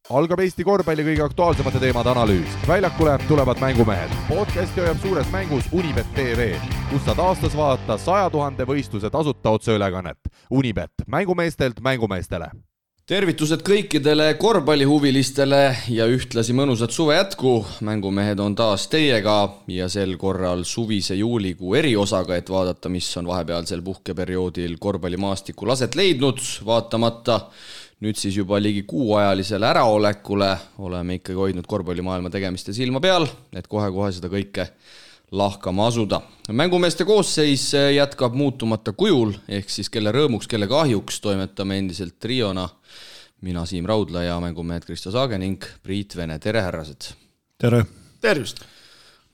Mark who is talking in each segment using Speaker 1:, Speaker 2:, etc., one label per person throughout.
Speaker 1: Algab Eesti korvpalli kõige aktuaalsemate teemade analüüs. Väljakule tulevad mängumehed. Podcasti hoiab suures mängus Unibet TV, kus saad aastas vaadata 100 000 võistluse tasuta otseülekannet. Unibet, mängumeestelt mängumeestele.
Speaker 2: Tervitused kõikidele korvpallihuvilistele ja ühtlasi mõnusat suve jätku. Mängumehed on taas teiega ja sel korral suvise juulikuu eriosaga, et vaadata, mis on vahepealsel puhkeperioodil korvpallimaastikul aset leidnud. Vaatamata nüüd siis juba ligi kuuajalisele äraolekule oleme ikkagi hoidnud korvpallimaailma tegemiste silma peal, et kohe-kohe seda kõike lahkama asuda. Mängumeeste koosseis jätkab muutumata kujul, ehk siis kelle rõõmuks, kelle kahjuks toimetame endiselt triona. Mina Siim Raudla ja mängumehed Kristo Saage ning Priit Vene. Tere, härrased!
Speaker 3: Tere!
Speaker 4: Tervist!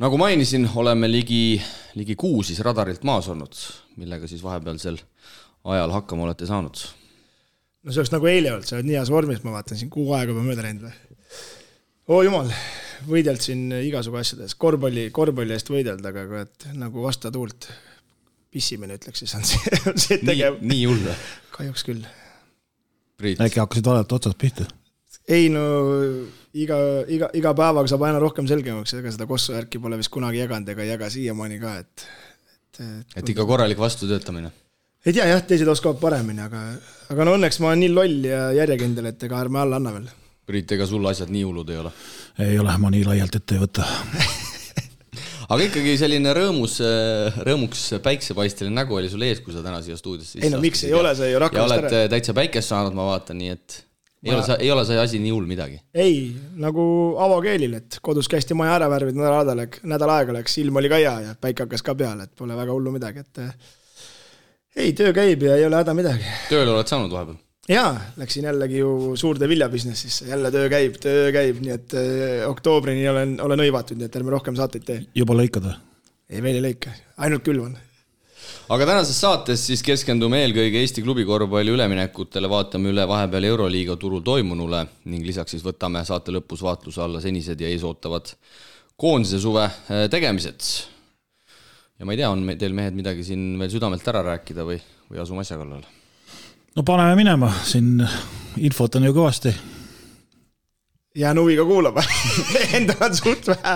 Speaker 2: Nagu mainisin, oleme ligi kuu siis radarilt maas olnud, millega siis vahepealsel ajal hakkama olete saanud.
Speaker 4: No see oleks nagu eile olnud, sa oled nii heas vormis, ma vaatan siin kuu aega juba mööda läinud või? Jumal, võidelt siin igasugu asjades, korvpalli eest võideld, aga nagu vasta tuult pissimine ütleks, siis on see tegev.
Speaker 2: Nii hull.
Speaker 4: Kahjuks küll.
Speaker 2: Priit.
Speaker 3: Äkki hakkasid vaadata otsast pihta?
Speaker 4: Ei, no iga päevaga saab aina rohkem selgemaks, ega seda kossu järki pole vist kunagi jaganud ega jaga siiamaani ka.
Speaker 2: Et ikka korralik vastu töötamine.
Speaker 4: Ei tea, jah, teised oskavad paremini, aga no õnneks ma olen nii loll ja järjekindel, et ega ärme alla anna veel.
Speaker 2: Priit, ega sul asjad nii hullud ei ole?
Speaker 3: Ei ole, ma nii laialt ette ei võta.
Speaker 2: Aga ikkagi selline rõõmuks päiksepaisteline nägu oli sul ees, kui sa täna siia stuudiosse.
Speaker 4: Ei no miks ei ole, see ju
Speaker 2: rakkamist ära. Ja oled täitsa päikest saanud, ma vaatan, nii et ei ole see asi nii hull midagi.
Speaker 4: Ei, nagu avakeelil, et kodus käisti maja ära värvid, nädal aega läks, ilm oli ka hea ja päike hakkas ka peale, et pole väga hullu midagi, et ei, töö käib ja ei ole häda midagi.
Speaker 2: Tööle oled saanud vahepeal?
Speaker 4: Jaa, läksin jällegi ju suurde viljabusinessisse. Jälle töö käib, nii et oktoobrini olen õivatud, nii et ärme rohkem saateid tee.
Speaker 3: Juba lõikad või?
Speaker 4: Ei, veel ei lõika, ainult külvan.
Speaker 2: Aga tänases saates siis keskendume eelkõige Eesti klubikorvpalli üleminekutele, vaatame üle vahepeal Euroliiga turul toimunule ning lisaks siis võtame saate lõpus vaatluse alla senised ja eesootavad koondise suve tegemised. Ja ma ei tea, on teil mehed midagi siin veel südamelt ära rääkida või asume asja kallal?
Speaker 3: No paneme minema, siin infot on ju kõvasti.
Speaker 4: Jään huviga kuulama, endal on suht vähe.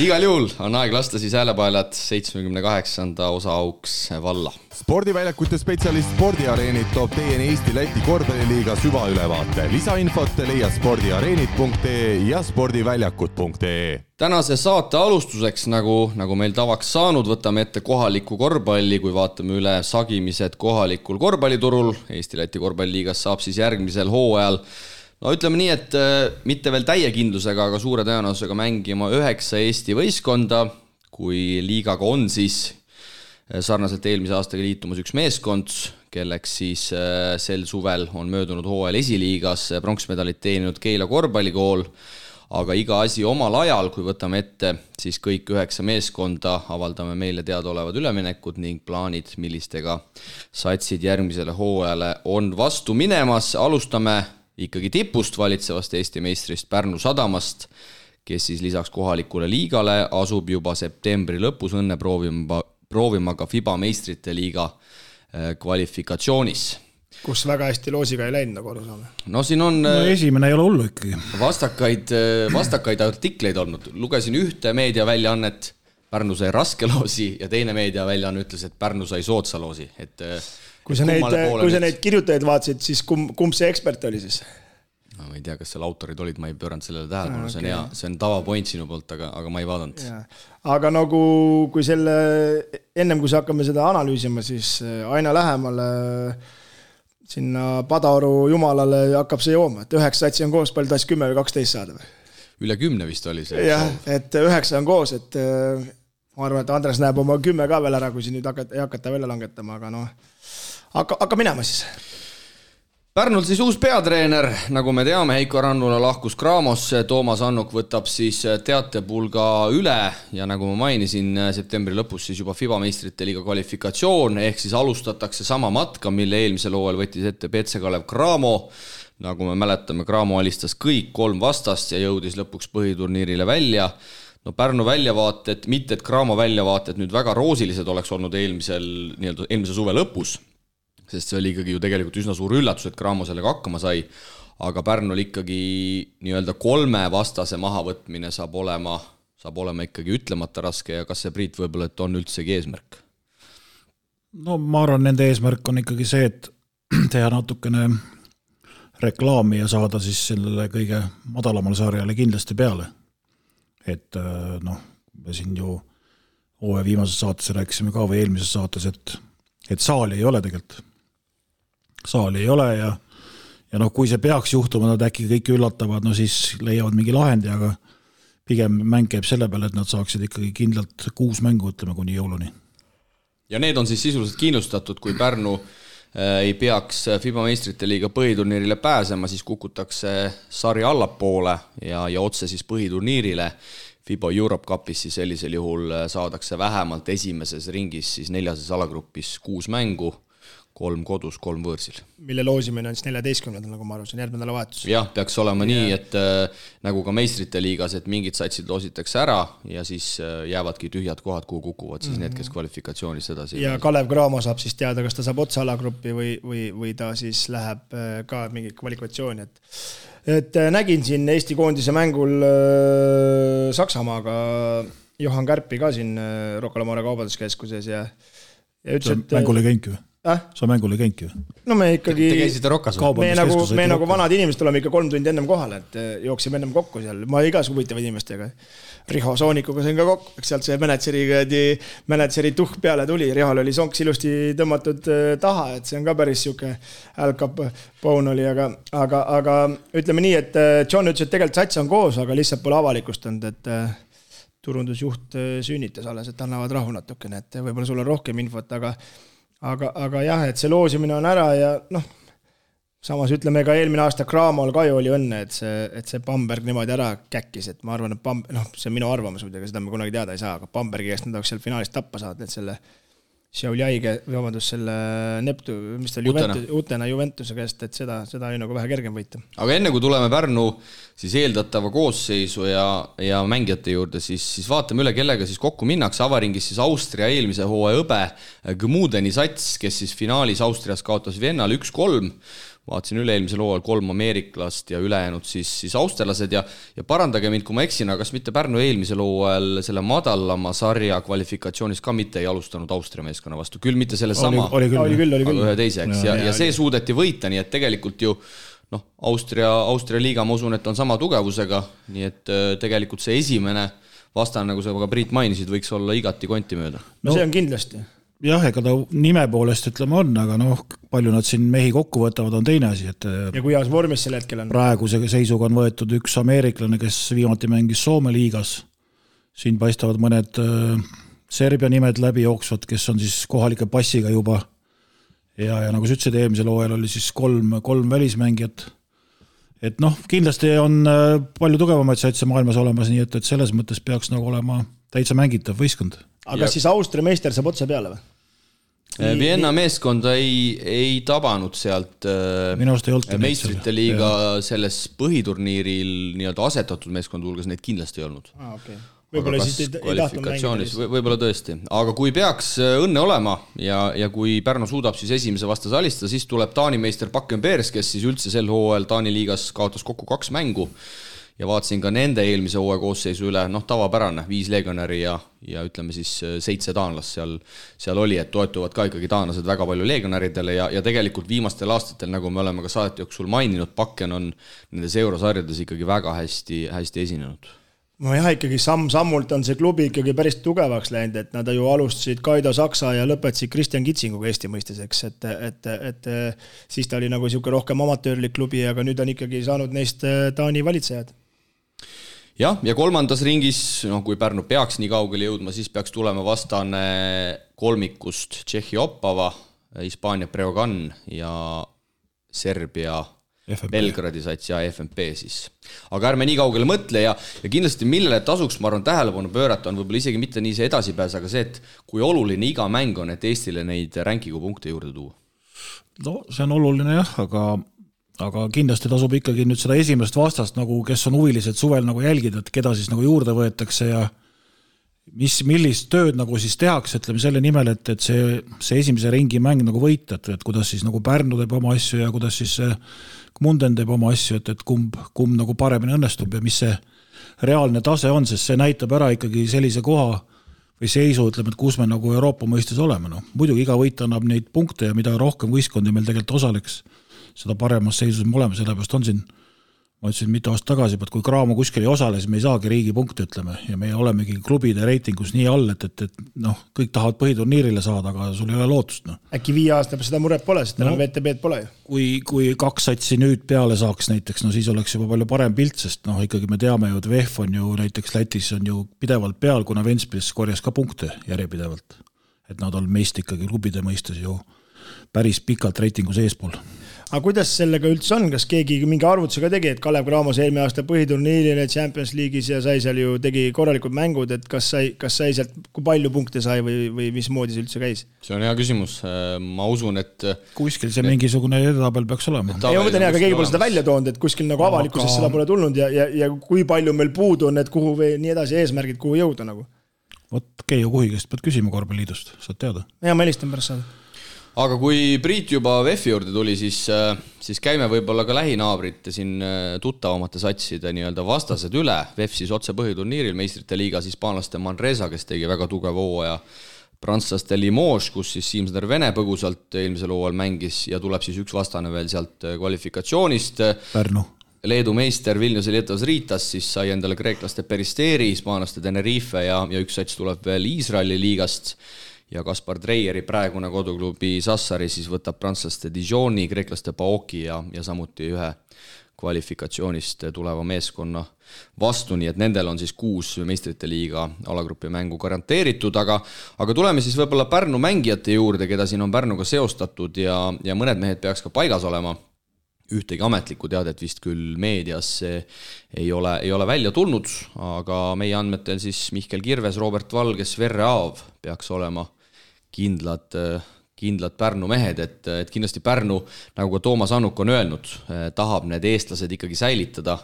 Speaker 2: Igal juhul on aeg lasta siis häälepaelad 78. osa auks valla.
Speaker 1: Spordiväljakute spetsialist Spordiareenid toob teieni Eesti-Läti korvpalliliiga süvaülevaate. Lisainfot leia spordiareenid.ee ja spordiväljakud.ee. Tänase
Speaker 2: saate alustuseks, nagu meil tavaks saanud, võtame ette kohaliku korvpalli, kui vaatame üle sagimised kohalikul korvpalliturul. Eesti-Läti korvpalliliigas saab siis järgmisel hooajal ütleme nii, et mitte veel täie kindlusega, aga suure tõenäosusega mängima 9 Eesti võistkonda, kui liigaga on siis sarnaselt eelmise aastaga liitumas üks meeskond, kelleks siis sel suvel on möödunud hooajal esiliigas pronksmedalit teeninud Keila korvpallikool, aga iga asi omal ajal, kui võtame ette siis kõik 9 meeskonda, avaldame meile teadaolevad üleminekud ning plaanid, millistega satsid järgmisele hooajale on vastu minemas. Alustame ikkagi tipust valitsevast Eesti meistrist Pärnu Sadamast, kes siis lisaks kohalikule liigale asub juba septembri lõpus õnne proovima ka FIBA meistrite liiga kvalifikatsioonis.
Speaker 4: Kus väga hästi loosiga ei läinud, nagu aru saame.
Speaker 2: No siin on
Speaker 3: esimene ei ole hullu ikkagi.
Speaker 2: Vastakaid artikleid olnud. Lugesin ühte meediaväljaannet, Pärnu sai raske loosi ja teine meediaväljaanne ütles, et Pärnu sai soodsa loosi.
Speaker 4: Kui sa neid kirjutajaid vaatasid, siis kumb see ekspert oli siis?
Speaker 2: No, ma ei tea, kas seal autorid olid, ma ei pööranud sellele tähelepanu, see on hea, see on tavapoint sinu poolt, aga ma ei vaadanud.
Speaker 4: Aga nagu kui ennem kui hakkame seda analüüsima, siis aina lähemale sinna Padaoru jumalale hakkab see jooma, et 9 satsi on koos, palju taas 10 või 12 saada või?
Speaker 2: Üle 10 vist oli see.
Speaker 4: Jah, et 9 on koos, et ma arvan, et Andres näeb oma 10 ka veel ära, kui siin nüüd hakata välja langetama, aga hakka minema siis.
Speaker 2: Pärnul siis uus peatreener, nagu me teame, Heiko Rannula lahkus Craamosse, Toomas Annuk võtab siis teatepulga üle ja nagu ma mainisin, septembri lõpus siis juba FIBA meistrite liiga kvalifikatsioon, ehk siis alustatakse sama matka, mille eelmisel hooajal võttis ette Petse Kalev Cramo. Nagu me mäletame, Cramo alistas kõik 3 vastast ja jõudis lõpuks põhiturniirile välja. No Pärnu väljavaated, mitte et Cramo väljavaated nüüd väga roosilised oleks olnud eelmise suve lõpus, sest see oli ikkagi ju tegelikult üsna suur üllatus, et Cramo sellega hakkama sai. aga Pärnul ikkagi nii-öelda 3 vastase mahavõtmine saab olema ikkagi ütlemata raske ja kas see, Priit, võib-olla, et on üldsegi eesmärk?
Speaker 3: No ma arvan, nende eesmärk on ikkagi see, et teha natukene reklaami ja saada siis sellele kõige madalamal sarjale kindlasti peale. Et me siin ju hooaja viimases saates rääkisime ka või eelmises saates, et saali ei ole tegelikult. Saali ei ole ja kui see peaks juhtuma, nad äkki kõik üllatavad, siis leiavad mingi lahendi, aga pigem mäng käib selle peale, et nad saaksid ikkagi kindlalt 6 mängu, ütleme, kuni jõuluni.
Speaker 2: Ja need on siis sisuliselt kindlustatud, kui Pärnu ei peaks FIBA meistrite liiga põhiturniirile pääsema, siis kukutakse sarja allapoole ja otse siis põhiturniirile. FIBA Europe Cupis siis sellisel juhul saadakse vähemalt esimeses ringis siis 4. alagrupis 6 mängu, 3 kodus, 3 võõrsil.
Speaker 4: Mille loosimine on siis 14. nagu ma arvasin, järgmine nädalavahetus.
Speaker 2: Jah, peaks olema nii, et nagu ka meistrite liigas, et mingid satsid loositakse ära ja siis jäävadki tühjad kohad, kuhu kukuvad siis need, kes kvalifikatsioonis edasi.
Speaker 4: Ja Kalev Cramo saab siis teada, kas ta saab otsa alagruppi või ta siis läheb ka mingi kvalifikatsiooni. Et nägin siin Eesti koondise mängul Saksamaaga Johan Kärpi ka siin Rocca al Mare kaubanduskeskuses ja ütles, et
Speaker 3: mängule käinki või? Sa mängule käinki või?
Speaker 4: No me ikkagi
Speaker 2: Te käisite Rocas või?
Speaker 4: Me nagu vanad inimesed oleme ikka 3 tundi ennem kohal, et jooksime ennem kokku seal. Ma igas huvitavad inimestega. Riho Soonikuga sain ka kokku, eks sealt see mänedžeri tuhk peale tuli. Rihol oli sonks ilusti tõmmatud taha, et see on ka päris siuke Al-Cap Bone oli, aga ütleme nii, et John ütles, et tegelikult sats on koos, aga lihtsalt pole avalikustanud, et turundusjuht sünnitas alles, et annavad rahu natukene, et võib-olla sul on rohkem infot, aga jah, et see loosimine on ära ja samas ütleme ka eelmine aasta Cramol ka ju oli õnne, et see Bamberg niimoodi ära käkkis, et ma arvan, et see on minu arvamus, muidugi seda me kunagi teada ei saa, aga Bambergi käest nad oleks seal finaalis tappa saad, et selle Šiauliaige, selle Neptu, mis ta oli Utena Juventuse käest, et seda oli nagu vähe kergem võita.
Speaker 2: Aga enne kui tuleme Pärnu siis eeldatava koosseisu ja mängijate juurde, siis vaatame üle, kellega siis kokku minnakse. Avaringis siis Austria eelmise hooaja õbe Gmudeni sats, kes siis finaalis Austrias kaotas Viennal 1-3. Vaatasin üle-eelmisel hooajal 3 ameeriklast ja ülejäänud siis austerlased ja parandage mind, kui ma eksin, aga kas mitte Pärnu eelmisel hooajal selle madalama sarja kvalifikatsioonis ka mitte ei alustanud Austria meeskonna vastu, küll mitte selle sama, aga ühe teise, eks, ja see suudeti võita, nii et tegelikult ju Austria liiga, ma usun, et on sama tugevusega, nii et tegelikult see esimene vastane, nagu sa ka Priit mainisid, võiks olla igati konti mööda.
Speaker 4: No see on kindlasti.
Speaker 3: Jah, ega ta nime poolest ütleme on, aga palju nad siin mehi kokku võtavad, on teine asi.
Speaker 4: Ja kui heas vormis selle hetkel on?
Speaker 3: Praeguse seisuga on võetud üks ameeriklane, kes viimati mängis Soome liigas. Siin paistavad mõned Serbia nimed läbi jooksvad, kes on siis kohalike passiga juba. Ja nagu sa ütlesid, eelmisel hooajal oli siis 3 välismängijat. Et kindlasti on palju tugevamaid satse maailmas olemas, nii et selles mõttes peaks nagu olema täitsa mängitav võistkond.
Speaker 4: Aga siis Austria meister saab otse peale või?
Speaker 2: Vienna meeskonda ei tabanud sealt meistrite liiga selles põhiturniiril nii-öelda asetatud meeskond hulgas, neid kindlasti ei olnud.
Speaker 4: Okay. Võib-olla siis ei tahtnud mängida.
Speaker 2: Võib-olla tõesti. Aga kui peaks õnne olema ja kui Pärnu suudab siis esimese vastase alistada, siis tuleb Taani meister Bakken Bears, kes siis üldse sel hooajal Taani liigas kaotas kokku 2 mängu. Ja vaatasin ka nende eelmise hooaja koosseisu üle, tavapärane, 5 legionäri ja ütleme siis 7 taanlast seal oli, et toetuvad ka ikkagi taanlased väga palju legionäridele ja tegelikult viimastel aastatel, nagu me oleme ka saate jooksul maininud, Bakken on nendes eurosarjades ikkagi väga hästi esinenud.
Speaker 4: No jah, ikkagi samm-sammult on see klubi ikkagi päris tugevaks läinud, et nad ju alustasid Kaido Saksa ja lõpetasid Kristjan Kitsinguga Eesti mõisteseks, et siis ta oli nagu siuke rohkem amatöörlik klubi, aga nüüd on ikkagi saanud neist Taani valitsejad.
Speaker 2: Jah, ja 3. ringis, kui Pärnu peaks nii kaugele jõudma, siis peaks tulema vastane kolmikust Tšehhi Opava, Hispaania Breogan ja Serbia Belgradi sats ja FNP siis. Aga ärme nii kaugele mõtle ja kindlasti millele tasuks, ma arvan, tähelepanu pöörata on võib-olla isegi mitte nii see edasipääs, aga see, et kui oluline iga mäng on, et Eestile neid rankingu punkte juurde tuua.
Speaker 3: No see on oluline jah, aga kindlasti tasub ikkagi nüüd seda esimest vastast, nagu kes on huvilised suvel nagu jälgida, et keda siis nagu juurde võetakse ja millist tööd nagu siis tehakse, ütleme selle nimel, et see esimese ringi mäng nagu võita, et kuidas siis nagu Pärnu teeb oma asju ja kuidas siis Munden teeb oma asju, et kumb nagu paremini õnnestub ja mis see reaalne tase on, sest see näitab ära ikkagi sellise koha või seisu, ütleme, et kus me nagu Euroopa mõistes oleme. No. Muidugi iga võit annab neid punkte ja mida rohkem võistkondi meil tegelikult osaleks, seda paremas seisus me oleme, sellepärast on siin ma ütlesin mitu aastat tagasi, et kui Graamo kuskil ei osale, siis me ei saagi riigi punkte, ütleme, ja me olemegi klubide reitingus nii all, et kõik tahavad põhiturniirile saada, aga sul ei ole lootust. No.
Speaker 4: Äkki 5 aasta seda muret pole, sest enam VTB-d pole ju.
Speaker 3: Kui 2 satsi nüüd peale saaks näiteks, siis oleks juba palju parem pilt, sest ikkagi me teame ju, et VEF on ju näiteks Lätis on ju pidevalt peal, kuna Ventspils korjas ka punkte järjepidevalt. Et nad on meist ikkagi klubide mõistes ju päris pikalt reitingus eespool.
Speaker 4: Aga kuidas sellega üldse on, kas keegi mingi arvutusega tegi, et Kalev Cramos eelmine aasta põhiturniirile Champions League'is ja sai seal ju tegi korralikud mängud, et kas sai sealt, kui palju punkte sai või mismoodi see üldse käis?
Speaker 2: See on hea küsimus. Ma usun, et
Speaker 3: kuskil see mingisugune edetabel peaks olema.
Speaker 4: Ei, ma mõtlen, aga keegi pole seda välja toonud, et kuskil nagu avalikkuses seda pole tulnud ja kui palju meil puudu on, et kuhu või nii edasi eesmärgid, kuhu jõuda nagu.
Speaker 3: Vot Keijo Kuhigest pead küsima Korvpalliliidust, saad teada.
Speaker 4: Ja ma helistan pärast saada.
Speaker 2: Aga kui Priit juba VEF-i juurde tuli, siis käime võib-olla ka lähinaabrite siin tuttavamate satside nii-öelda vastased üle. VEF siis otse põhiturniiril, meistrite liigas hispaanlaste Manresa, kes tegi väga tugeva hooaja, prantslaste Limoges, kus siis Siimsner Vene põgusalt eelmisel hooajal mängis ja tuleb siis üks vastane veel sealt kvalifikatsioonist.
Speaker 3: Pärnu.
Speaker 2: Leedu meister Vilniuse Lietas Riitas siis sai endale kreeklaste Peristeri, hispaanlaste Tenerife ja üks sats tuleb veel Iisraeli liigast. Ja Kaspar Treieri praegune koduklubi Sassari siis võtab prantslaste Dijoni, kreeklaste Paoki ja samuti ühe kvalifikatsioonist tuleva meeskonna vastu, nii et nendel on siis 6 meistrite liiga alagrupi mängu garanteeritud, aga tuleme siis võib-olla Pärnu mängijate juurde, keda siin on Pärnuga seostatud ja mõned mehed peaks ka paigas olema. Ühtegi ametlikku teadet vist küll meedias ei ole välja tulnud, aga meie andmetel siis Mihkel Kirves, Robert Valges, Verre Aav peaks olema kindlad Pärnu mehed, et kindlasti Pärnu, nagu ka Toomas Annuk on öelnud, tahab need eestlased ikkagi säilitada.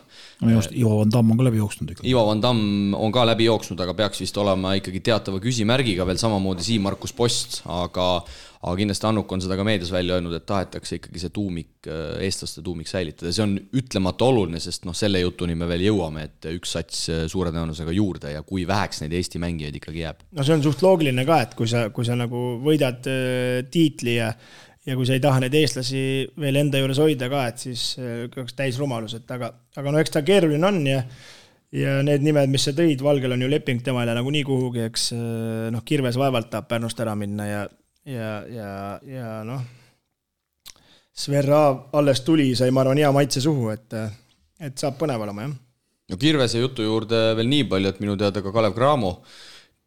Speaker 3: Ivo Van Damm on ka läbi jooksnud.
Speaker 2: Ivo Van Damm on ka läbi jooksnud, aga peaks vist olema ikkagi teatava küsimärgiga veel samamoodi Siim Markus Post, aga kindlasti Annuk on seda ka meedias välja öelnud, et tahetakse ikkagi see eestlaste tuumik säilitada. See on ütlemata oluline, sest selle jutuni me veel jõuame, et üks sats suure tõenäosusega juurde ja kui väheks neid Eesti mängijaid ikkagi jääb.
Speaker 4: No see on suht loogiline ka, et kui sa nagu võidad tiitli ja kui sa ei taha neid eestlasi veel enda juures hoida ka, et siis oleks täis rumalus, aga eks ta keeruline on ja need nimed, mis sa tõid, Valgel on ju leping temale nagu nii kuhugi, eks Kirves vaevalt tahab Pärnust ära minna ja Sverra alles tuli, sai ma arvan hea maitse suhu, et saab põnev olema, jah.
Speaker 2: No Kirvese jutu juurde veel nii palju, et minu teada ka Kalev Cramo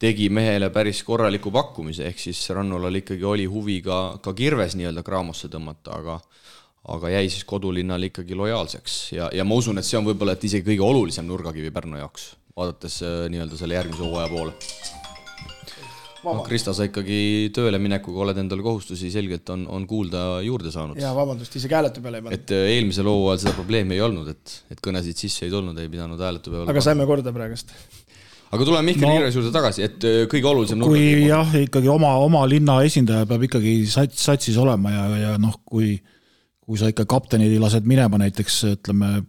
Speaker 2: tegi mehele päris korraliku pakkumise, ehk siis Rannulal ikkagi oli huvi ka Kirves nii-öelda Cramosse tõmmata, aga jäi siis kodulinnal ikkagi lojaalseks ja ma usun, et see on võib-olla et isegi kõige olulisem nurgakivi Pärnu jaoks, vaadates nii-öelda selle järgmise hooaja poole. Krista, sa ikkagi tööle minekuga oled endale kohustusi selgelt on kuulda juurde saanud.
Speaker 4: Ja vabandust, isegi hääletu peale ei pannud.
Speaker 2: Et eelmisel hooajal seda probleemi ei olnud, et kõnesid sisse ei tulnud, ei pidanud hääletu peale.
Speaker 4: Aga saime korda praegust.
Speaker 2: Aga tuleme Mihkel Kirves juurde tagasi, et kõige olulisem
Speaker 3: kui jah, ikkagi oma linna esindaja peab ikkagi satsis olema ja kui sa ikka kaptenid lased minema näiteks, ütleme,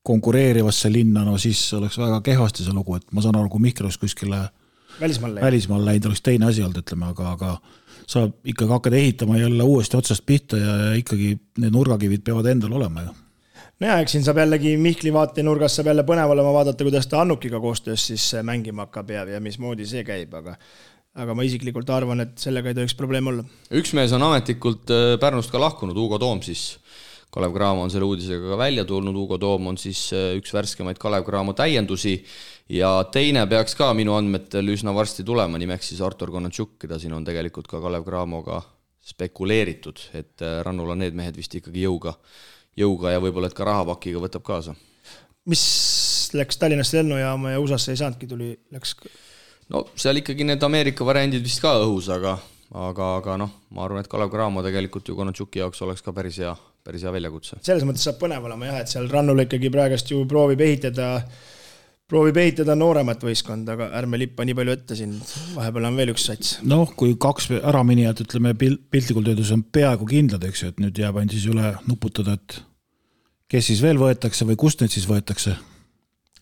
Speaker 3: konkureerivasse linna, siis oleks väga kehvasti see lugu, et ma saan aru, kui Mihkel oleks kuskile välismaal läinud, oleks teine asi olnud, ütleme, aga sa ikkagi hakkad ehitama jälle uuesti otsast pihta ja ikkagi need nurgakivid peavad endal olema ju.
Speaker 4: No ja, eks siin saab jällegi Mihkli vaatenurgas saab jälle põnev olema vaadata, kuidas ta Annukiga koostöös siis mängima hakkab ja mismoodi see käib, aga ma isiklikult arvan, et sellega ei tohiks probleem olla.
Speaker 2: Üks mees on ametlikult Pärnust ka lahkunud, Hugo Toom siis. Kalev Cramo on selle uudisega ka välja tulnud, Hugo Toom on siis üks värskemaid Kalev Cramo täiendusi ja teine peaks ka minu andmetel üsna varsti tulema, nimeks siis Artur Konatšuk, keda siin on tegelikult ka Kalev Cramoga spekuleeritud, et Rannula need mehed vist ikkagi jõuga ja võib-olla et ka rahapakiga võtab kaasa.
Speaker 4: Mis läks Tallinnast lennujaama ja USAsse ei saanudki, läks?
Speaker 2: No seal ikkagi need Ameerika variandid vist ka õhus, aga ma arvan, et Kalev Cramo tegelikult ju Konatšuki jaoks oleks ka päris hea väljakutse.
Speaker 4: Selles mõttes saab põnev olema jah, et seal Rannul ikkagi praegast ju proovib ehitada proovib ehitada nooremat võistkond, aga ärme lippa nii palju ette siin, vahepeal on veel üks sats.
Speaker 3: Noh, kui 2 äraminijat, ütleme, piltlikult öeldes on peaaegu kindlad, eks ju, et nüüd jääb ainult siis üle nuputada, et kes siis veel võetakse või kust nüüd siis võetakse.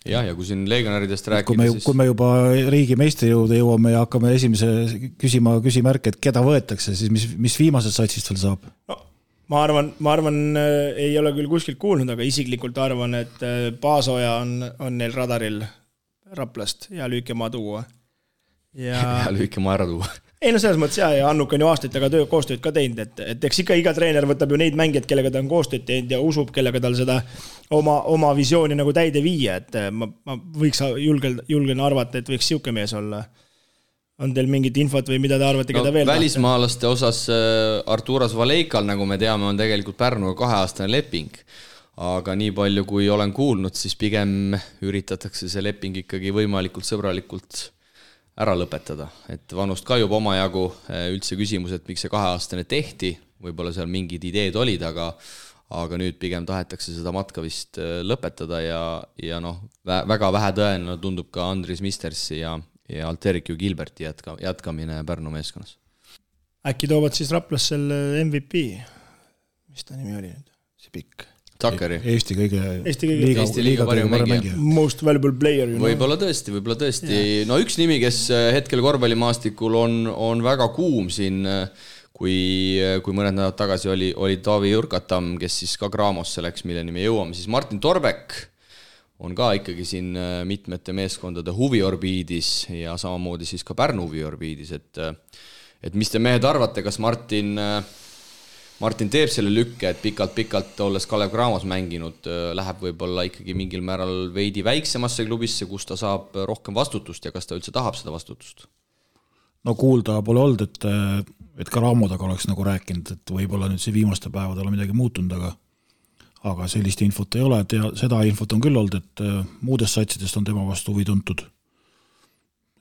Speaker 2: Ja kui siin legionäridest rääkida,
Speaker 3: kui me juba riigi meistri jõuda jõuame ja hakkame esimese küsimärke, et keda võetakse, siis mis viimased satsist veel saab?
Speaker 4: No. Ma arvan, ei ole küll kuskilt kuulnud, aga isiklikult arvan, et Paasoja on neil radaril Raplast ja lüükemaa tuua.
Speaker 2: Ja lüükemaa ära tuua.
Speaker 4: Ei, no selles mõttes ja Annuk on ju aastaid taga koostööd ka teinud, et eks ikka iga treener võtab ju neid mängijad, kellega ta on koostööd teinud ja usub, kellega tal seda oma visiooni nagu täide viia, et ma võiks julgen arvata, et võiks siuke mees olla. On teil mingit infot või mida te arvate, keda veel
Speaker 2: välismaalaste osas Arturas Valeikal, nagu me teame, on tegelikult Pärnuga 2-aastane leping. Aga nii palju, kui olen kuulnud, siis pigem üritatakse see leping ikkagi võimalikult sõbralikult ära lõpetada. Et vanust kajub omajagu üldse küsimus, et miks see 2-aastane tehti, võib-olla seal mingid ideed olid, aga nüüd pigem tahetakse seda matka vist lõpetada ja väga vähe tõenäoline tundub ka Andris Mistersi ja Alterikju Gilberti jätkamine Pärnu meeskonnas.
Speaker 4: Äkki toovad siis Raplas selle MVP? Mis ta nimi oli nüüd? See pikk.
Speaker 2: Takkari.
Speaker 3: Eesti
Speaker 2: liiga parim mängija.
Speaker 4: Most valuable player.
Speaker 2: Võib-olla tõesti. No üks nimi, kes hetkel korvpallimaastikul on väga kuum siin, kui mõned nädalad tagasi oli Taavi Jurkatam, kes siis ka Graamosse läks, milleni me jõuame, siis Martin Torbek on ka ikkagi siin mitmete meeskondade huviorbiidis ja samamoodi siis ka Pärnu huviorbiidis, et mis te mehed arvate, kas Martin teeb selle lükke, et pikalt olles Kalev Cramos mänginud, läheb võib-olla ikkagi mingil määral veidi väiksemasse klubisse, kus ta saab rohkem vastutust ja kas ta üldse tahab seda vastutust?
Speaker 3: No kuulda pole olnud, et ka Raamodaga oleks nagu rääkinud, et võib-olla nüüd see viimaste päevadel on midagi muutunud, aga sellist infot ei ole, seda infot on küll olnud, et muudest satsidest on tema vastu huvi tuntud.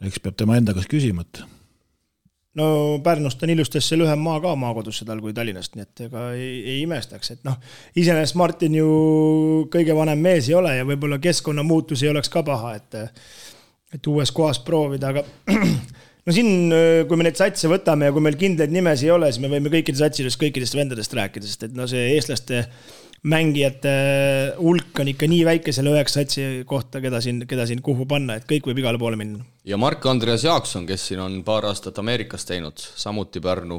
Speaker 3: Eks peab tema enda kas küsima, et
Speaker 4: no Pärnust on ilustes see lühem maa ka maakodusse tal kui Tallinnast, nii et ega ei imestaks, et iseenesest Martin ju kõige vanem mees ei ole ja võib-olla keskkonnamuutus ei oleks ka paha, et uues kohas proovida, aga no siin, kui me neid satse võtame ja kui meil kindlaid nimesi ei ole, siis me võime kõikidest vendadest rääkida, sest et see eestlaste mängijate hulk on ikka nii väike selle 9 satsi kohta, keda siin kuhu panna, et kõik võib igale poole minna.
Speaker 2: Ja Mark-Andreas Jaakson, kes siin on paar aastat Ameerikas teinud, samuti Pärnu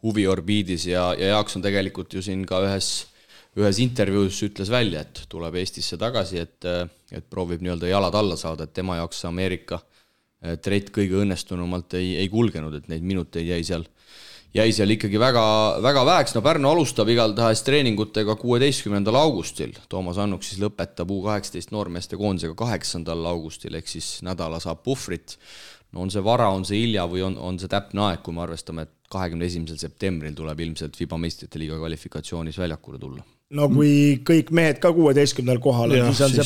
Speaker 2: huviorbiidis ja Jaakson tegelikult ju siin ka ühes intervjuus ütles välja, et tuleb Eestisse tagasi, et proovib nii-öelda jalad alla saada, et tema jaoks Ameerika treit kõige õnnestunumalt ei kulgenud, et neid minuteid jäi seal ikkagi väga, väga väheks. No Pärnu alustab igaltahes treeningutega 16. augustil. Toomas Annuk siis lõpetab U18 noormeeste koondisega 8. augustil, ehk siis nädala saab puhvrit. No on see vara, on see hilja või on see täpne aeg, kui me arvestame, et 21. septembril tuleb ilmselt FIBA meistrite liiga kvalifikatsioonis väljakule tulla.
Speaker 4: No kui kõik mehed ka 16. kohal, siis on see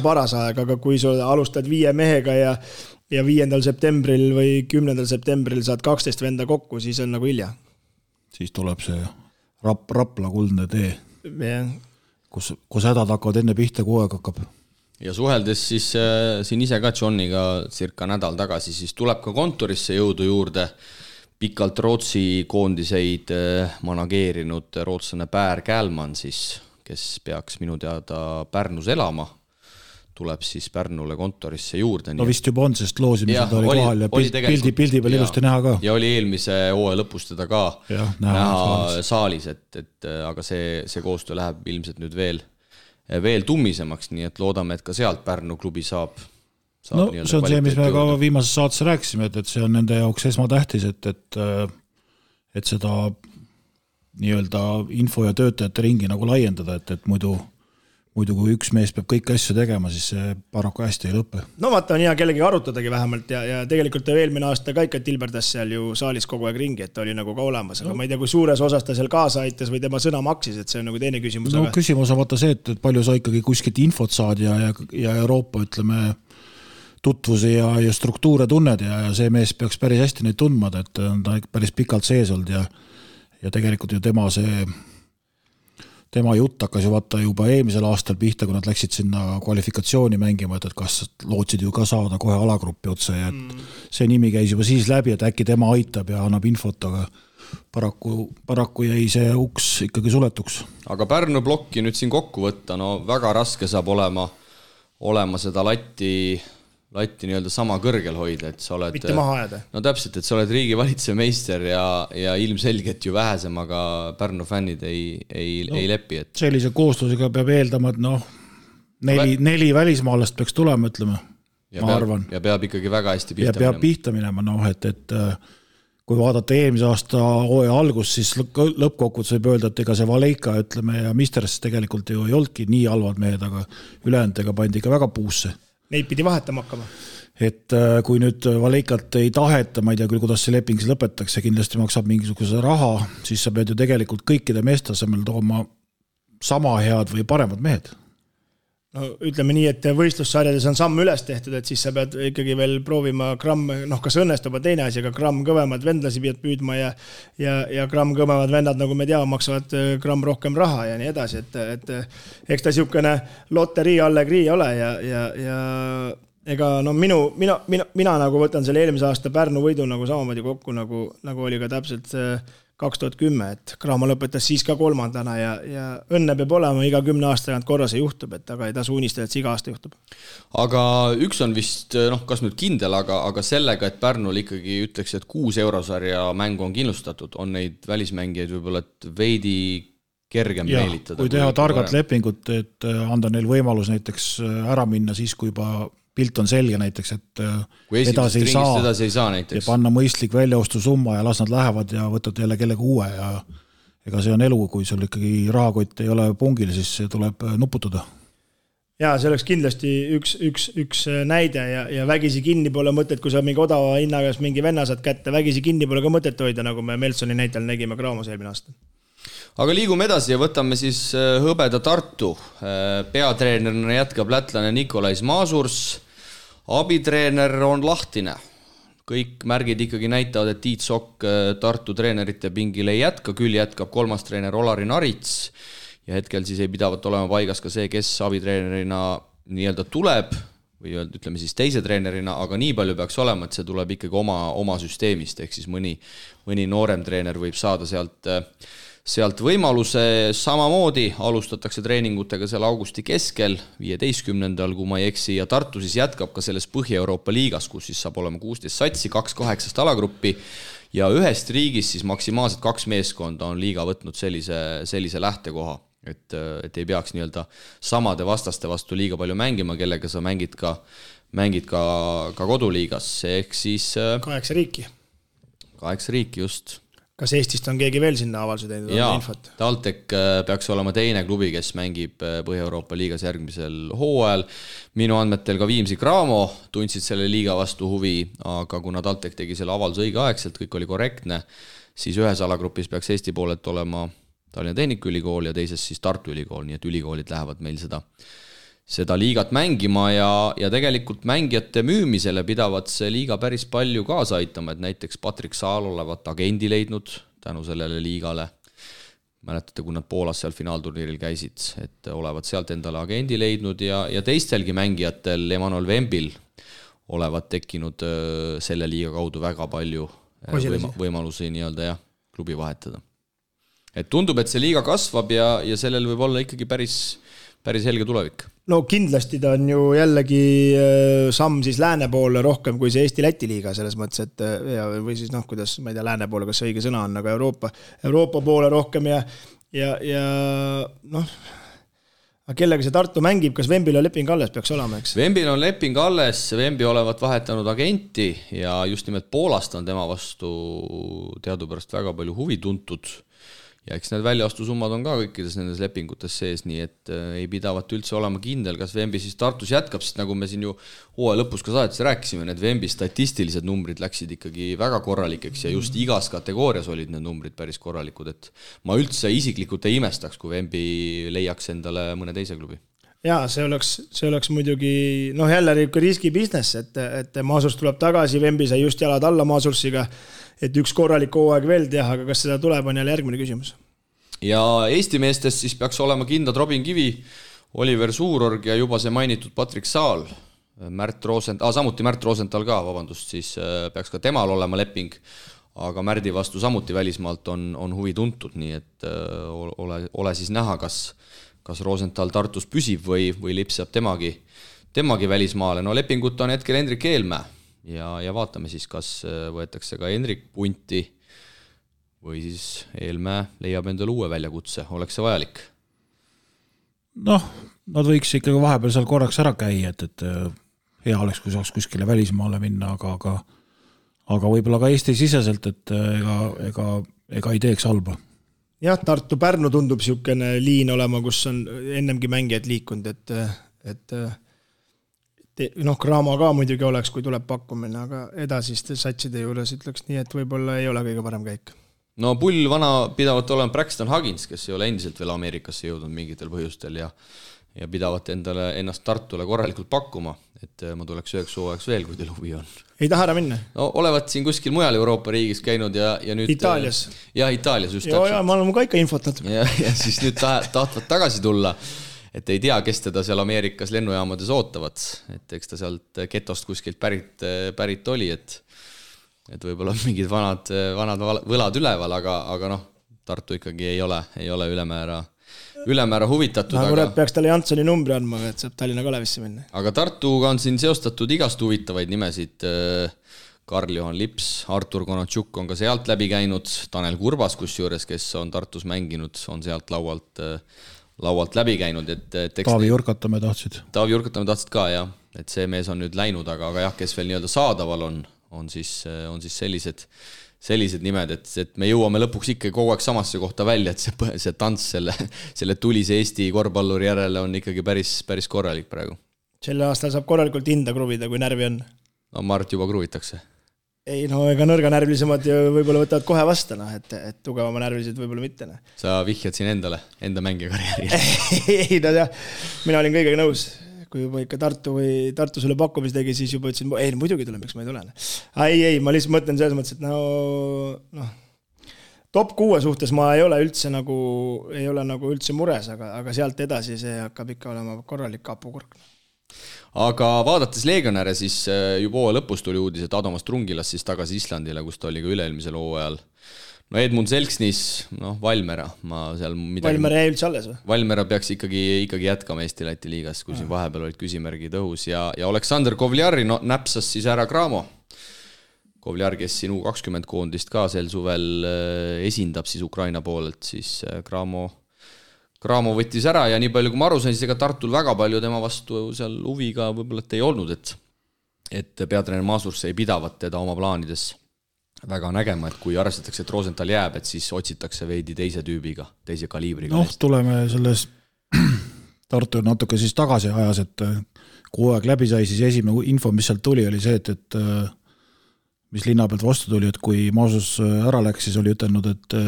Speaker 4: paras aeg, aga kui sa alustad 5 mehega ja 5. septembril või 10. septembril saad 12 venda kokku, siis on nagu hilja.
Speaker 3: Siis tuleb see Rapla kuldne tee, kus hädad hakkavad enne pihta, kui aeg hakkab.
Speaker 2: Ja suheldes siis siin ise ka Johniga circa nädal tagasi, siis tuleb ka kontorisse jõudu juurde pikalt Rootsi koondiseid manageerinud rootslane Pär Kälman, siis, kes peaks minu teada Pärnus elama, tuleb siis Pärnule kontorisse juurde.
Speaker 3: No vist juba on, sest loosimised oli kohal ja pildi peal ilusti näha ka.
Speaker 2: Ja oli eelmise hooaja lõpus teda ka näha saalis, et aga see koostöö läheb ilmselt nüüd veel tummisemaks, nii et loodame, et ka sealt Pärnu klubi saab
Speaker 3: no see on see, mis me ka viimases saates rääkisime, et see on nende jaoks esmatähtis, et seda nii-öelda info ja töötajate ringi nagu laiendada, et muidu kui üks mees peab kõiki asju tegema, siis see paraku hästi ei lõppe.
Speaker 4: No vaata, on hea kellegi arutadagi vähemalt ja tegelikult eelmine aasta ka ikka tilberdas seal ju saalis kogu aeg ringi, et ta oli nagu ka olemas, aga ma ei tea, kui suures osas ta seal kaasa aitas või tema sõna maksis, et see on nagu teine küsimus.
Speaker 3: No küsimus on vaata see, et palju sa ikkagi kuskilt infot saad ja Euroopa, ütleme, tutvusi ja struktuure tunned ja see mees peaks päris hästi neid tundmad, et ta päris pikalt sees olnud ja tegelikult ju tema see tema jutt hakkas ju vaata juba eelmisel aastal pihta, kui nad läksid sinna kvalifikatsiooni mängima, et kas lootsid ju ka saada kohe alagruppi otse ja see nimi käis juba siis läbi, et äkki tema aitab ja annab infot, aga paraku jäi see uks ikkagi suletuks.
Speaker 2: Aga Pärnu plokki nüüd siin kokku võtta, no väga raske saab olema seda latti nii-öelda sama kõrgel hoida, et sa oled...
Speaker 4: Mitte maha ajada.
Speaker 2: No täpselt, et sa oled riigi valitseja meister ja ilmselgelt ju vähesemaga Pärnu fännid ei lepi. Et...
Speaker 3: Sellise kooslusega peab eeldama, et neli välismaalast peaks tulema, ütleme, ma arvan.
Speaker 2: Ja peab ikkagi väga hästi
Speaker 3: pihta minema. Ja peab pihta minema, et kui vaadata eelmise aasta hooaja algus, siis lõppkokkuvõttes võib öelda, et ega see Valeika, ütleme, ja Misters tegelikult ju ei olnudki nii halvad mehed, aga ülejääntega pandi ikka väga puusse.
Speaker 4: Neid pidi vahetama hakkama.
Speaker 3: Et kui nüüd Valeikat ei taheta, ma ei tea küll, kuidas see leping lõpetatakse, kindlasti maksab mingisuguse raha, siis sa pead ju tegelikult kõikide meeste asemel tooma sama head või paremad mehed.
Speaker 4: No ütleme nii, et võistlussarjades on samm üles tehtud, et siis sa pead ikkagi veel proovima gramm, kas õnnestub teine asi, aga gramm kõvemad vendlasi pead püüdma ja gramm kõvemad vennad, nagu me teame, maksavad gramm rohkem raha ja nii edasi, et eks ta niisugune loterii allegrii ole ja ega mina nagu võtan selle eelmise aasta Pärnu võidu nagu samamoodi kokku, nagu oli ka täpselt 2010, et Kraama lõpetas siis ka 3. ja õnne peab olema iga 10 aasta tagant korra see juhtub, et aga ei tasu unistada, et see iga aasta juhtub.
Speaker 2: Aga üks on vist, kas nüüd kindel, aga sellega, et Pärnul ikkagi ütleks, et 6 eurosarja mängu on kindlustatud, on neid välismängijaid võib-olla veidi kergem meelitada.
Speaker 3: Kui teha targat lepingut, et anda neil võimalus näiteks ära minna siis, kui juba pilt on selge näiteks, et edasi ei saa näiteks. Ja panna mõistlik väljaostu summa ja las nad lähevad ja võtad jälle kellegi uue ja ega see on elu, kui sul ikkagi rahakott ei ole pungil, siis see tuleb nuputada.
Speaker 4: Jaa, see oleks kindlasti üks näide ja vägisi kinni pole mõtet, kui sa mingi odava hinnagas mingi venna saad kätte, vägisi kinni pole ka mõtet hoida, nagu me Meltsoni näitel nägime Kraamas eelmine aasta.
Speaker 2: Aga liigume edasi ja võtame siis Hõbeda Tartu. Peatreenerina jätkab lätlane Nikolais Masurs. Abitreener on lahtine. Kõik märgid ikkagi näitavad, et Tiit Sokk Tartu treenerite pingil ei jätka, küll jätkab 3. treener Olari Narits ja hetkel siis ei pidavat olema paigas ka see, kes abitreenerina nii-öelda tuleb või ütleme siis teise treenerina, aga nii palju peaks olema, et see tuleb ikkagi oma süsteemist, ehk siis mõni noorem treener võib saada sealt võimaluse. Samamoodi alustatakse treeningutega seal augusti keskel, 15. kui ma ei eksi, ja Tartu siis jätkab ka selles Põhja-Euroopa liigas, kus siis saab olema 16 satsi, 2-8 alagruppi ja ühest riigist siis maksimaalselt 2 meeskonda on liiga võtnud sellise lähtekoha, et ei peaks nii-öelda samade vastaste vastu liiga palju mängima, kellega sa mängid ka koduliigas, ehk siis
Speaker 4: 8 riiki.
Speaker 2: 8 riiki just.
Speaker 4: Kas Eestist on keegi veel sinna avalse teinud?
Speaker 2: Jaa, TalTech peaks olema teine klubi, kes mängib Põhja-Euroopa liigas järgmisel hooajal. Minu andmetel ka Viimsi Cramo tundsid selle liiga vastu huvi, aga kuna TalTech tegi selle avalduse õigeaegselt, kõik oli korrektne, siis ühes alagrupis peaks Eesti poolelt olema Tallinna Tehnikaülikool ja teises siis Tartu Ülikool, nii et ülikoolid lähevad meil seda liigat mängima ja tegelikult mängijate müümisele pidavad see liiga päris palju kaasa aitama, et näiteks Patrik Saal olevat agendi leidnud tänu sellele liigale. Mäletate, kui nad Poolas seal finaalturniiril käisid, et olevat sealt endale agendi leidnud ja teistelgi mängijatel Emanuel Vembil olevat tekkinud selle liiga kaudu väga palju võimalusi nii-öelda klubi vahetada. Et tundub, et see liiga kasvab ja sellel võib olla ikkagi päris helge tulevik.
Speaker 4: No kindlasti ta on ju jällegi samm siis lääne poole rohkem kui see Eesti-Läti liiga selles mõttes, et või siis kuidas, ma ei tea, lääne poole, kas see õige sõna on, aga Euroopa poole rohkem ja kellega see Tartu mängib, kas Vembil on leping alles peaks olema, eks?
Speaker 2: Vembil on leping alles, Vembi olevat vahetanud agenti ja just nimelt Poolast on tema vastu teadupärast väga palju huvi tuntud. Ja eks need väljaostusummad on ka kõikides nendes lepingutes sees, nii et ei pidavat üldse olema kindel, kas Vembi siis Tartus jätkab, sest nagu me siin ju hooaja lõpus ka saadetes rääkisime, need Vembi statistilised numbrid läksid ikkagi väga korralikeks ja just igas kategoorias olid need numbrid päris korralikud, et ma üldse isiklikult ei imestaks, kui Vembi leiaks endale mõne teise klubi.
Speaker 4: Jaa, see oleks muidugi, jälle riski business, et Masurs tuleb tagasi, Vembi sai just jalad alla Masursiga, et üks korralik hooaeg veel teha, aga kas seda tuleb, on jälle järgmine küsimus.
Speaker 2: ja Eesti meestest siis peaks olema kindlad Robin Kivi, Oliver Suurorg ja juba see mainitud Patrick Saal, samuti Märt Rosenthal ka, siis peaks ka temal olema leping, aga Märdi vastu samuti välismaalt on huvi tuntud, nii et ole siis näha, kas Rosenthal Tartus püsib või lipsab temagi välismaale. No lepingut on hetkel Hendrik Eelmäe ja vaatame siis, kas võetakse ka Hendrik punti või siis Eelmäe leiab endale uue väljakutse, oleks see vajalik?
Speaker 3: Noh, nad võiks ikkagi vahepeal seal korraks ära käia, et hea oleks, kui saaks kuskile välismaale minna, aga võib-olla ka Eesti siseselt, et ega ei teeks halba.
Speaker 4: Jah, Tartu-Pärnu tundub siukene liin olema, kus on ennemgi mängijad liikunud, et Cramo ka muidugi oleks, kui tuleb pakkumine, aga edasiste satside juures ütleks nii, et võib-olla ei ole kõige parem käik.
Speaker 2: No pull vana pidavat olema Braxton Huggins, kes ei ole endiselt veel Ameerikasse jõudnud mingitel põhjustel ja pidavat ennast Tartule korralikult pakkuma, et ma tuleks 9 hooajaks veel, kui teil huvi on.
Speaker 4: Ei taha ära minna?
Speaker 2: No olevat siin kuskil mujal Euroopa riigis käinud ja nüüd...
Speaker 4: Itaalias?
Speaker 2: Jah, Itaalias just
Speaker 4: täpselt. Ma olen ka ikka infot natuke.
Speaker 2: Ja siis nüüd tahtvad tagasi tulla, et ei tea, kes teda seal Ameerikas lennujaamades ootavad, et eks ta sealt getost kuskilt pärit oli, et võib-olla mingid vanad võlad üleval, aga noh, Tartu ikkagi ei ole ülemäära huvitatud.
Speaker 4: Aga peaks talle Janssoni numbri andma, et saab Tallinna Kalevisse minna.
Speaker 2: Aga Tartuga on siin seostatud igast huvitavaid nimesid. Karl-Johan Lips, Artur Konatšuk on ka sealt läbi käinud, Tanel Kurbas, kusjuures, kes on Tartus mänginud, on sealt laualt läbi käinud.
Speaker 3: Taavi Jurkatamäe
Speaker 2: tahtsid ka, jah. Et see mees on nüüd läinud, aga jah, kes veel nii-öelda saadaval on siis sellised nimed, et me jõuame lõpuks ikka kogu aeg samasse kohta välja, et see tants selle tulise Eesti korvpalluri järele on ikkagi päris korralik praegu.
Speaker 4: Selle aastal saab korralikult hinda kruvida, kui närvi on.
Speaker 2: No Mart juba kruvitakse.
Speaker 4: Ei, no ega nõrganärvilisemad võib-olla võtavad kohe vastu, et tugevama närvilised võib-olla mitte.
Speaker 2: Sa vihjad siin enda mängija karjääri.
Speaker 4: Ei, no jah, mina olin kõigega nõus. Kui juba ikka Tartu sulle pakkumis tegi, siis juba ütlesin, ei, muidugi tuleb, miks ma ei tule. Ei, ma lihtsalt mõtlen selles mõttes, et top 6 suhtes ma ei ole üldse mures, aga sealt edasi see hakkab ikka olema korralik kapukurk.
Speaker 2: Aga vaadates Legionäre, siis juba hooaja lõpus tuli uudis, et Adomas Trungilas siis tagasi Islandile, kus ta oli ka üle-eelmisel hooajal. No Edmund Selksnis, Valmera.
Speaker 4: Valmera jäi üldse alles või?
Speaker 2: Valmera peaks ikkagi jätkama Eesti-Läti liigas, kui siin vahepeal olid küsimärgid õhus. Ja Aleksander Kovljari näpsas siis ära Cramo. Kovljar, kes siin U20 koondist ka sel suvel esindab siis Ukraina poolelt, siis Cramo võttis ära ja nii palju kui ma aru sain, siis ega Tartul väga palju tema vastu seal huviga võib-olla ei olnud, et peatreener Maasurs ei pidavat teda oma plaanides väga nägema, et kui arvestatakse, et Rosenthal jääb, et siis otsitakse veidi teise tüübiga, teise kaliibriga.
Speaker 3: Tuleme selles Tartu natuke siis tagasi ajas, et kui aeg läbi sai, siis esimene info, mis sealt tuli, oli see, et mis linna pealt vastu tuli, et kui Maasus ära läks, siis oli ütelnud, et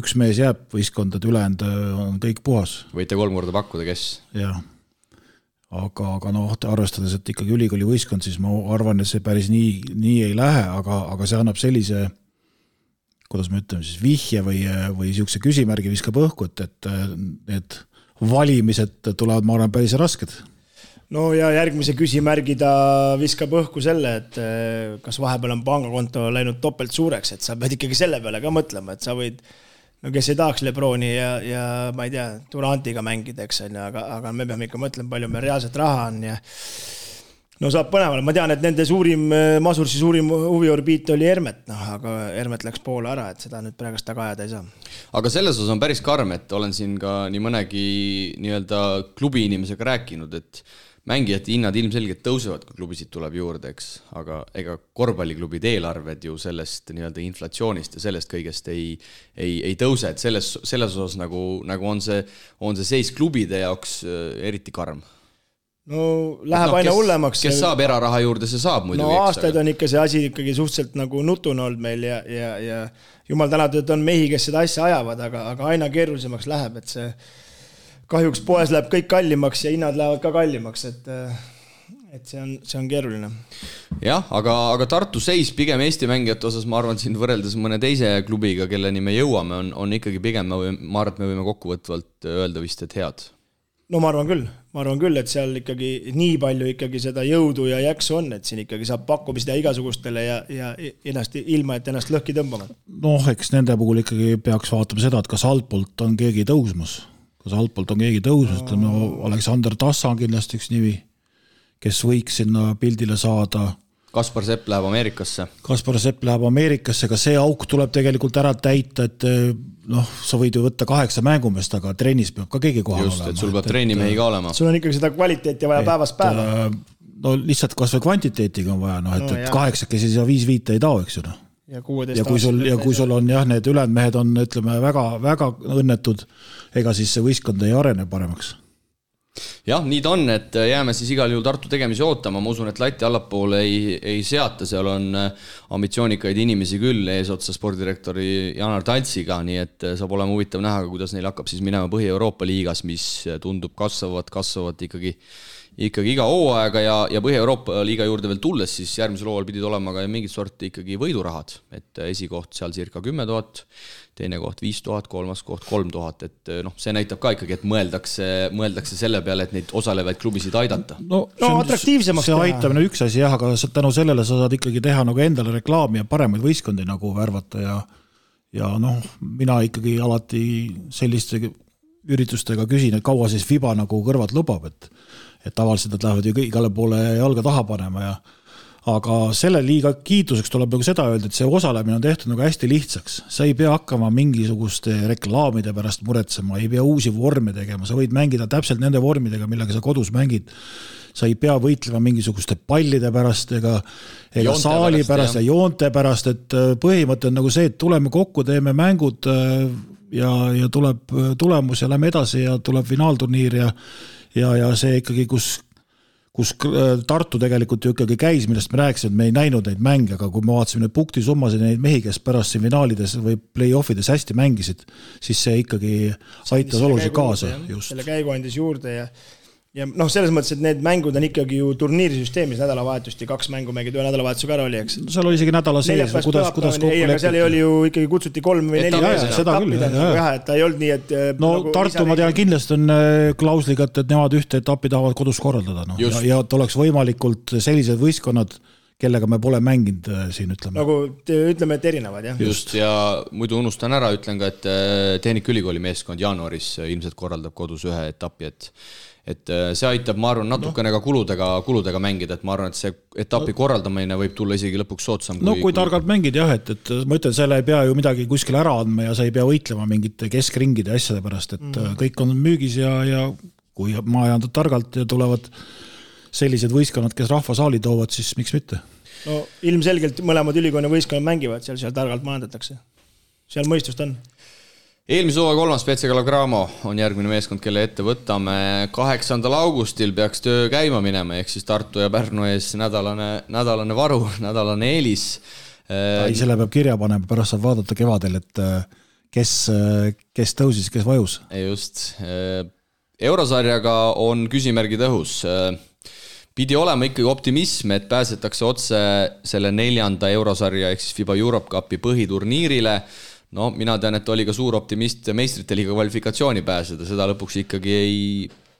Speaker 3: üks mees jääb võistkond, et ülejäänud on kõik puhas.
Speaker 2: Võite 3 korda pakkuda, kes?
Speaker 3: Jah. Aga arvestades, et ikkagi ülikooli võistkond, siis ma arvan, et see päris nii ei lähe, aga see annab sellise, kuidas me ütleme, siis vihje või siukse küsimärgi viskab õhku, et need valimised tulevad, ma arvan, päris rasked.
Speaker 4: No ja järgmise küsimärgi ta viskab õhku selle, et kas vahepeal on pangakonto läinud topelt suureks, et sa pead ikkagi selle peale ka mõtlema, et sa võid kes ei tahaks Lebroni ja ma ei tea, Durantiga mängida, eks on, aga me peame ikka mõtlema, palju meil reaalselt raha on ja saab põneval. Ma tean, et nende Masursi suurim huviorbiit oli Hermet, aga Hermet läks poole ära, et seda nüüd praegust taga ajada ei saa.
Speaker 2: Aga selles osas on päris karm, et olen siin ka nii mõnegi nii-öelda klubi inimesega rääkinud, et mängijate hinnad ilmselgelt tõusevad, kui klubisid tuleb juurde, eks, aga ega korvpalliklubid eelarved ju sellest nii-öelda inflatsioonist ja sellest kõigest ei tõuse, et selles osas nagu on see seis klubide jaoks eriti karm.
Speaker 4: No läheb aina hullemaks.
Speaker 2: Kes saab eraraha juurde, see saab muidu.
Speaker 4: No aastaid on ikka see asi ikkagi suhteliselt nagu nutune olnud meil ja jumal tänatud, et on mehi, kes seda asja ajavad, aga aina keerulisemaks läheb, et see kahjuks poes läheb kõik kallimaks ja hinnad lähevad ka kallimaks, et see on keeruline.
Speaker 2: Jah, aga Tartu seis pigem Eesti mängijate osas, ma arvan, siin võrreldes mõne teise klubiga, kelleni me jõuame, on ikkagi pigem, ma arvan, et me võime kokkuvõtvalt öelda vist, et head.
Speaker 4: No ma arvan küll, et seal ikkagi nii palju ikkagi seda jõudu ja jaksu on, et siin ikkagi saab pakkuma seda igasugustele ja ennast, ilma, et ennast lõhki tõmbama.
Speaker 3: Noh, eks nende puhul ikkagi peaks vaatama seda, et kas altpoolt on keegi tõusmas. Aleksander Tassa on kindlasti üks nimi, kes võiks sinna pildile saada.
Speaker 2: Kaspar Sepp läheb Ameerikasse,
Speaker 3: ka see auk tuleb tegelikult ära täita, et sa võid ju võtta 8 mängumest, aga trennis peab ka keegi kohal
Speaker 2: olema.
Speaker 3: Just,
Speaker 2: et sul peab treenimehi ka olema.
Speaker 4: Sul on ikkagi seda kvaliteeti vaja päevast päeva.
Speaker 3: No lihtsalt kas või kvantiteetiga on vaja, et 8 käsi ja 5 ei tao, eks ju. Ja kui sul on need ülejäänud mehed on, ütleme, väga õnnetud, ega siis see võistkond ei arene paremaks.
Speaker 2: Jah, nii ta on, et jääme siis igal juhul Tartu tegemisi ootama, ma usun, et lati allapoole ei seata, seal on ambitsioonikaid inimesi küll eesotsa spordirektori Janar Taltsiga, nii et saab olema huvitav näha, kuidas neil hakkab siis minema Põhi-Euroopa liigas, mis tundub kasvavat ikkagi iga hooaega ja Põhi-Euroopa liiga juurde veel tulles, siis järgmisel hooajal pidid olema ka mingit sorti ikkagi võidurahad, et esikoht seal circa 10 000, teine koht 5000, kolmas koht 3000, et see näitab ka ikkagi, et mõeldakse selle peale, et neid osalevaid klubisid aidata.
Speaker 3: No atraktiivsemaks see aitamine üks asi, aga tänu sellele sa saad ikkagi teha nagu endale reklaami ja paremaid võistkondi nagu värvata ja mina ikkagi alati selliste üritustega küsin, et kaua siis FIBA nagu kõrvad lubab, et tavaliselt nad lähevad ju igale poole jalga taha panema aga selle liiga kiituseks tuleb nagu seda öelda, et see osalemine on tehtud nagu hästi lihtsaks. Sa ei pea hakkama mingisuguste reklaamide pärast muretsema, ei pea uusi vorme tegema, sa võid mängida täpselt nende vormidega, millega sa kodus mängid. Sa ei pea võitlema mingisuguste pallide pärast ega saali pärast ja joonte pärast, et põhimõte on nagu see, et tuleme kokku, teeme mängud ja tuleb tulemus ja lähme edasi ja tuleb finaalturniir ja see ikkagi, kus Tartu tegelikult ju ikkagi käis, millest me rääkisime, et me ei näinud neid mänge, aga kui me vaatasime neid punktisummasid ja neid mehi, kes pärast siin finaalides või play-offides hästi mängisid, siis see ikkagi aitas oluliselt kaasa.
Speaker 4: Selle käigu andis juurde ja selles mõttes, et need mängud on ikkagi ju turniirisüsteemis nädalavahetust ja 2 mängu mängid ühe nädalavahetusega ära oli, eks?
Speaker 3: Seal oli isegi nädala sees, kuidas kokku
Speaker 4: lepiti. Seal oli ju ikkagi kutsuti 3 või 4 et ta ei olnud nii, et...
Speaker 3: Tartu ma tean kindlasti on klausliga, et nemad ühte etappi tahavad kodus korraldada. Ja et oleks võimalikult sellised võistkonnad, kellega me pole mänginud siin, ütleme.
Speaker 4: Nagu ütleme, et erinevad, jah.
Speaker 2: Just, ja muidu unustan ära, ütlen ka, et Tehnikaülikooli meeskond jaanuaris ilmselt korraldab kodus ühe etappi, et see aitab, ma arvan, natukene ka kuludega mängida, et ma arvan, et see etapi korraldamine võib tulla isegi lõpuks soodsam.
Speaker 3: Kui targalt mängid, jah, et ma ütlen, selle ei pea ju midagi kuskil ära andma ja sa ei pea võitlema mingite keskringide asjade pärast, et kõik on müügis ja kui majandad targalt ja tulevad sellised võistkonnad, kes rahvasaali toovad, siis miks mitte?
Speaker 4: No ilmselgelt mõlemad ülikooli võistkonnad mängivad, seal targalt majandatakse. Seal mõistust on.
Speaker 2: Eelmise hooaja 3. BC Kalev Cramo on järgmine meeskond, kelle ette võtame. 8. augustil peaks töö käima minema, ehk siis Tartu ja Pärnu ees nädalane varu, nädalane eelis.
Speaker 3: Selle peab kirja panema, pärast saab vaadata kevadel, et kes tõusis, kes vajus.
Speaker 2: Just. Eurosarjaga on küsimärgid õhus. Pidi olema ikkagi optimism, et pääsetakse otse selle 4. eurosarja ehk siis FIBA Europe Cupi põhiturniirile. No, mina tean, et oli ka suur optimist meistrite liiga kvalifikatsiooni pääseda, seda lõpuks ikkagi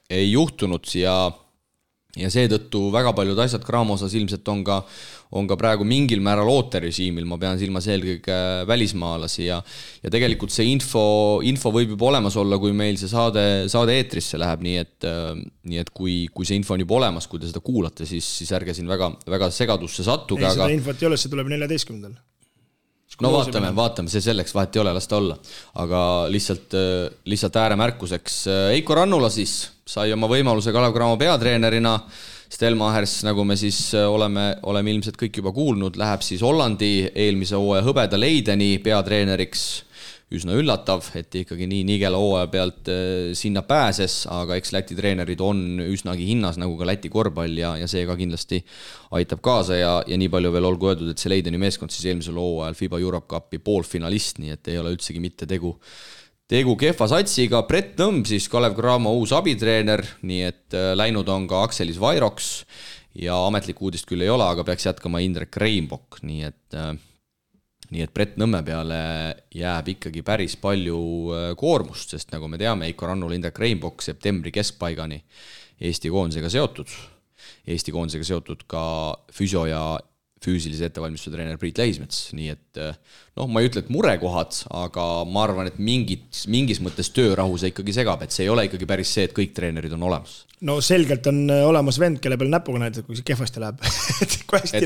Speaker 2: ei juhtunud ja seetõttu väga paljud asjad Cramo osas ilmselt on ka praegu mingil määral ooterežiimil, ma pean silmas eelkõige välismaalasi ja tegelikult see info võib juba olemas olla, kui meil see saade eetrisse läheb, nii et kui see info on juba olemas, kui te seda kuulate, siis ärge siin väga segadusse sattuge.
Speaker 4: Ei, seda infot ei ole, see tuleb 14.
Speaker 2: No vaatame, see selleks vahet ei ole, las ta olla. Aga lihtsalt ääremärkuseks. Eiko Rannula siis sai oma võimaluse Kalev Cramo peatreenerina. Stelmachers, nagu me siis oleme ilmselt kõik juba kuulnud, läheb siis Hollandi eelmise hooaja hõbeda Leideni peatreeneriks. Üsna üllatav, et ikkagi nii nigela hooaja pealt sinna pääses, aga eks Läti treenerid on üsnagi hinnas, nagu ka Läti korvpall ja see ka kindlasti aitab kaasa ja nii palju veel olgu öeldud, et see Leideni meeskond siis eelmisel hooajal FIBA Europe Cupi poolfinalist, nii et ei ole üldsegi mitte tegu kehva satsiga. Brett Nõmm siis Kalev Cramo uus abitreener, nii et läinud on ka Akselis Vairoks ja ametlik uudist küll ei ole, aga peaks jätkama Indrek Reinbok, nii et Brett Nõmme peale jääb ikkagi päris palju koormust, sest nagu me teame, Eiko Rannul Indrek Reinbok septembri keskpaigani Eesti koondisega seotud ka füsio ja füüsilise ettevalmistuse treener Priit Lähismets, nii et ma ei ütle, et murekohad, aga ma arvan, et mingis mõttes töörahu see ikkagi segab, et see ei ole ikkagi päris see, et kõik treenerid on olemas.
Speaker 4: No selgelt on olemas vend, kelle peal näpuga näidata, kui see kehvasti läheb. kui hästi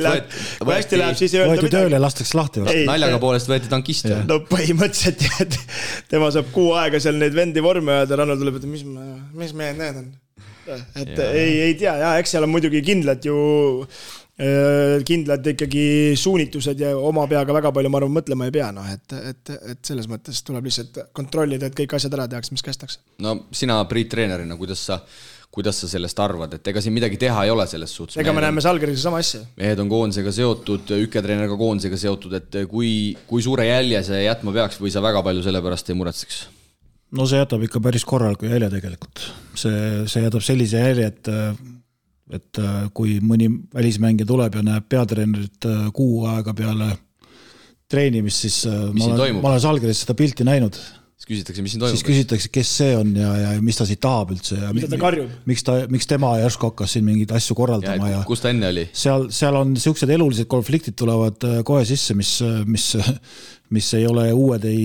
Speaker 4: läheb, siis ei öelda
Speaker 3: midagi. Tööle lastakse lahti.
Speaker 2: Naljaga poolest võeti tankist.
Speaker 4: No põhimõtteliselt, tema saab 6 aega seal neid vendi vorme ja Rannul tuleb, et mis mehed need on. Et ei tea, eks seal on muidugi kindlad ikkagi suunitused ja oma peaga väga palju ma arvan mõtlema ei pea, et selles mõttes tuleb lihtsalt kontrollida, et kõik asjad ära tehakse, mis kästakse.
Speaker 2: No sina Priit treenerina, kuidas sa sellest arvad, et ega siin midagi teha ei ole selles suhtes?
Speaker 4: Ega me näeme Salgeriga sama asja.
Speaker 2: Mehed on koondisega seotud, Üke-treener ka koondisega seotud, et kui suure jälje see jätma peaks või sa väga palju selle pärast ei muretseks?
Speaker 3: No see jätab ikka päris korraliku jälje tegelikult. See jätab sellise jälje, et kui mõni välismängija tuleb ja näeb peatreenerit 6 aega peale treenimist, siis ma olen Salgeris seda pilti näinud.
Speaker 2: Siis küsitakse, mis siin toimub.
Speaker 3: Siis küsitakse, kes see on ja mis ta siit tahab üldse. Ja
Speaker 4: mida ta karjub.
Speaker 3: Miks tema järsku hakkas siin mingeid asju korraldama.
Speaker 2: Ja kus ta enne oli?
Speaker 3: Seal on niisugused elulised konfliktid tulevad kohe sisse, mis ei ole uued ei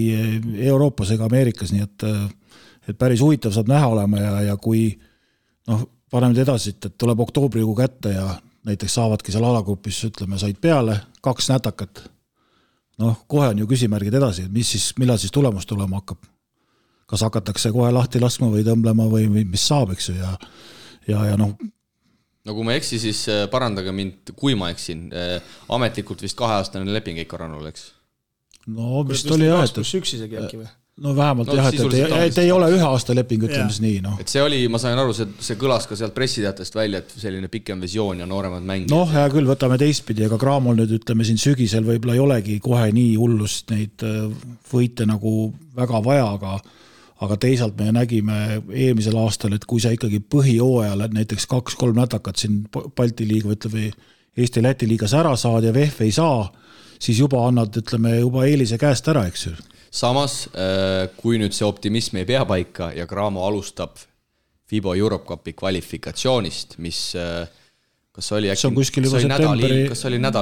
Speaker 3: Euroopas ega Ameerikas, nii et päris huvitav saab näha olema ja kui paneme edasi, et tuleb oktoobrikuu kätte ja näiteks saavadki seal alagrupis, ütleme, said peale 2 nätakat. Kohe on ju küsimärgid edasi, et millal siis tulemus tulema hakkab. Kas hakatakse kohe lahti laskma või tõmblema või mis saab, eks ju, ja
Speaker 2: No kui ma eksi, siis parandage mind, kui ma eksin. Ametlikult vist 2-aastane leping Eiko Rannul, eks?
Speaker 3: No vist oli jah,
Speaker 4: et üks isegi äkki või?
Speaker 3: No vähemalt et ei ole 1 aasta leping, ütleme siis nii.
Speaker 2: Et see oli, ma sain aru, see kõlas ka sealt pressiteatest välja, et selline pikem visioon ja nooremad mängid.
Speaker 3: Hea küll, võtame teistpidi, aga Graamol nüüd ütleme siin sügisel võib-olla ei olegi kohe nii hullust neid võite nagu väga vaja, aga teisalt me nägime eelmisel aastal, et kui sa ikkagi põhijooajal näiteks 2-3 nätakat siin Balti liiga või Eesti-Läti liigas ära saad ja VF ei saa, siis juba annad, ütleme, juba eelise käest ära, eks ju.
Speaker 2: Samas, kui nüüd see optimism ei pea paika ja Graamo alustab FIBA Europe Cupi kvalifikatsioonist, mis kas oli nädal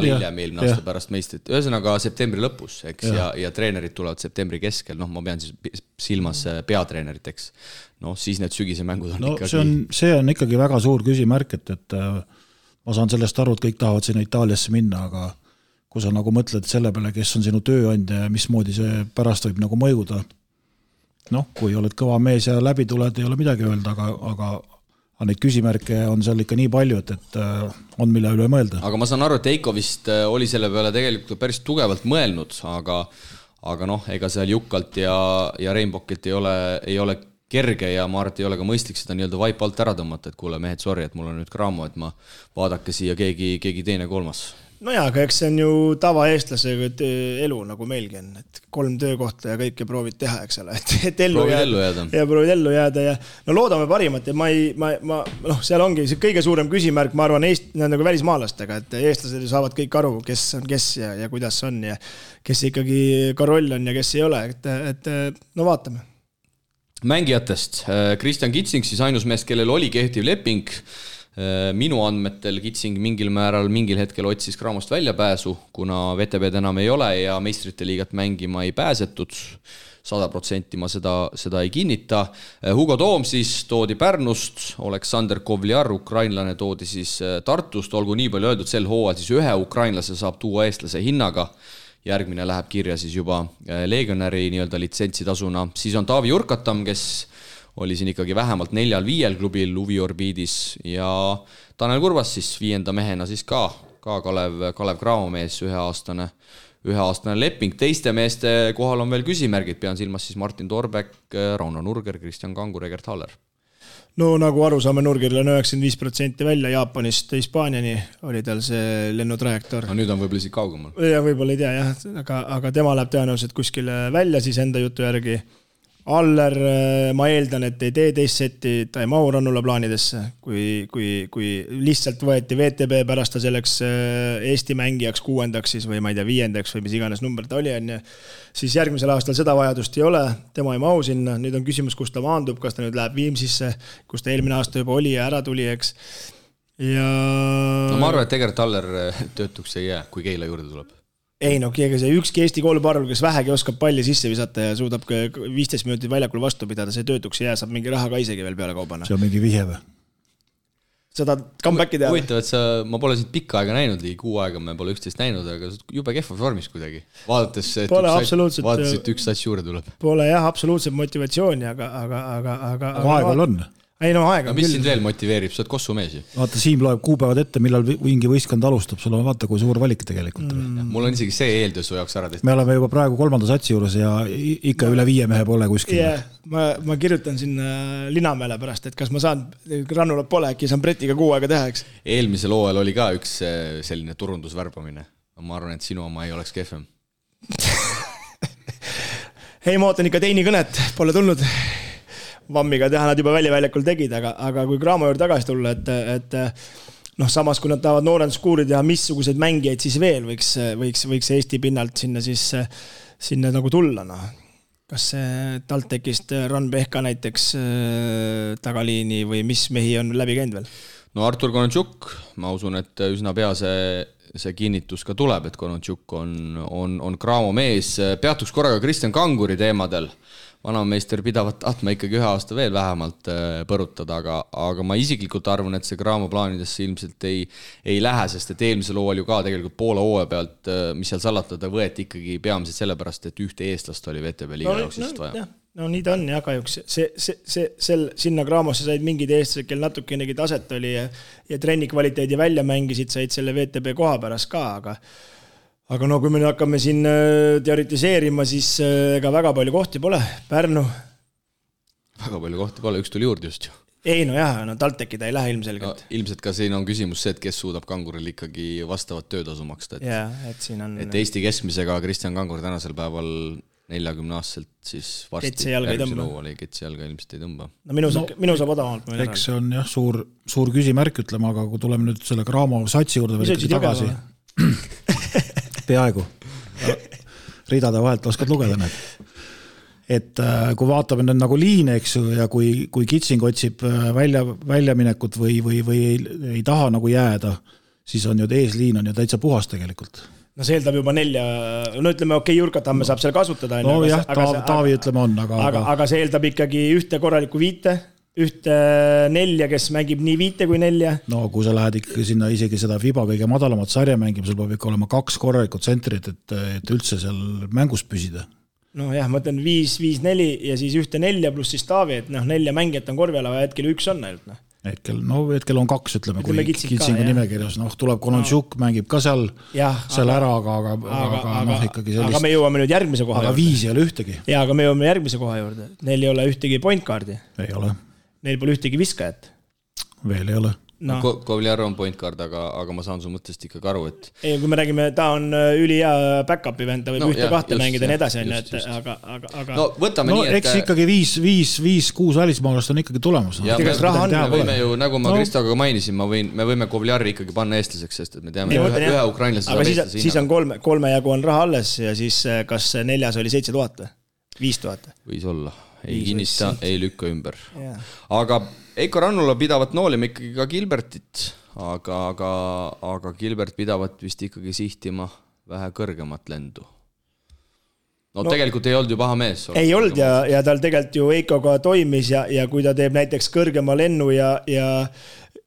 Speaker 2: hiljem eelmine aasta pärast meistrit, ühesõnaga septembri lõpus, eks, ja treenerid tulevad septembri keskel, ma pean siis silmas peatreeneriteks, siis need sügise mängud on ikkagi...
Speaker 3: See on ikkagi väga suur küsimärk, et ma saan sellest aru, et kõik tahavad sinna Itaaliasse minna, aga kui sa nagu mõtled selle peale, kes on sinu tööandja ja mismoodi see pärast võib nagu mõjuda. Kui oled kõva mees ja läbi tuled, ei ole midagi öelda, aga neid küsimärke on seal ikka nii palju, et on mille üle mõelda.
Speaker 2: Aga ma saan aru, et Eiko vist oli selle peale tegelikult päris tugevalt mõelnud, aga ega seal Jukkalt ja Reinbokilt ei ole kerge ja ma arvan, et ei ole ka mõistlik seda nii-öelda vaip alt ära tõmmata, et kuule mehed, sorry, et mul on nüüd Graamo, et ma vaadake siia keegi teine kolmas.
Speaker 4: No jaa, aga eks see on ju tavaeestlasega elu nagu meilgi on, et 3 töökohta ja kõike proovid teha, eks ole, et ellu jääda. Ja proovid ellu jääda ja loodame parimat ja seal ongi see kõige suurem küsimärk, ma arvan, nagu välismaalastega, et eestlased saavad kõik aru, kes on kes ja kuidas on ja kes ikkagi ka roll on ja kes ei ole, et vaatame.
Speaker 2: Mängijatest, Kristjan Kitsing siis ainus meest, kellel oli kehtiv leping, minu andmetel Kitsing mingil hetkel otsis Graamost väljapääsu, kuna VTB enam ei ole ja meistrite liigat mängima ei pääsetud. 100% ma seda ei kinnita. Hugo Toom siis toodi Pärnust, Aleksander Kovliar, ukrainlane toodi siis Tartust, olgu nii palju öeldud, sel hooajal siis 1 ukrainlase saab tuua eestlase hinnaga. Järgmine läheb kirja siis juba legionäri nii-öelda litsentsitasuna. Siis on Taavi Urkatam, kes oli siin ikkagi vähemalt 4-5 klubil Uviorbiidis ja Tanel Kurvas siis 5. mehena siis ka Kalev Graamo mees, 1-aastane leping. Teiste meeste kohal on veel küsimärgid, pean silmas siis Martin Torbek, Rauno Nurger, Kristjan Kangur, Egert Haller.
Speaker 4: No nagu aru saame, Nurgeril on 95% välja Jaapanist Hispaaniani oli tal see lennutrajektoor.
Speaker 2: No nüüd on võib-olla isegi kaugemal.
Speaker 4: Ja võib-olla ei tea jah, aga tema läheb tõenäoliselt kuskile välja siis enda jutu järgi. Aller, ma eeldan, et ei tee teist seti, ta ei mahu Rannula plaanidesse, kui lihtsalt võeti VTB pärast ta selleks Eesti mängijaks 6. siis või ma ei tea 5. või mis iganes number ta oli, siis järgmisel aastal seda vajadust ei ole, tema ei mahu sinna, nüüd on küsimus, kus ta maandub, kas ta nüüd läheb Viimsisse, kus ta eelmine aasta juba oli ja ära tuli, eks. Ja...
Speaker 2: No ma arvan, et tegelikult Aller töötuks ei jää, kui Keila juurde tuleb.
Speaker 4: Ei no, see ükski Eesti kooliparvel, kes vähegi oskab palli sisse visata ja suudab 15 minutit väljakul vastu pidada, see töötuks ei jää, saab mingi raha ka isegi veel peale kaubana.
Speaker 3: See on mingi vihje või?
Speaker 4: Seda comeback'i teha.
Speaker 2: Huvitav, et ma pole sind pikka aega näinud, ligi 6 aega me pole üksteist näinud, aga jube kehva vormis kuidagi. Vaadates, et üks sats juurde tuleb.
Speaker 4: Pole jah, absoluutselt motivatsiooni, aga
Speaker 3: aegal on.
Speaker 4: Ei no aega.
Speaker 2: Mis sind veel motiveerib, sa oled Kossu mees ju?
Speaker 3: Vaata, Siim loeb kuupäevad ette, millal mingi võistkond alustab, sul on vaata, kui suur valik tegelikult.
Speaker 2: Mul on isegi see eeldus su jaoks ära tehtud.
Speaker 3: Me oleme juba praegu 3. satsi juures ja ikka üle 5 mehe pole kuskil.
Speaker 4: Yeah, ma kirjutan sinna Linamäele pärast, et kas ma saan, Rannulat pole, äkki saan Bretiga 6 aega teha, eks?
Speaker 2: Eelmisel hooajal oli ka üks selline turundusvärbamine. Ma arvan, et sinu oma ei oleks kehvem.
Speaker 4: Hei, ma ootan ikka teini kõnet, pole tulnud. Vammiga teha nad juba väljakul tegid, aga kui Graamo juurde tagasi tulla, et samas kui nad tahavad noorenduskuuri teha, missuguseid mängijaid siis veel võiks Eesti pinnalt sinna nagu tulla. No. Kas see TalTechist Ran Pehka näiteks tagaliini või mis mehi on läbi käinud veel?
Speaker 2: No Artur Kononchuk, ma usun, et üsna pea see kinnitus ka tuleb, et Kononchuk on Graamo mees. Peatuks korraga Kristjan Kanguri teemadel. Vanameister pidavat tahtma ikkagi 1 aasta veel vähemalt põrutada, aga ma isiklikult arvan, et see Graamo plaanidesse ilmselt ei lähe, sest et eelmisel hooajal ju ka tegelikult Poola hooaja pealt, mis seal salatada, võeti ikkagi peamiselt sellepärast, et ühte eestlast oli VTB liiga jooksist vaja.
Speaker 4: No nii ta on ja kahjuks. Sinna Graamosse said mingid eestlased, kel natukenegi taset oli ja trenni kvaliteedi välja mängisid, said selle VTB koha pärast ka, aga no kui me hakkame siin teoritiseerima, siis ega väga palju kohti pole. Pärnu.
Speaker 2: Väga palju kohti pole, üks tuli juurde just ju.
Speaker 4: Ei no jah, TalTechi ta ei lähe ilmselgelt.
Speaker 2: No, ilmselt ka siin on küsimus see, et kes suudab Kanguril ikkagi vastavat töötasu maksta.
Speaker 4: Et siin on...
Speaker 2: Et Eesti keskmisega Kristjan Kangur tänasel päeval 40-aastaselt siis varsti järgmisel hooajal ketsi jalga ilmselt ei tõmba.
Speaker 4: No minu saab odavamalt.
Speaker 3: Eks see on jah suur küsimärk, ütleme, aga kui tuleme nüüd selle Graamo satsi juurde veel tagasi. Peaaegu. Ridade vahelt oskad lugeda need. Et kui vaatame nüüd nagu liine, eks ju, ja kui Kitsing otsib väljaminekut või ei taha nagu jääda, siis on ju eesliin on ju täitsa puhas tegelikult.
Speaker 4: No see eeldab juba 4, no ütleme Jurkatamme saab seal kasutada.
Speaker 3: No jah, Taavi ütleme on,
Speaker 4: aga see eeldab ikkagi ühte korralikku 5, ühte 4, kes mängib nii 5 kui 4.
Speaker 3: No kui sa lähed ikkagi sinna isegi seda FIBA kõige madalamat sarja mängima, sul peab ikka olema 2 korralikud tsentrit, et üldse seal mängus püsida.
Speaker 4: No jah, ma ütlen 5-4 ja siis ühte 4 pluss siis Taavi, et 4 mängijat on korvi ala, hetkel 1 on ainult.
Speaker 3: Hetkel on 2, ütleme, kui Kitsingu nimekirjas. Tuleb Kononchuk, mängib ka seal ära, aga ikkagi sellist...
Speaker 4: Aga me jõuame nüüd järgmise koha
Speaker 3: juurde. Aga 5 ei ole ühtegi.
Speaker 4: Ja, aga me jõuame järgmise koha juurde. Neil ei ole ühtegi point guardi.
Speaker 3: Ei ole.
Speaker 4: Neil pole ühtegi viskajat.
Speaker 3: Veel ei ole.
Speaker 2: No. Kovliar on point guard, aga ma saan su mõttest ikkagi aru, et...
Speaker 4: Ei, kui me räägime, ta on ülihea backupi vend, ta võib 1-2 mängida ja nii edasi, aga...
Speaker 2: No võtame nii, et...
Speaker 3: Eks ikkagi 5-6 välismaalast on ikkagi tulemus.
Speaker 2: Ja me võime ju, nagu ma Kristoga mainisin, me võime Kovliari ikkagi panna eestlaseks, sest et me teame ühe ukrainlase...
Speaker 4: Aga siis on 3 jagu on raha alles ja siis kas 4 oli 7000 või? 5000?
Speaker 2: Võis olla. Ei kinnista, ei lükka ümber. Aga Eiko Rannula pidavat noolima ikkagi ka Gilbertit, aga Gilbert pidavat vist ikkagi sihtima vähe kõrgemat lendu. No tegelikult ei olnud ju paha mees.
Speaker 4: Ei olnud ja tal tegelikult ju Eikoga toimis ja kui ta teeb näiteks kõrgema lennu ja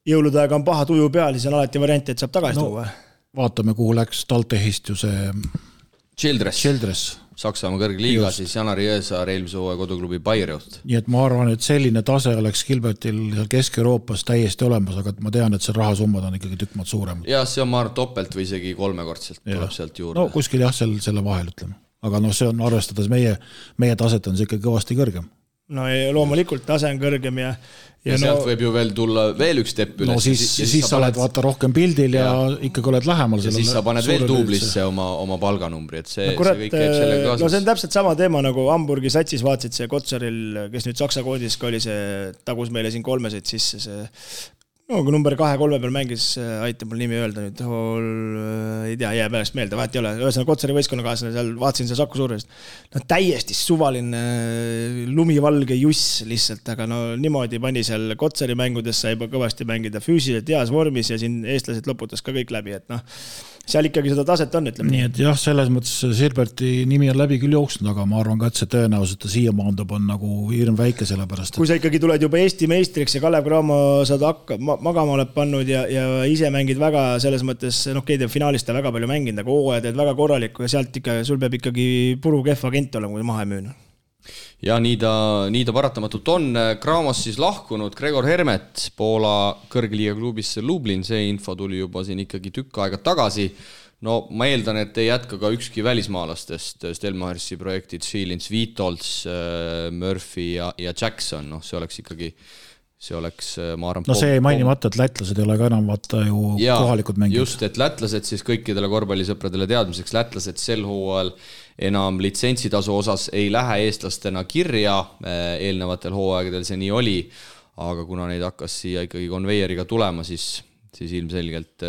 Speaker 4: jõuludaega on paha tuju peal, siis on alati variant, et saab tagasi tuua.
Speaker 3: Vaatame, kuhu läks TalTechist ju see
Speaker 2: Childress. Saksamaa kõrgliiga, siis Janari Jõesaar eelmise hooaja koduklubi Bayreuth.
Speaker 3: Nii et ma arvan, et selline tase oleks Gilbertil Kesk-Euroopas täiesti olemas, aga ma tean, et see rahasummad on ikkagi tükk maad suurem.
Speaker 2: Ja see on ma arvan topelt või isegi 3-kordselt tuleb sealt juurde.
Speaker 3: No kuskil jah, selle vahel ütleme. Aga see on arvestades meie taset on see ikka kõvasti kõrgem.
Speaker 4: no loomulikult tase on kõrgem ja
Speaker 2: sealt võib ju veel tulla veel üks tepp üles.
Speaker 3: No siis sa oled vaata rohkem pildil ja ikkagi oled lähemal.
Speaker 2: Ja siis sa paned veel duublisse oma palganumbri, et see kõik käib sellega kaasas.
Speaker 4: No see on täpselt sama teema nagu Hamburgi satsis vaatsid see Kotsaril, kes nüüd Saksa koodis ka oli see, tagus meile siin 3 sisse see kui number 2-3 peal mängis, aitab mul nimi öelda nüüd, ei tea, jää pärast meelde, vahet ei ole, ühesõnaga Kotsari võistkonnakaaslane, seal vaatasin see Saku Suurest, no täiesti suvaline lumivalge juss lihtsalt, aga no niimoodi pani seal Kotsari mängudes sai juba kõvasti mängida füüsiliselt heas vormis ja siin eestlased loputas ka kõik läbi, et noh, seal ikkagi seda taset on, ütleme.
Speaker 3: Nii et jah, selles mõttes Silberti nimi on läbi küll jooksnud, aga ma arvan ka, et see tõenäoliselt ta siia maandub on nagu hirm väike selle pärast.
Speaker 4: Kui sa ikkagi tuled juba Eesti meistriks ja Kalev Cramo saad magama oled pannud ja ise mängid väga selles mõttes, keegi finaalist väga palju mänginud, aga hooaja teed väga korralikku ja sealt ikka, sul peab ikkagi puru kehv agent olema, kui maha ei müüna.
Speaker 2: Ja nii ta paratamatult on. Cramos siis lahkunud Gregor Hermet Poola kõrgliiga klubisse Lublin, see info tuli juba siin ikkagi tükk aega tagasi. No ma eeldan, et ei jätka ka ükski välismaalastest Stelmachersi projektid, Schilins, Vitolds, Murphy ja Jackson, no see oleks ikkagi ma arvan...
Speaker 3: No see ei mainimata, et lätlased ei ole ka enam vaata ju kohalikud mängid.
Speaker 2: Just, et lätlased siis kõikidele korvpallisõpradele teadmiseks, lätlased sel hooajal enam litsentsitasu osas ei lähe eestlastena kirja, eelnevatel hooaegadel see nii oli, aga kuna neid hakkas siia ikkagi konveieriga tulema, siis ilmselgelt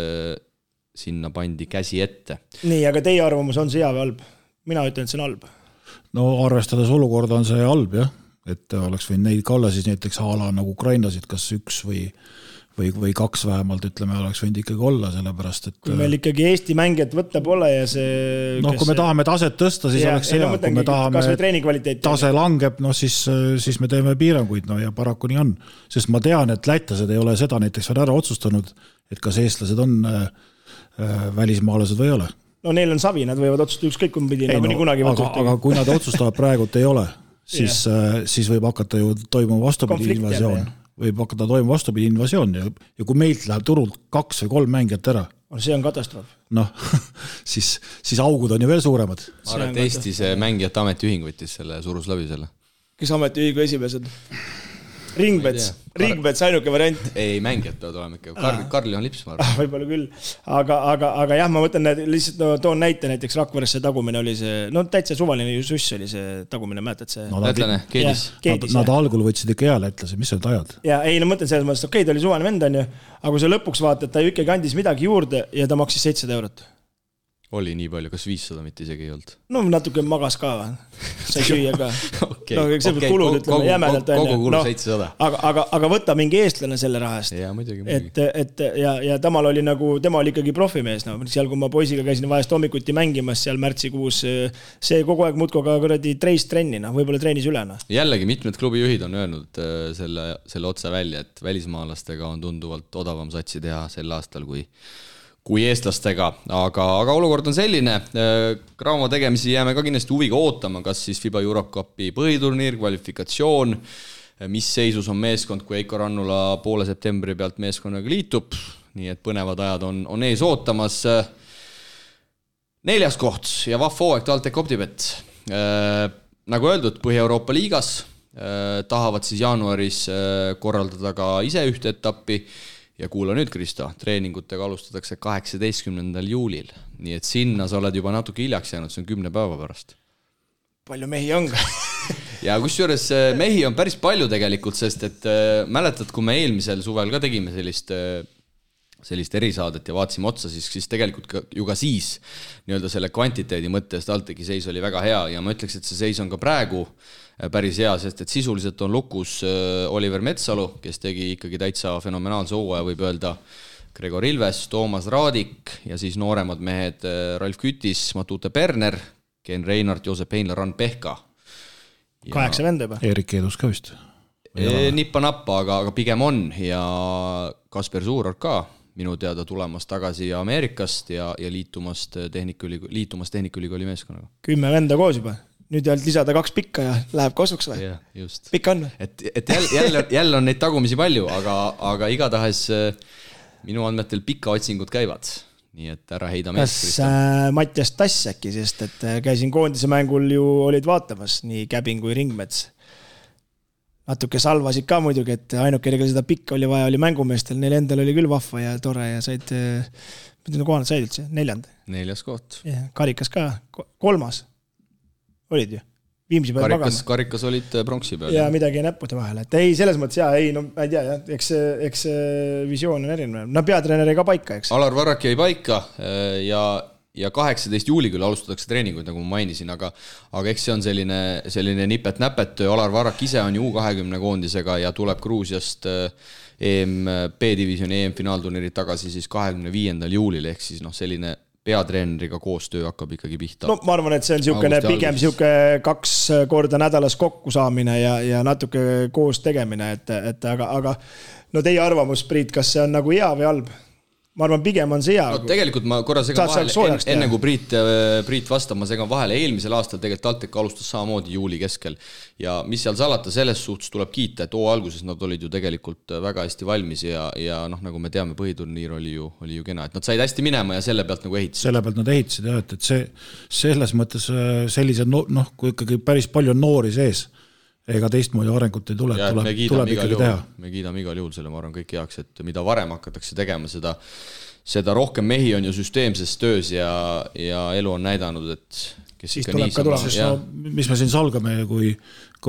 Speaker 2: sinna pandi käsi ette.
Speaker 4: Nii, aga teie arvamus on see hea või halb? Mina ütlen, et see on halb.
Speaker 3: No arvestades olukorda on see halb, jah. Et oleks võinud neid ka olla siis näiteks haala nagu Ukrainasid, kas 1 või 2 vähemalt, ütleme, oleks võinud ikkagi olla, sellepärast, et...
Speaker 4: Kui meil ikkagi Eesti mängijat võtta pole ja see...
Speaker 3: No kui me tahame taset tõsta, siis oleks see, kui me tahame tase langeb, no siis me teeme piiranguid, no ja paraku nii on. Sest ma tean, et lätlased ei ole seda näiteks veel ära otsustanud, et kas eestlased on välismaalased või ei ole.
Speaker 4: No neil on savi, nad võivad otsustada ükskõik kumbidi, nagu nii kunagi
Speaker 3: aga kui nad otsustavad praegult ei ole, siis võib hakata ju toimuma vastupidi invasioon. Võib hakata toimuma vastupidi invasioon ja kui meilt läheb turult 2 või 3 mängijat ära.
Speaker 4: See on katastroof.
Speaker 3: Noh, siis augud on ju veel suuremad.
Speaker 2: Ma arvan, et Eesti see mängijate ametiühing võttis selle surus läbi selle.
Speaker 4: Kes ametiühingu esimesed? Ringbets ainuke variant.
Speaker 2: Ei, mängijad peavad olema ikka. Karli on lips, ma arvan.
Speaker 4: Võib-olla küll. Aga jah, ma mõtlen, lihtsalt toon näite, näiteks Rakveresse tagumine oli see, no täitsa suvaline suss oli see tagumine, mäletad see?
Speaker 2: Lätlane, Keedis.
Speaker 3: Nad algul võtsid ikka hea lätlase, mis olid ajad?
Speaker 4: Ja ei, no mõtlen selles mõttes, okei, ta oli suvaline vend on ju, aga kui sa lõpuks vaatad, ta ju ikkagi andis midagi juurde ja ta maksis 700 €.
Speaker 2: Oli nii palju, kas 500 mitte isegi ei olnud?
Speaker 4: No natuke magas ka, sai süüa ka. Kulud, ütleme, jämedalt on.
Speaker 2: Kogu kulu 700.
Speaker 4: Aga võta mingi eestlane selle rahast.
Speaker 2: Ja, muidugi.
Speaker 4: Ja temal oli ikkagi profimees. Seal, kui ma poisiga käisin vahest hommikuti mängimas seal märtsikuus, see kogu aeg muudko ka treis trenni, võib-olla treenis ülena.
Speaker 2: Jällegi mitmed klubijuhid on öelnud selle otsa välja, et välismaalastega on tunduvalt odavam satsi teha sel aastal kui eestlastega, aga olukord on selline. Cramo tegemisi jääme ka kindlasti huviga ootama, kas siis FIBA Europe Cupi põhiturniir, kvalifikatsioon, mis seisus on meeskond, kui Eiko Rannula poole septembri pealt meeskonnaga liitub, nii et põnevad ajad on ees ootamas. 4. koht ja vahv hooaeg TalTech Optibet. Nagu öeldud, Põhja-Euroopa liigas tahavad siis jaanuaris korraldada ka ise ühte etappi. Ja kuula nüüd, Kristo, treeningutega alustatakse 18. juulil. Nii et sinna sa oled juba natuke hiljaks jäänud, see on 10 päeva pärast.
Speaker 4: Palju mehi on ka?
Speaker 2: Ja kusjuures mehi on päris palju tegelikult, sest et mäletad, kui me eelmisel suvel ka tegime sellist erisaadet ja vaatasime otsa, siis tegelikult ju ka siis nii-öelda selle kvantiteedi mõttes TalTechi seis oli väga hea ja ma ütleks, et see seis on ka praegu päris hea, sest et sisuliselt on lukus Oliver Metsalu, kes tegi ikkagi täitsa fenomenaalse hooaja, võib öelda Gregor Ilves, Toomas Raadik ja siis nooremad mehed Ralf Kütis, Matute Perner, Ken Reinart, Joosep Heinla, Ran Pehka.
Speaker 4: 8 venda juba.
Speaker 3: Erik Eedus ka vist.
Speaker 2: Nippa-nappa, aga pigem on ja Kasper Suuror ka minu teada tulemas tagasi Ameerikast ja liitumas Tehnikaülikooli meeskonnaga. 10
Speaker 4: venda koos juba. Nüüd jälle lisada 2 pikka ja läheb kosuks või?
Speaker 2: Ja, just.
Speaker 4: Pikka on või?
Speaker 2: Et jälle on neid tagumisi palju, aga igatahes minu andmetel pika otsingud käivad. Nii et ära heida meest.
Speaker 4: Kas Mattias Tass äkki, sest et käisin koondise mängul ju olid vaatamas nii Käbin kui Ringmets. natuke salvasid ka muidugi, et ainuke, kellel seda pikka oli vaja, oli mängumeestel, neil endal oli küll vahva ja tore ja said, kohanud said üldse, 4.
Speaker 2: 4. koht.
Speaker 4: Karikas ka, 3. olid ju. Viimsi peal magama.
Speaker 2: Karikas olid pronksi peal.
Speaker 4: Ja midagi näppude vahel. Et ei, selles mõttes ei, no ma ei tea, jah, eks visioon on erinev. No peatreener ei ka paika, eks.
Speaker 2: Alar Varrak jäi paika ja 18. juuli küll alustatakse treeninguid, nagu ma mainisin, aga eks see on selline nipet-näpet. Alar Varrak ise on ju U20 koondisega ja tuleb Gruusiast B-divisjoni EM-finaalturniirid tagasi siis 25. juulil, ehk siis selline peatreeneriga koostöö hakkab ikkagi pihta. No
Speaker 4: ma arvan, et see on pigem 2 korda nädalas kokku saamine ja natuke koos tegemine, et aga no teie arvamus, Priit, kas see on nagu hea või halb? Ma arvan, pigem on see hea.
Speaker 2: No tegelikult ma korra segan vahele, enne kui Priit vastab, ma segan vahele. Eelmisel aastal tegelikult TalTech alustas samamoodi juuli keskel ja mis seal salata, selles suhtes tuleb kiita, et alguses nad olid ju tegelikult väga hästi valmis ja nagu me teame, põhiturniir oli ju kena, et nad said hästi minema ja selle pealt nagu ehitasid.
Speaker 3: Selle pealt nad ehitasid jah, et see selles mõttes sellised, kui ikkagi päris palju on noori sees, ega teistmoodi arengut ei tule, tuleb ikkagi teha.
Speaker 2: Me kiidame igal juhul selle, ma arvan kõik heaks, et mida varem hakatakse tegema, seda rohkem mehi on ju süsteemses töös ja elu on näidanud, et kes
Speaker 4: siis
Speaker 2: ikka niisama.
Speaker 3: Mis me siin salgame, kui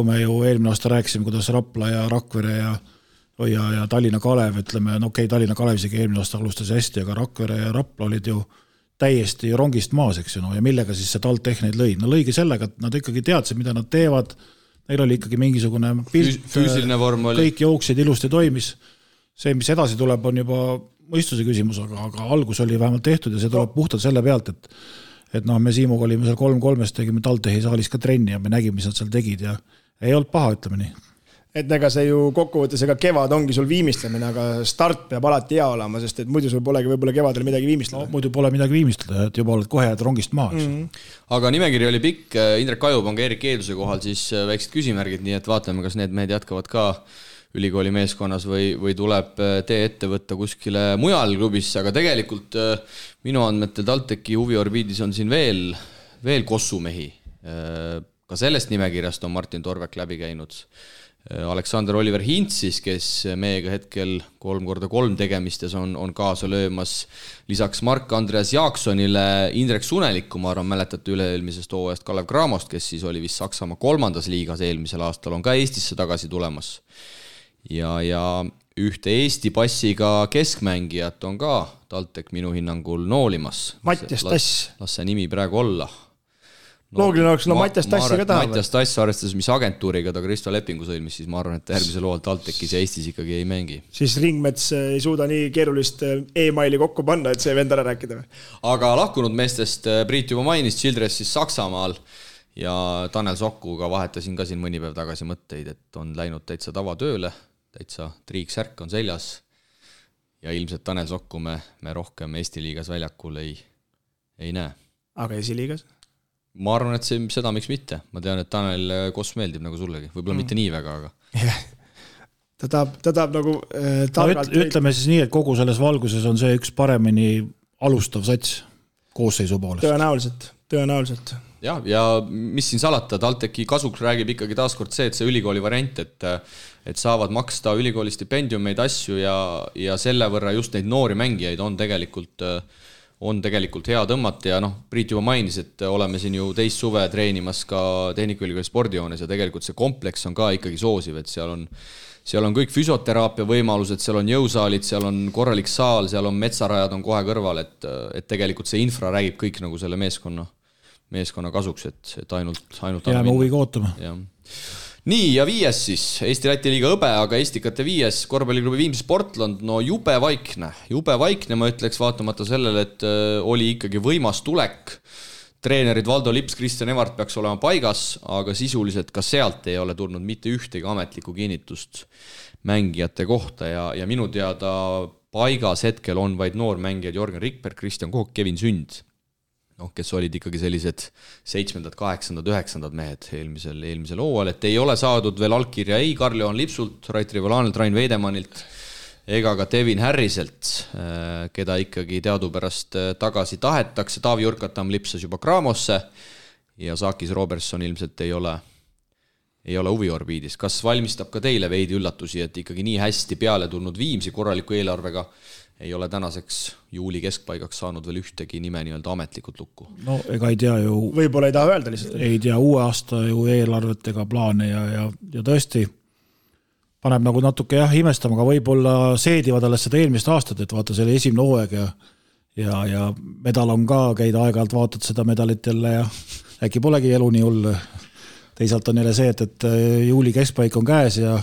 Speaker 3: me ju eelmine aasta rääkisime, kuidas Rapla ja Rakvere ja Tallinna Kalev, ütleme, Tallinna Kalev isegi eelmine aasta alustas hästi, aga Rakvere ja Rapla olid ju täiesti rongist maas, eks ju, ja millega siis see TalTech neid lõi? No lõigi sellega, et nad ikkagi teadsid, mida nad teevad. Neil oli ikkagi mingisugune pilt,
Speaker 2: füüsiline vorm oli.
Speaker 3: Kõik jooksid, ilusti toimis. See, mis edasi tuleb, on juba mõistuse küsimus, aga algus oli vähemalt tehtud ja see tuleb puhtalt selle pealt, et me Siimuga olime seal 3-3, tegime TalTechi saalis ka trenni ja me nägime, mis nad seal tegid ja ei olnud paha, ütleme nii.
Speaker 4: Et ega see ju kokkuvõttes, ega kevad ongi sul viimistlemine, aga start peab alati hea olema, sest et muidu sul polegi võib-olla kevadel midagi viimistleda.
Speaker 3: No, muidu pole midagi viimistleda, et juba oled kohe rongist maha.
Speaker 2: Aga nimekiri oli pikk, Indrek Kajub on ka Erik Eeduse kohal, siis väiksed küsimärgid, nii et vaatame, kas need mehed jätkavad ka ülikooli meeskonnas või tuleb tee ette võtta kuskile mujal klubisse, aga tegelikult minu andmetel TalTechi huviorbiidis on siin veel kossumehi. Ka sellest nimekirjast on Martin Torvek läbi käinud. Aleksander Oliver Hintsis, kes meiega hetkel 3x3 tegemistes on kaasa löömas. Lisaks Mark-Andreas Jaaksonile Indrek Sunelikku, ma arvan, mäletate üle-eelmisest hooajast Kalev Cramost, kes siis oli vist Saksamaa 3. liigas eelmisel aastal, on ka Eestisse tagasi tulemas. Ja ühte Eesti passiga keskmängijat on ka TalTech minu hinnangul noolimas.
Speaker 4: Mattias Tass.
Speaker 2: Las see nimi praegu olla.
Speaker 4: Loogiline oleks, Mattias Tassi ka tahab.
Speaker 2: Mattias Tass arvestades, mis agentuuriga ta Kristo lepingu sõlmis, siis ma arvan, et järgmisel hooajal TalTechis ja Eestis ikkagi ei mängi.
Speaker 4: Siis Ringmets ei suuda nii keerulist e-maili kokku panna, et see vend ära rääkida.
Speaker 2: Aga lahkunud meestest Priit juba mainis Childress siis Saksamaal ja Tanel Sokkuga vahetasin ka siin mõni päev tagasi mõtteid, et on läinud täitsa tavatööle, täitsa triiksärk on seljas ja ilmselt Tanel Sokku me rohkem Eesti liigas väljakul ei näe.
Speaker 4: Aga esiliigas?
Speaker 2: Ma arvan, et seda miks mitte. Ma tean, et Tanel Koss meeldib nagu sullegi. Võib-olla mitte nii väga, aga...
Speaker 4: Ta tahab nagu...
Speaker 3: ütleme siis nii, et kogu selles valguses on see üks paremini alustav sats koosseisu poolest.
Speaker 4: Tõenäoliselt.
Speaker 2: Ja mis siin salata, TalTechi kasuks räägib ikkagi taaskord see, et see ülikooli variant, et saavad maksta ülikooli stipendiumeid asju ja selle võrra just neid noori mängijaid on tegelikult hea tõmmata ja Priit juba mainis, et oleme siin ju teist suve treenimas ka Tehnikaülikooli spordijoones ja tegelikult see kompleks on ka ikkagi soosiv, et seal on kõik füsioteraapia võimalused, seal on jõusaalid, seal on korralik saal, seal on metsarajad on kohe kõrval, et tegelikult see infra räägib kõik nagu selle meeskonna kasuks, et ainult
Speaker 3: jääme huviga ootama.
Speaker 2: Nii, ja 5 siis, Eesti-Läti liiga Õbe, aga Estikate 5 korvpalliklubi Viimsi Sportland, jube vaikne, ma ütleks vaatamata sellele, et oli ikkagi võimas tulek. Treenerid Valdo Lips, Kristjan Evart peaks olema paigas, aga sisuliselt ka sealt ei ole tulnud mitte ühtegi ametlikku kinnitust mängijate kohta ja minu teada paigas hetkel on vaid noormängijad Jorgen Rikberg, Kristjan Kook, Kevin Sünd. Kes olid ikkagi sellised 7., 8., 9. mehed eelmisel hooajal, et ei ole saadud veel allkirja ei Karl-Johan Lipsult, Rait Rivolaanilt, Rain Veidemanilt ega ka Devin Harriselt, keda ikkagi teadupärast tagasi tahetakse. Taavi Jurkatam lipsas juba Craamosse ja Saakis Robertson ilmselt ei ei ole huviorbiidis. Kas valmistab ka teile veidi üllatusi, et ikkagi nii hästi peale tulnud Viimsi korraliku eelarvega ei ole tänaseks juuli keskpaigaks saanud veel ühtegi nime nii-öelda ametlikult lukku?
Speaker 3: No ega ei tea ju...
Speaker 4: Võib-olla ei taha öelda lihtsalt.
Speaker 3: Ei tea uue aasta ju eelarvet ega plaane ja tõesti paneb nagu natuke imestama, aga võib-olla seedivad alles seda eelmist aastat, et vaata selle esimene hooaeg ja medal on ka, käid aeg-ajalt vaatad seda medalit jälle ja äkki polegi elu nii hull. Teisalt on jälle see, et juuli keskpaik on käes ja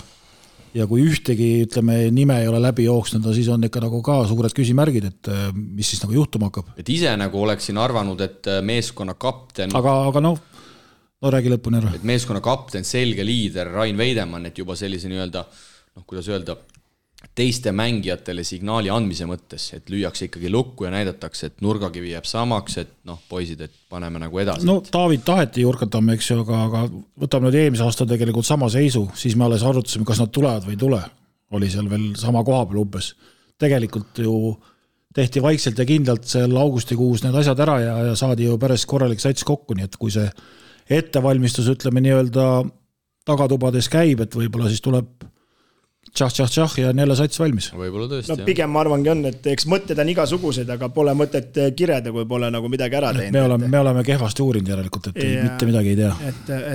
Speaker 3: kui ühtegi, ütleme, nime ei ole läbi jooksnud, siis on ikka nagu ka suured küsimärgid, et mis siis nagu juhtuma hakkab.
Speaker 2: Et ise nagu oleksin arvanud, et meeskonna kapten...
Speaker 3: Aga no räägi lõpuni ära.
Speaker 2: Et meeskonna kapten, selge liider Rain Veidemann, et juba sellise nii-öelda, kuidas öelda, teiste mängijatele signaali andmise mõttes, et lüüakse ikkagi lukku ja näidatakse, et nurgakivi jääb samaks, et poisid, et paneme nagu edasi.
Speaker 3: No David taheti jurkatama, eks ju, aga võtame nüüd eelmise aasta tegelikult sama seisu, siis me alles arutasime, kas nad tulevad või ei tule. Oli seal veel sama koha peal umbes. Tegelikult ju tehti vaikselt ja kindlalt seal augustikuus need asjad ära ja saadi ju päris korralik sats kokku, nii et kui see ettevalmistus, ütleme nii-öelda tagatubades käib, et võib-olla siis tuleb tšah ja on jälle sats valmis.
Speaker 2: Võib-olla tõesti,
Speaker 4: no, pigem ma arvangi on, et eks mõtted on igasugused, aga pole mõtet kirjada, kui pole nagu midagi ära teinud.
Speaker 3: Me oleme kehvasti uurinud järelikult, et mitte midagi ei tea.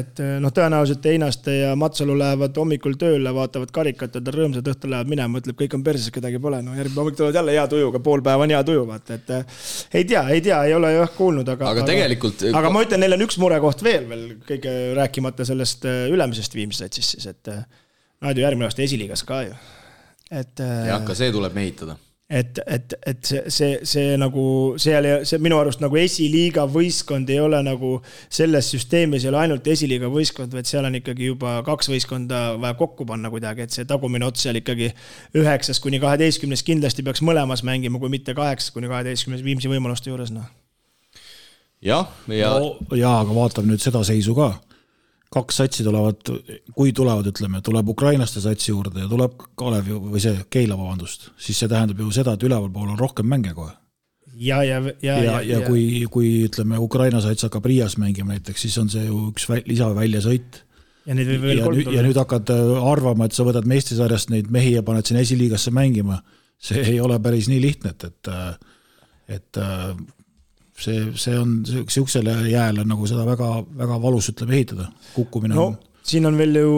Speaker 4: Et tõenäoliselt Einaste ja Matsalu lähevad hommikul tööle, vaatavad karikat, et rõõmsad õhtul lähevad minema, ütleb, kõik on perses, kedagi pole. No järgmine hommik tulevad jälle hea tujuga, pool päeva on hea tuju, vaata, et ei tea, ei ole jah kuulnud, aga
Speaker 2: tegelikult...
Speaker 4: Aga ma ütlen, neil on üks murekoht veel kõige rääkimata sellest ülemisest viimsest siis, et nad ju järgmine aasta esiliigas ka ju.
Speaker 2: Ja ka see tuleb mehitada.
Speaker 4: Et see nagu, see minu arust nagu esiliiga võistkond ei ole nagu selles süsteemis ei ole ainult esiliiga võistkond, vaid seal on ikkagi juba 2 võistkonda vaja kokku panna kuidagi, et see tagumine ots seal ikkagi 9-12 kindlasti peaks mõlemas mängima, kui mitte 8-12 Viimsi võimaluste juures. No.
Speaker 2: Ja,
Speaker 3: aga vaatame nüüd seda seisu ka. 2 satsi tulevad, kui tulevad, ütleme, tuleb ukrainaste satsi juurde ja tuleb Kalev või see Keila, vabandust, siis see tähendab ju seda, et üleval pool on rohkem mänge kohe. Ja kui ütleme, Ukraina sats hakkab Riias mängima näiteks, siis on see ju üks lisaväljesõit. Ja nüüd hakkad arvama, et sa võtad meistrisarjast neid mehi ja paned siin esiliigasse mängima. See ei ole päris nii lihtne, et see on siuksele jääle nagu seda väga, väga valus ütleb ehitada, kukkumine on.
Speaker 4: No, siin on veel ju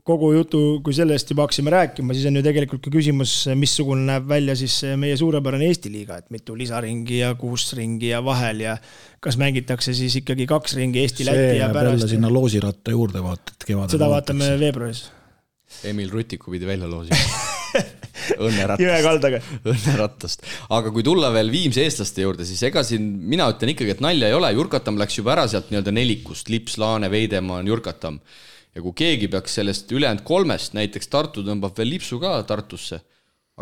Speaker 4: kogu jutu, kui sellest juba haksime rääkima, siis on ju tegelikult ka küsimus, missugune näeb välja siis meie suurepärane Eesti liiga, et mitu lisaringi ja 6 ringi ja vahel ja kas mängitakse siis ikkagi 2 ringi Eesti Läti ja pärast.
Speaker 3: See sinna loosiratta juurde vaatad kevadel.
Speaker 4: Seda vaatame veebruaris.
Speaker 2: Emil Rutiku pidi välja loosima.
Speaker 4: Õnneratast.
Speaker 2: Aga kui tulla veel Viimsi eestlaste juurde, siis ega siin mina ütlen ikkagi, et nalja ei ole. Jurkatam läks juba ära sealt nii-öelda 4, Lips, Laane, Veidemann, Jurkatam. Ja kui keegi peaks sellest ülejäänud 3, näiteks Tartu tõmbab veel Lipsu ka Tartusse,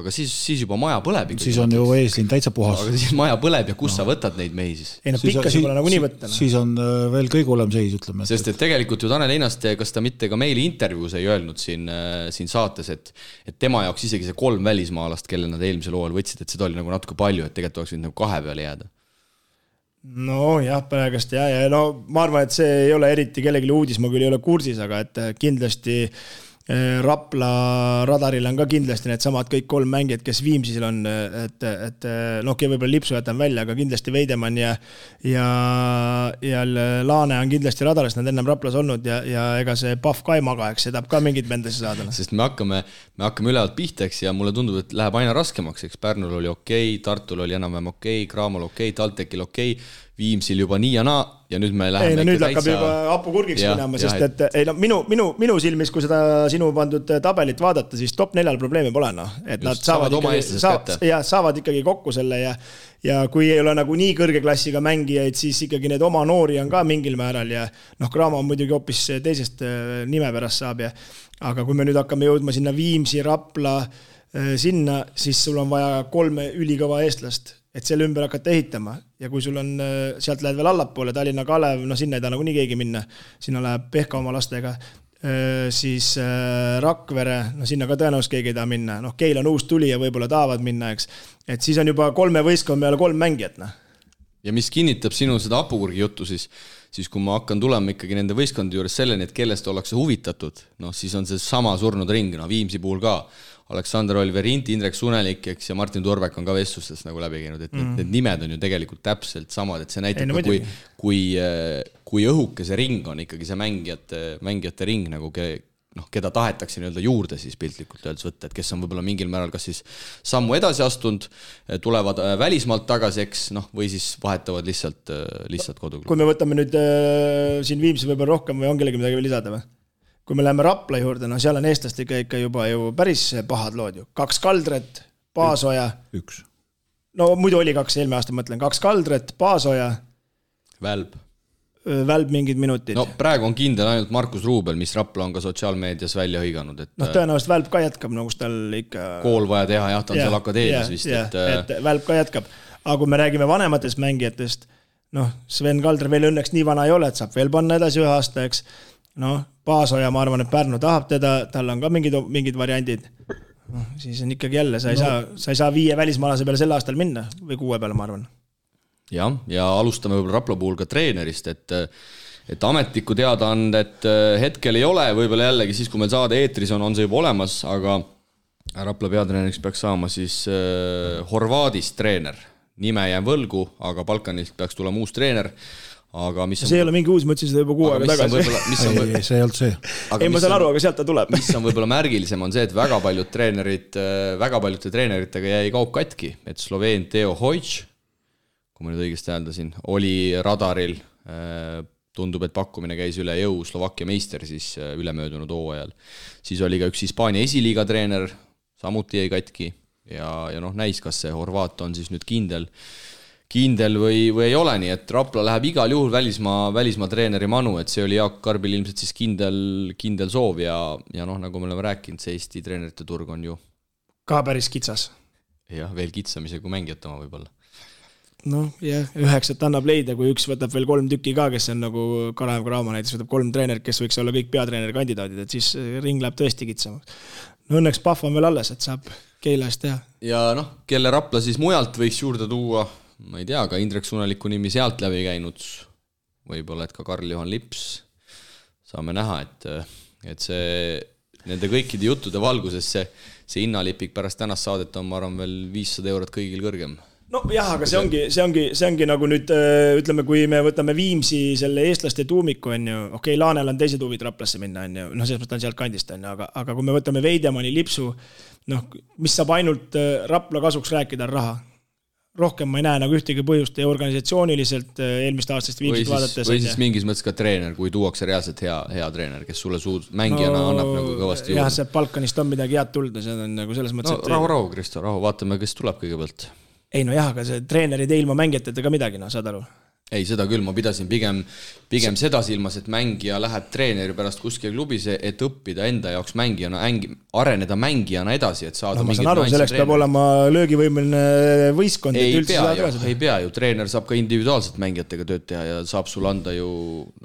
Speaker 2: aga siis juba maja põleb.
Speaker 3: Siis on ju eeslinn täitsa puhas.
Speaker 2: Aga siis maja põleb ja kus sa võtad neid mehi siis?
Speaker 4: Ei, pikkas pole nagu nii võtta.
Speaker 3: Siis on veel kõige hullem seis, ütleme.
Speaker 2: Sest et tegelikult ju Tanel Einaste, kas ta mitte ka meili intervjuus ei öelnud siin saates, et tema jaoks isegi see 3 välismaalast, kelle nad eelmisel hooajal võtsid, et seda oli nagu natuke palju, et tegelikult oleks võinud nagu 2 peale jääda.
Speaker 4: No jah, praegast ja no ma arvan, et see ei ole eriti kellelegi uudis, ma küll ei ole kursis, aga et kindlasti Rapla radaril on ka kindlasti need samad kõik 3 mängijad, kes Viimsil on, et võib-olla Lipsu jätan välja, aga kindlasti Veidemann ja Laane on kindlasti radaris, nad ennem Raplas olnud ja ega see Pahv ka ei maga, eks see tahab ka mingid mendesse saada.
Speaker 2: Sest me hakkame ülevalt pihteks ja mulle tundub, et läheb aina raskemaks, eks Pärnul oli okei, Tartul oli enam-vähem okei, Kraamol okei, Taltekil okei, Viimsil juba nii ja naa ja nüüd me läheme
Speaker 4: nüüd hakkab juba hapu kurgiks minema, sest et minu silmis, kui seda sinu pandud tabelit vaadata, siis top 4 probleemi pole, et nad saavad ikkagi kokku selle ja kui ei ole nagu nii kõrge klassiga mängijaid, siis ikkagi need oma noori on ka mingil määral ja Kraama on muidugi hoopis teisest nime pärast saab aga kui me nüüd hakkame jõudma sinna Viimsi, Rapla sinna, siis sul on vaja 3 ülikõva eestlast, et selle ümber hakata ehitama ja kui sul on, sealt lähed veel allapoole, Tallinna Kalev, sinna ei taha nagu nii keegi minna, sinna läheb Pehka oma lastega, siis Rakvere, sinna ka tõenäoliselt keegi ei taha minna, Keil on uus tuli ja võib-olla tahavad minna, eks, et siis on juba 3 võistkond peale 3 mängijat,
Speaker 2: Ja mis kinnitab sinu seda hapukurgi juttu, siis kui ma hakkan tulema ikkagi nende võistkondade juures selleni, et kellest ollakse huvitatud, siis on see sama surnud ring, Viimsi puhul ka. Aleksander Olverint, Indrek Sunelik ja Martin Turbek on ka vestlustest nagu läbi käinud, et need nimed on ju tegelikult täpselt samad, et see näitab kui õhuke see ring on ikkagi see mängijate ring, nagu keda tahetakse nii-öelda juurde siis piltlikult öeldes võtta, et kes on võib-olla mingil määral kas siis sammu edasi astunud, tulevad välismaalt tagasi, või siis vahetavad lihtsalt koduklubi.
Speaker 4: Kui me võtame nüüd siin Viimsi võib-olla rohkem või on kellegi midagi veel lisada või? Kui me läheme Rapla juurde, seal on eestlastega ikka juba ju päris pahad lood ju. 2 Kaldret, Paasoja.
Speaker 3: 1.
Speaker 4: No muidu oli 2, eelmine aasta mõtlen. 2 Kaldret, Paasoja. Välb mingid minutid.
Speaker 2: No praegu on kindel ainult Markus Ruubel, mis Rapla on ka sotsiaalmeedias välja hõiganud.
Speaker 4: Tõenäoliselt Välb ka jätkab, kus tal ikka...
Speaker 2: Kool vaja teha, ta on seal akadeemias vist.
Speaker 4: Et Välb ka jätkab. Aga kui me räägime vanematest mängijatest, Sven Kaldre veel õnneks nii vana ei ole, et saab veel panna edasi 1 aasta, eks. Paasoja, ma arvan, et Pärnu tahab teda, tal on ka mingid variandid. Siis on ikkagi jälle, sa ei saa 5 välismaalase peale sel aastal minna või 6 peale, ma arvan.
Speaker 2: Ja alustame võib-olla Rapla puhul ka treenerist, et ametlikku teadaandet hetkel ei ole, võib-olla jällegi siis, kui meil saade eetris on see juba olemas, aga Rapla peatreeneriks peaks saama siis Horvaadist treener. Nime jään võlgu, aga Balkanilt peaks tulema uus treener. Aga mis
Speaker 4: see ei ole mingi uus, ma ütlesin seda juba 6 aega tagasi.
Speaker 3: Ei, see ei olnud see.
Speaker 4: Ei, ma saan aru, aga sealt ta tuleb.
Speaker 2: Mis on võib-olla märgilisem on see, et väga paljude treeneritega jäi kaup katki, et Sloveen Teo Hojč, kui ma nüüd õigesti hääldasin, oli radaril, tundub, et pakkumine käis üle jõu, Slovakkia meister siis ülemöödunud hooajal. Siis oli ka üks Hispaania esiliiga treener, samuti jäi katki ja näis, kas see Horvaat on siis nüüd kindel või ei ole, nii et Rapla läheb igal juhul välismaa treeneri manu, et see oli Jaak Karbil ilmselt siis kindel soov ja nagu me oleme rääkinud, see Eesti treenerite turg on ju
Speaker 4: ka päris kitsas.
Speaker 2: Jah, veel kitsamise kui mängijat oma võib-olla.
Speaker 4: 9 annab leida, kui üks võtab veel 3 tükki ka, kes on nagu Karaev Kraama näiteks, võtab 3 treenerit, kes võiks olla kõik peatreeneri kandidaadid, et siis ring läheb tõesti kitsamaks. Õnneks Pahv on veel alles, et saab Keila eest teha. Ja
Speaker 2: kelle Rapla siis mujalt võiks juurde tuua, ma ei tea, ka Indrek Suneliku nimi sealt läbi käinud, võib-olla, et ka Karl-Johan Lips, saame näha, et see nende kõikide juttude valguses see hinnalipik pärast tänast saadet on, ma arvan, veel 500 eurot kõigil kõrgem.
Speaker 4: Aga see ongi nagu nüüd, ütleme, kui me võtame Viimsi selle eestlaste tuumiku, on ju, okei, Laanel on teised huvid Raplasse minna, on ju, selles mõttes on sealt kandist, on ju, aga kui me võtame Veidemani, Lipsu, mis saab ainult Rapla kasuks rääkida, on raha. Rohkem ma ei näe nagu ühtegi põhjust ja organisatsiooniliselt eelmist aastast Viimsit vaadates.
Speaker 2: Või siis mingis mõttes ka treener, kui tuuakse reaalselt hea treener, kes sulle mängijana annab nagu kõvasti juurde.
Speaker 4: Jah, see Balkanist on midagi head tulda, see on nagu selles mõttes, et...
Speaker 2: Rahu, Kristo, vaatame, kes tuleb kõigepealt.
Speaker 4: Ei, aga see treenerid ilma mängijateta ka midagi, saad aru?
Speaker 2: Ei, seda küll, ma pidasin pigem seda silmas, et mängija läheb treeneri pärast kuskil klubis, et õppida enda jaoks mängijana, areneda mängijana edasi, et saada
Speaker 4: ma saan aru, selleks peab olema löögivõimeline võistkond.
Speaker 2: Ei pea ju, treener saab ka individuaalselt mängijatega tööd teha ja saab sul anda ju,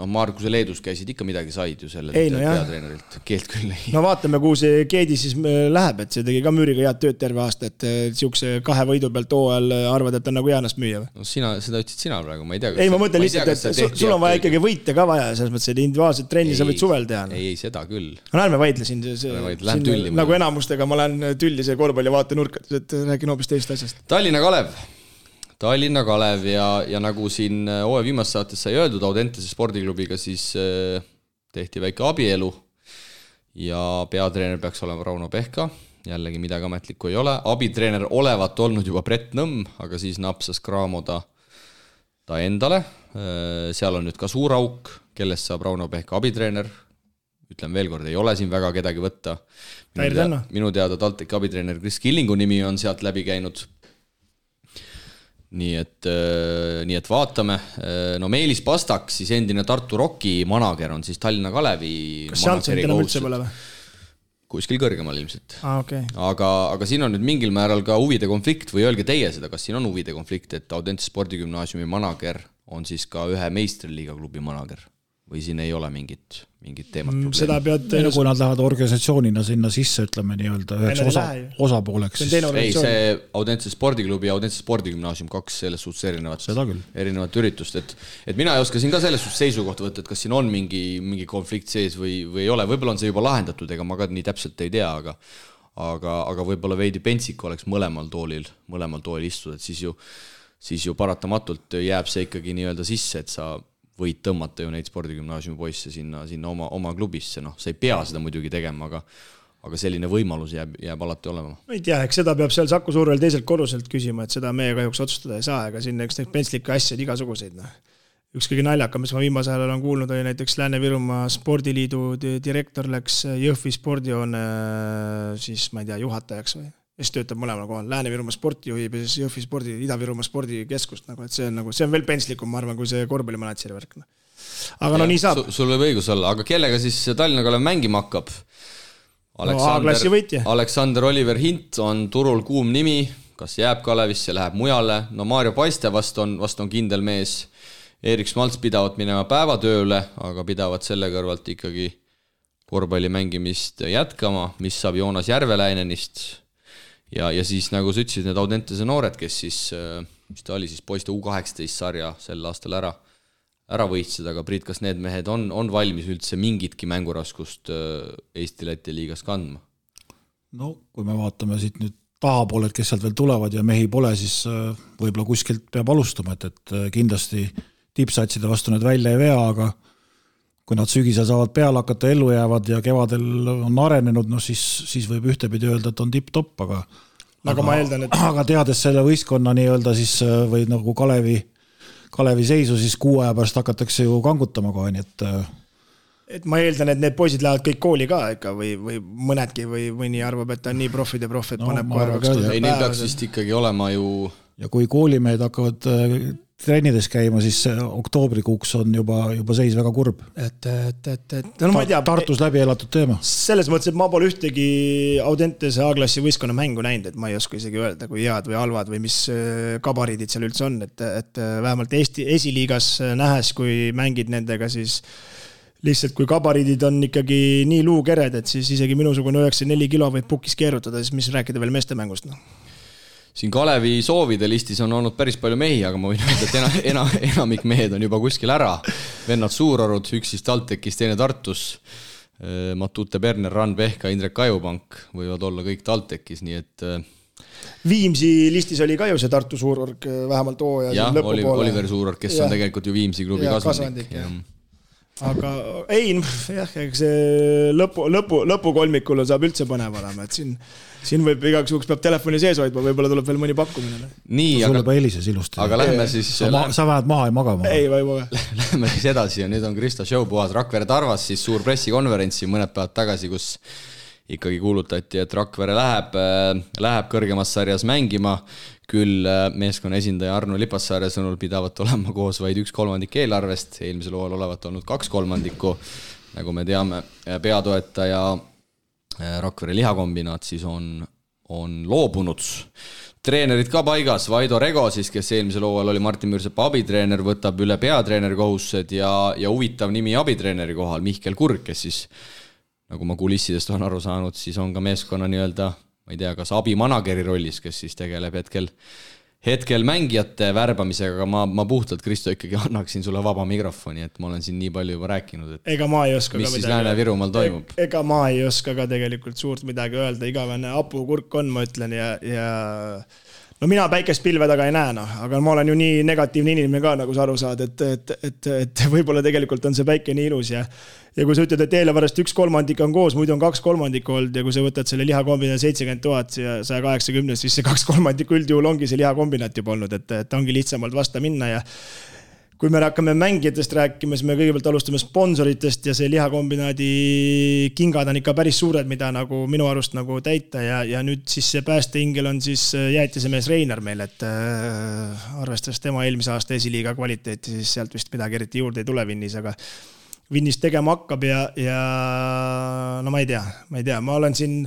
Speaker 2: Markuse Leedus käisid ikka midagi said ju selle peatreenerilt, keelt küll ei.
Speaker 4: Vaatame, kuhu see Keedi siis läheb, et see tegi ka Müüriga head tööd terve aasta, et siukse 2 võidu pealt hooajal arvad, et on nagu jäänas müüa.
Speaker 2: Seda ütlesid sina praegu, ma ei tea.
Speaker 4: Ei, ma mõtlen lihtsalt, et sul on vaja ikkagi võite ka vaja, selles mõttes, et individuaalset trenni sa võid suvel teha.
Speaker 2: Ei, seda küll.
Speaker 4: Ärme vaidlesin, nagu enamustega ma lähen tülli see korvpalli vaatenurkat, et räägin hoopis teist asjast.
Speaker 2: Tallinna Kalev ja nagu siin hooaja viimast saates sai öeldud, Audentese spordiklubiga siis tehti väike abielu ja peatreener peaks olema Rauno Pehka, jällegi midagi ametlikku ei ole. Abitreener olevat olnud juba Brett Nõmm, aga siis napsas Kraamo ta endale, seal on nüüd ka suur auk, kellest saab Rauno Pehka abitreener, ütlen veel kord, ei ole siin väga kedagi võtta. Minu teada TalTechi abitreener Chris Killingu nimi on sealt läbi käinud. Nii et vaatame. Meelis Pastak, siis endine Tartu Rocki manager on siis Tallinna Kalevi.
Speaker 4: Kas Jansson enam üldse pole või?
Speaker 2: Kuskil kõrgemal ilmselt.
Speaker 4: Okay.
Speaker 2: Aga siin on nüüd mingil määral ka huvide konflikt või öelge teie seda, kas siin on huvide konflikt, et Audentese spordigümnaasiumi manager on siis ka ühe meistriliiga klubi manager. või siin ei ole mingit teemat probleemi?
Speaker 4: Seda pead...
Speaker 3: Kui nad lähevad organisatsioonina sinna sisse, ütleme nii-öelda üheks osapooleks.
Speaker 2: Ei, see Audentse spordiklubi ja Audentse spordigümnaasium 2 selles suhtes erinevat üritust, et mina ei oska siin ka selles suhtes seisukoht võtta, et kas siin on mingi konflikt sees või ei ole, võib-olla on see juba lahendatud, ega ma ka nii täpselt ei tea, aga võib-olla veidi pentsik oleks mõlemal toolil istuda, et siis ju paratamatult jääb see ikkagi nii-öelda sisse, et sa võid tõmmata ju neid spordigümnaasiumi poisse sinna oma klubisse, sa ei pea seda muidugi tegema, aga selline võimalus jääb alati olema.
Speaker 4: Ei tea, eks seda peab seal Saku Suurel teiselt korruselt küsima, et seda meie kahjuks otsustada ei saa, ega siin eks neid pentslikke asjad igasuguseid. Üks kõige naljakam, mis ma viimase ajal olen kuulnud, oli näiteks Lääne-Virumaa spordiliidu direktor läks Jõhvi spordijoone siis, ma ei tea, juhatajaks või? Kes töötab mõlemal kohal, Lääne-Virumaa sporti juhib ja siis Jõhvi spordi, Ida-Virumaa spordikeskust, et see on veel pentslikum, ma arvan, kui see korvpallimanatšeri värk. Aga nii saab.
Speaker 2: Sul võib õigus olla, aga kellega siis Tallinna Kalev mängima hakkab? Aleksander Oliver Hint on turul kuum nimi, kas jääb Kalevisse, läheb mujale, Maarjo Paiste vast on kindel mees, Erik Smalts pidavad minema päevatööle, aga pidavad selle kõrvalt ikkagi korvpalli mängimist jätkama, mis saab Joonas Järveläinenist. Ja siis nagu sa ütlesid, need Audentese noored, kes siis, mis ta oli siis poiste U18 sarja sel aastal ära võitsid, aga Priit, kas need mehed on valmis üldse mingitki mänguraskust Eesti-Läti liigas kandma?
Speaker 3: No, kui me vaatame siit nüüd tahapooled, kes sealt veel tulevad ja mehi pole, siis võib-olla kuskilt peab alustama, et kindlasti tippsatside vastu need välja ei vea, aga kui nad sügisel saavad peale hakata, ellu jäävad ja kevadel on arenenud, siis võib ühtepidi öelda, et on tipp-topp, aga
Speaker 4: ma eeldan, et...
Speaker 3: aga teades selle võistkonna nii-öelda siis või nagu Kalevi seisu, siis 6 aja pärast hakatakse ju kangutama kohe, nii
Speaker 4: et ma eeldan, et need poisid lähevad kõik kooli ka ikka või mõnedki või nii arvab, et ta on nii profid, et paneb kohe 2000
Speaker 2: ei, neil peaks vist ikkagi olema ju...
Speaker 3: Ja kui koolimehed hakkavad trennides käima, siis oktoobrikuuks on juba seis väga kurb.
Speaker 4: No, ma ei tea,
Speaker 3: Tartus läbi elatud teema.
Speaker 4: Selles mõttes, et ma pole ühtegi Audentese A-klassi võistkonna mängu näinud, et ma ei oska isegi öelda, kui head või halvad või mis kabariidid seal üldse on, et vähemalt Eesti esiliigas nähes, kui mängid nendega, siis lihtsalt kui kabariidid on ikkagi nii luukered, et siis isegi minusugune 94 kilo võib pukis keerutada, siis mis rääkida veel meeste mängust,
Speaker 2: Siin Kalevi soovide listis on olnud päris palju mehi, aga ma võin öelda, et enamik mehed on juba kuskil ära. Vennad Suurorud, üks siis TalTechis, teine Tartus, Matute Berner, Ran Pehka, Indrek Kajupank võivad olla kõik TalTechis, nii et...
Speaker 4: Viimsi listis oli ka ju see Tartu Suurorg vähemalt hooaja
Speaker 2: ja, Oliver Suurorg, kes on tegelikult ju Viimsi klubi kasvandik.
Speaker 4: Aga ei, see lõpukolmikul saab üldse põnev olema, et siin võib igaks juhuks peab telefoni sees hoidma, võib-olla tuleb veel mõni pakkumine.
Speaker 2: Nii,
Speaker 3: sul juba helises ilusti.
Speaker 2: Aga lähme siis...
Speaker 3: Sa vähed maha ei magama.
Speaker 4: Ei, või maga.
Speaker 2: Lähme siis edasi ja nüüd on Krista Showpuhas. Rakvere Tarvas siis suur pressikonverentsi mõned päevad tagasi, kus ikkagi kuulutati, et Rakvere läheb kõrgemas sarjas mängima. Küll meeskonna esindaja Arno Lipassaare sõnul pidavat olema koos vaid 1/3 eelarvest. Eelmisel hooajal olevat olnud 2/3, nagu me teame, peatoetaja Rakvere lihakombinaat siis on loobunud. Treenerid ka paigas, Vaido Rego siis, kes eelmisel hooajal oli Martin Müürsepa abitreener, võtab üle peatreeneri kohustused ja huvitav nimi abitreeneri kohal, Mihkel Kurg, kes siis, nagu ma kulissidest on aru saanud, siis on ka meeskonna nii-öelda, ma ei tea, kas abimanageri rollis, kes siis tegeleb hetkel mängijate värbamisega, aga ma puhtalt, Kristo, ikkagi annaksin sulle vaba mikrofoni, et ma olen siin nii palju juba rääkinud, et
Speaker 4: ega ma ei oska
Speaker 2: mis siis Lääne-Virumaal toimub.
Speaker 4: Ega ma ei oska ka tegelikult suurt midagi öelda, igavene apukurk on, ma ütlen, ja no mina päikest pilve taga ei näe, aga ma olen ju nii negatiivne inimene ka, nagu sa aru saad, et võib-olla tegelikult on see päike nii ilus ja kui sa ütled, et eelarvest 1/3 on koos, muidu on 2/3 olnud ja kui sa võtad selle lihakombinaat 70 000 ja 180, siis see 2/3 üldjuhul ongi see lihakombinaat juba olnud, et ongi lihtsamalt vasta minna ja kui me hakkame mängijatest rääkima, siis me kõigepealt alustame sponsoritest ja see lihakombinaadi kingad on ikka päris suured, mida nagu minu arust nagu täita ja nüüd siis see päästeingel on siis jäätisemees Reinar meil, et arvestades tema eelmise aasta esiliiga kvaliteeti, siis sealt vist midagi eriti juurde ei tule Vinnis, aga Vinnis tegema hakkab ja no ma ei tea, ma olen siin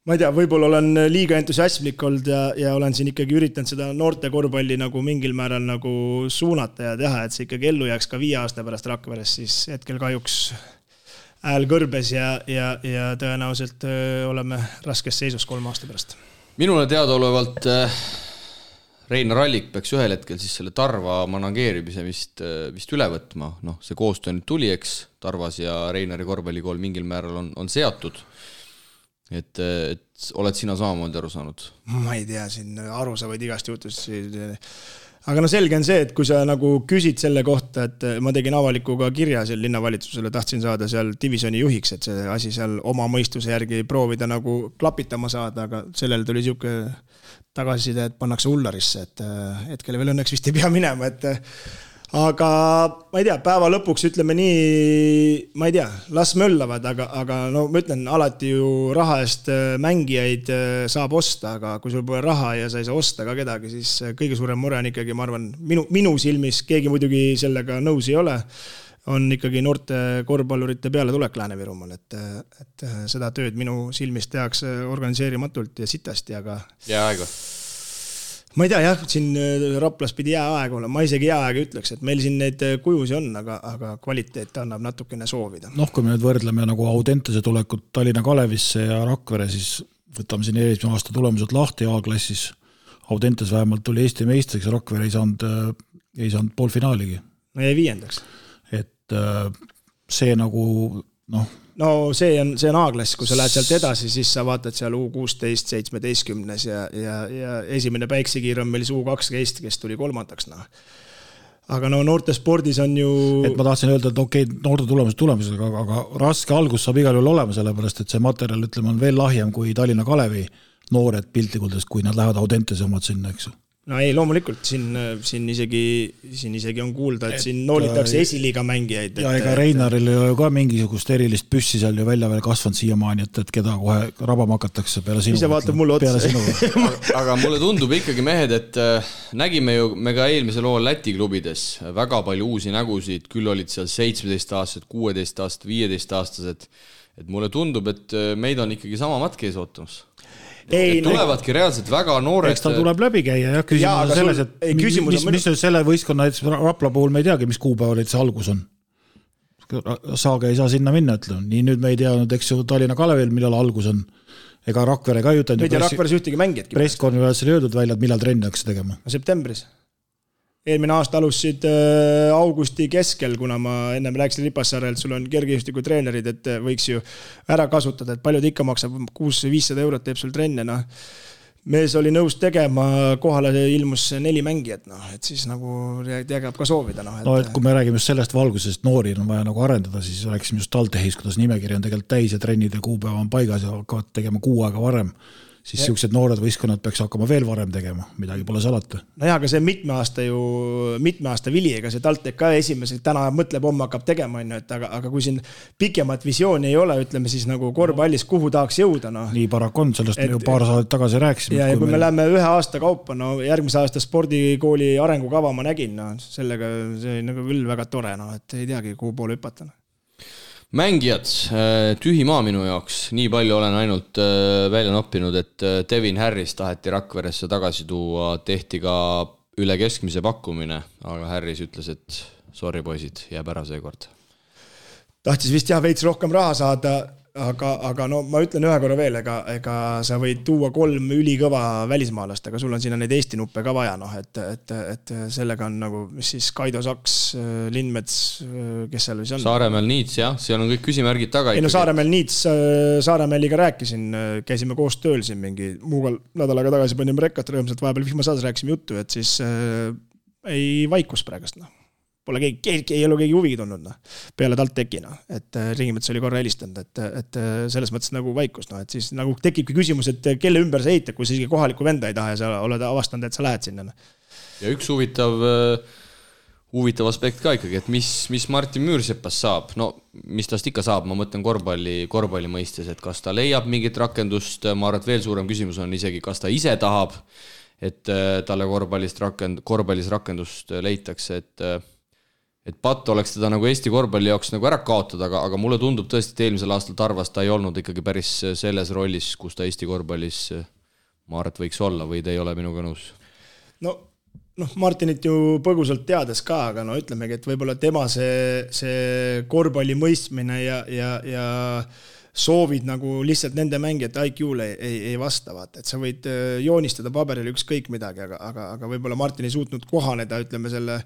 Speaker 4: ma ei tea, võib-olla olen liiga entusiasmlik olnud ja olen siin ikkagi üritanud seda noorte korvpalli nagu mingil määral nagu suunata ja teha, et see ikkagi ellu jääks ka 5 aasta pärast Rakveres, siis hetkel kahjuks hääl kõrbes ja tõenäoliselt oleme raskes seisus 3 aasta pärast.
Speaker 2: Minule teadaolevalt Reinar Allik peaks ühel hetkel siis selle Tarva manageerimise vist üle võtma. Noh, see koostöö nüüd tuli, eks, Tarvas ja Reinari korvpallikool mingil määral on seatud. Et oled sina samamoodi aru saanud?
Speaker 4: Ma ei tea, siin aru sa võid igast jutust. Aga no selge on see, et kui sa nagu küsid selle kohta, et ma tegin avalikuga kirja seal linnavalitsusele, tahtsin saada seal divisjoni juhiks, et see asi seal oma mõistuse järgi proovida nagu klapitama saada, aga sellel tuli siuke tagasiside, et pannakse Ullarisse, et hetkel veel õnneks vist ei pea minema, et aga ma ei tea, päeva lõpuks ütleme nii, ma ei tea, las möllavad, aga no ma ütlen, alati ju raha eest mängijaid saab osta, aga kui sul pole raha ja sa ei saa osta ka kedagi, siis kõige suurem mure on ikkagi, ma arvan, minu silmis, keegi muidugi sellega nõus ei ole, on ikkagi noorte korvpallurite peale tulek Lääne-Virumaal, et seda tööd minu silmis tehakse organiseerimatult ja sitasti, aga
Speaker 2: jääaega.
Speaker 4: Ma ei tea, jah, siin Raplas pidi jääaeg olla, ma isegi jääaeg ütleks, et meil siin neid kujusi on, aga kvaliteet annab natukene soovida.
Speaker 3: Noh, kui me nüüd võrdleme nagu Audentese tulekut Tallinna Kalevisse ja Rakvere, siis võtame siin eelmise aasta tulemused lahti A-klassis. Audentes vähemalt tuli Eesti meistriks ja Rakvere ei saanud poolfinaaligi.
Speaker 4: No jäi 5.
Speaker 3: Et see nagu, noh.
Speaker 4: No see on A-klass, kui sa lähed sealt edasi, siis sa vaatad seal U16, 17 ja esimene päiksekiir on meil U12, kes tuli 3. No. Aga no noorte spordis on ju...
Speaker 3: Et ma tahtsin öelda, et okei, noorte tulemused, aga raske algus saab igal juhul olema, sellepärast, et see materjal, ütleme, on veel lahjem kui Tallinna Kalevi noored piltlikult, kui nad lähevad Audentese omad sinna, eks.
Speaker 4: No ei, loomulikult, siin isegi on kuulda, et siin noolitakse esiliiga mängijaid.
Speaker 3: Ja ega Reinaril ei ole ka mingisugust erilist püssi seal ju välja veel kasvanud siiamaani, et keda kohe rabama hakatakse peale sinu.
Speaker 4: Ise vaatab mulle otsa.
Speaker 2: Aga mulle tundub ikkagi, mehed, et nägime ju me ka eelmisel lool Läti klubides väga palju uusi nägusid, küll olid seal 17-aastased, 16-aastased, 15-aastased, et mulle tundub, et meid on ikkagi sama matk ees ootamas. Tulevadki reaalselt väga noored.
Speaker 3: Eks ta tuleb läbi käia ja küsimus on selles, et mis selle võistkonna Rapla puhul me ei teagi, mis kuupäeval see algus on. Saage ei saa sinna minna, ütleme. Nii nüüd me ei teadnud, eks ju Tallinna Kalevil, millal algus on. Ega Rakvere ka jutan.
Speaker 4: Nüüd ja Rakveres ühtegi mängijatki.
Speaker 3: Presskonverentsil öeldud välja, et millal trenni hakkas tegema.
Speaker 4: Septembris. Eelmine aasta alustasid augusti keskel, kuna ma ennem rääkisin Ripassaarelt, sul on kergejõustiku treenerid, et võiks ju ära kasutada, et paljud ikka maksab 600-500 eurot teeb sul trenne. No. Mees oli nõus tegema, kohale ilmus 4 mängijat, no, et siis nagu tegab ka soovida. No,
Speaker 3: no, et kui me räägime just sellest valgusest, noori on vaja nagu arendada, siis rääksime just TalTechis, kuidas nimekiri on tegelikult täis ja trennid ja kuupäeva on paigas ja hakkavad tegema 6 aega varem. Siis siuksed noored võistkonnad peaks hakkama veel varem tegema, midagi pole salata.
Speaker 4: No jah, aga see mitme aasta vili, ega see TalTech ka esimese, täna mõtleb, homme hakkab tegema, aga kui siin pikemat visiooni ei ole, ütleme siis nagu korvpallis, kuhu tahaks jõuda. No.
Speaker 3: Nii paraku on, sellest me ju paar saadet tagasi rääkisime.
Speaker 4: Ja kui me läheme 1 aasta kaupa, no järgmise aasta spordikooli arengukava ma nägin, no sellega see nagu küll väga tore, no, et ei teagi, kuhu poole hüpata.
Speaker 2: Mängijad, tühi maa minu jaoks, nii palju olen ainult välja noppinud, et Devin Harris taheti Rakveresse tagasi tuua, tehti ka üle keskmise pakkumine, aga Harris ütles, et sorry poisid, jääb ära seekord.
Speaker 4: Tahtis vist jah veits rohkem raha saada, aga no ma ütlen ühe korra veel, ega sa võid tuua 3 ülikõva välismaalast, aga sul on sinna neid Eesti nuppe ka vaja, noh, et sellega on nagu, mis siis Kaido Saks, Lindmets, kes seal või see on?
Speaker 2: Saaremäel Niits, jah, seal on kõik küsimärgid taga.
Speaker 4: Ei no Saaremäel Niits, Saaremäeliga rääkisin, käisime koos tööl siin mingi muugal nädalaga tagasi panime rekkat rõõmsalt, vahepeal vihmasaades rääkisime juttu, et siis ei vaikus praegust, noh. Pole ei ole keegi huvigi tulnud, no. Peale TalTechi, no. Et Ringimets oli korra helistanud, et selles mõttes nagu vaikus, no. Et siis nagu tekibki küsimus, et kelle ümber sa ehitad, kui sa isegi kohaliku venda ei taha ja sa oled avastanud, et sa lähed sinna. No.
Speaker 2: Ja üks huvitav aspekt ka ikkagi, et mis Martin Müürsepas saab, no mis tast ikka saab, ma mõtlen korvpalli mõistes, et kas ta leiab mingit rakendust, ma arvan, et veel suurem küsimus on isegi, kas ta ise tahab, et talle korvpallis rakendust leitakse, et patt oleks teda nagu Eesti korvpalli jaoks nagu ära kaotada, aga mulle tundub tõesti, et eelmisel aastal Tarvas ta ei olnud ikkagi päris selles rollis, kus ta Eesti korvpallis ma arvan, et võiks olla või te ei ole minuga nõus?
Speaker 4: Martinit ju põgusalt teades ka, aga ütlemegi, et võib-olla tema see korvpalli mõistmine ja soovid nagu lihtsalt nende mängijate IQ-le ei vasta, vaata, et sa võid joonistada paberil ükskõik midagi, aga võib-olla Martin ei suutnud kohaneda, ütleme selle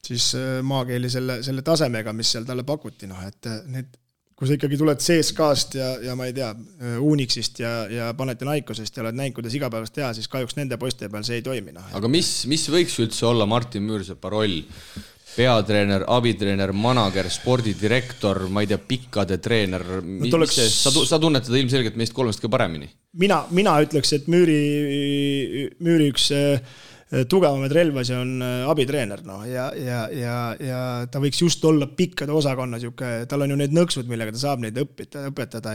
Speaker 4: siis maakeeli selle tasemega, mis seal talle pakuti, et need kui sa ikkagi tuled CSKA-st ja ma ei tea, Unixist ja Panathinaikosest ja oled näinud, kuidas igapäevast teha, siis kahjuks nende poiste peal see ei toimi.
Speaker 2: Aga mis võiks üldse olla Martin Müürsepa roll? Peatreener, abitreener, manager, spordidirektor, ma ei tea, pikkade treener. Sa tunnetad ilmselgelt meist kolmest ka paremini?
Speaker 4: Mina ütleks, et Müüri üks tugevamaid relvasi on abitreener ja ta võiks just olla pikkade osakonna, tal on ju need nõksud, millega ta saab neid õpetada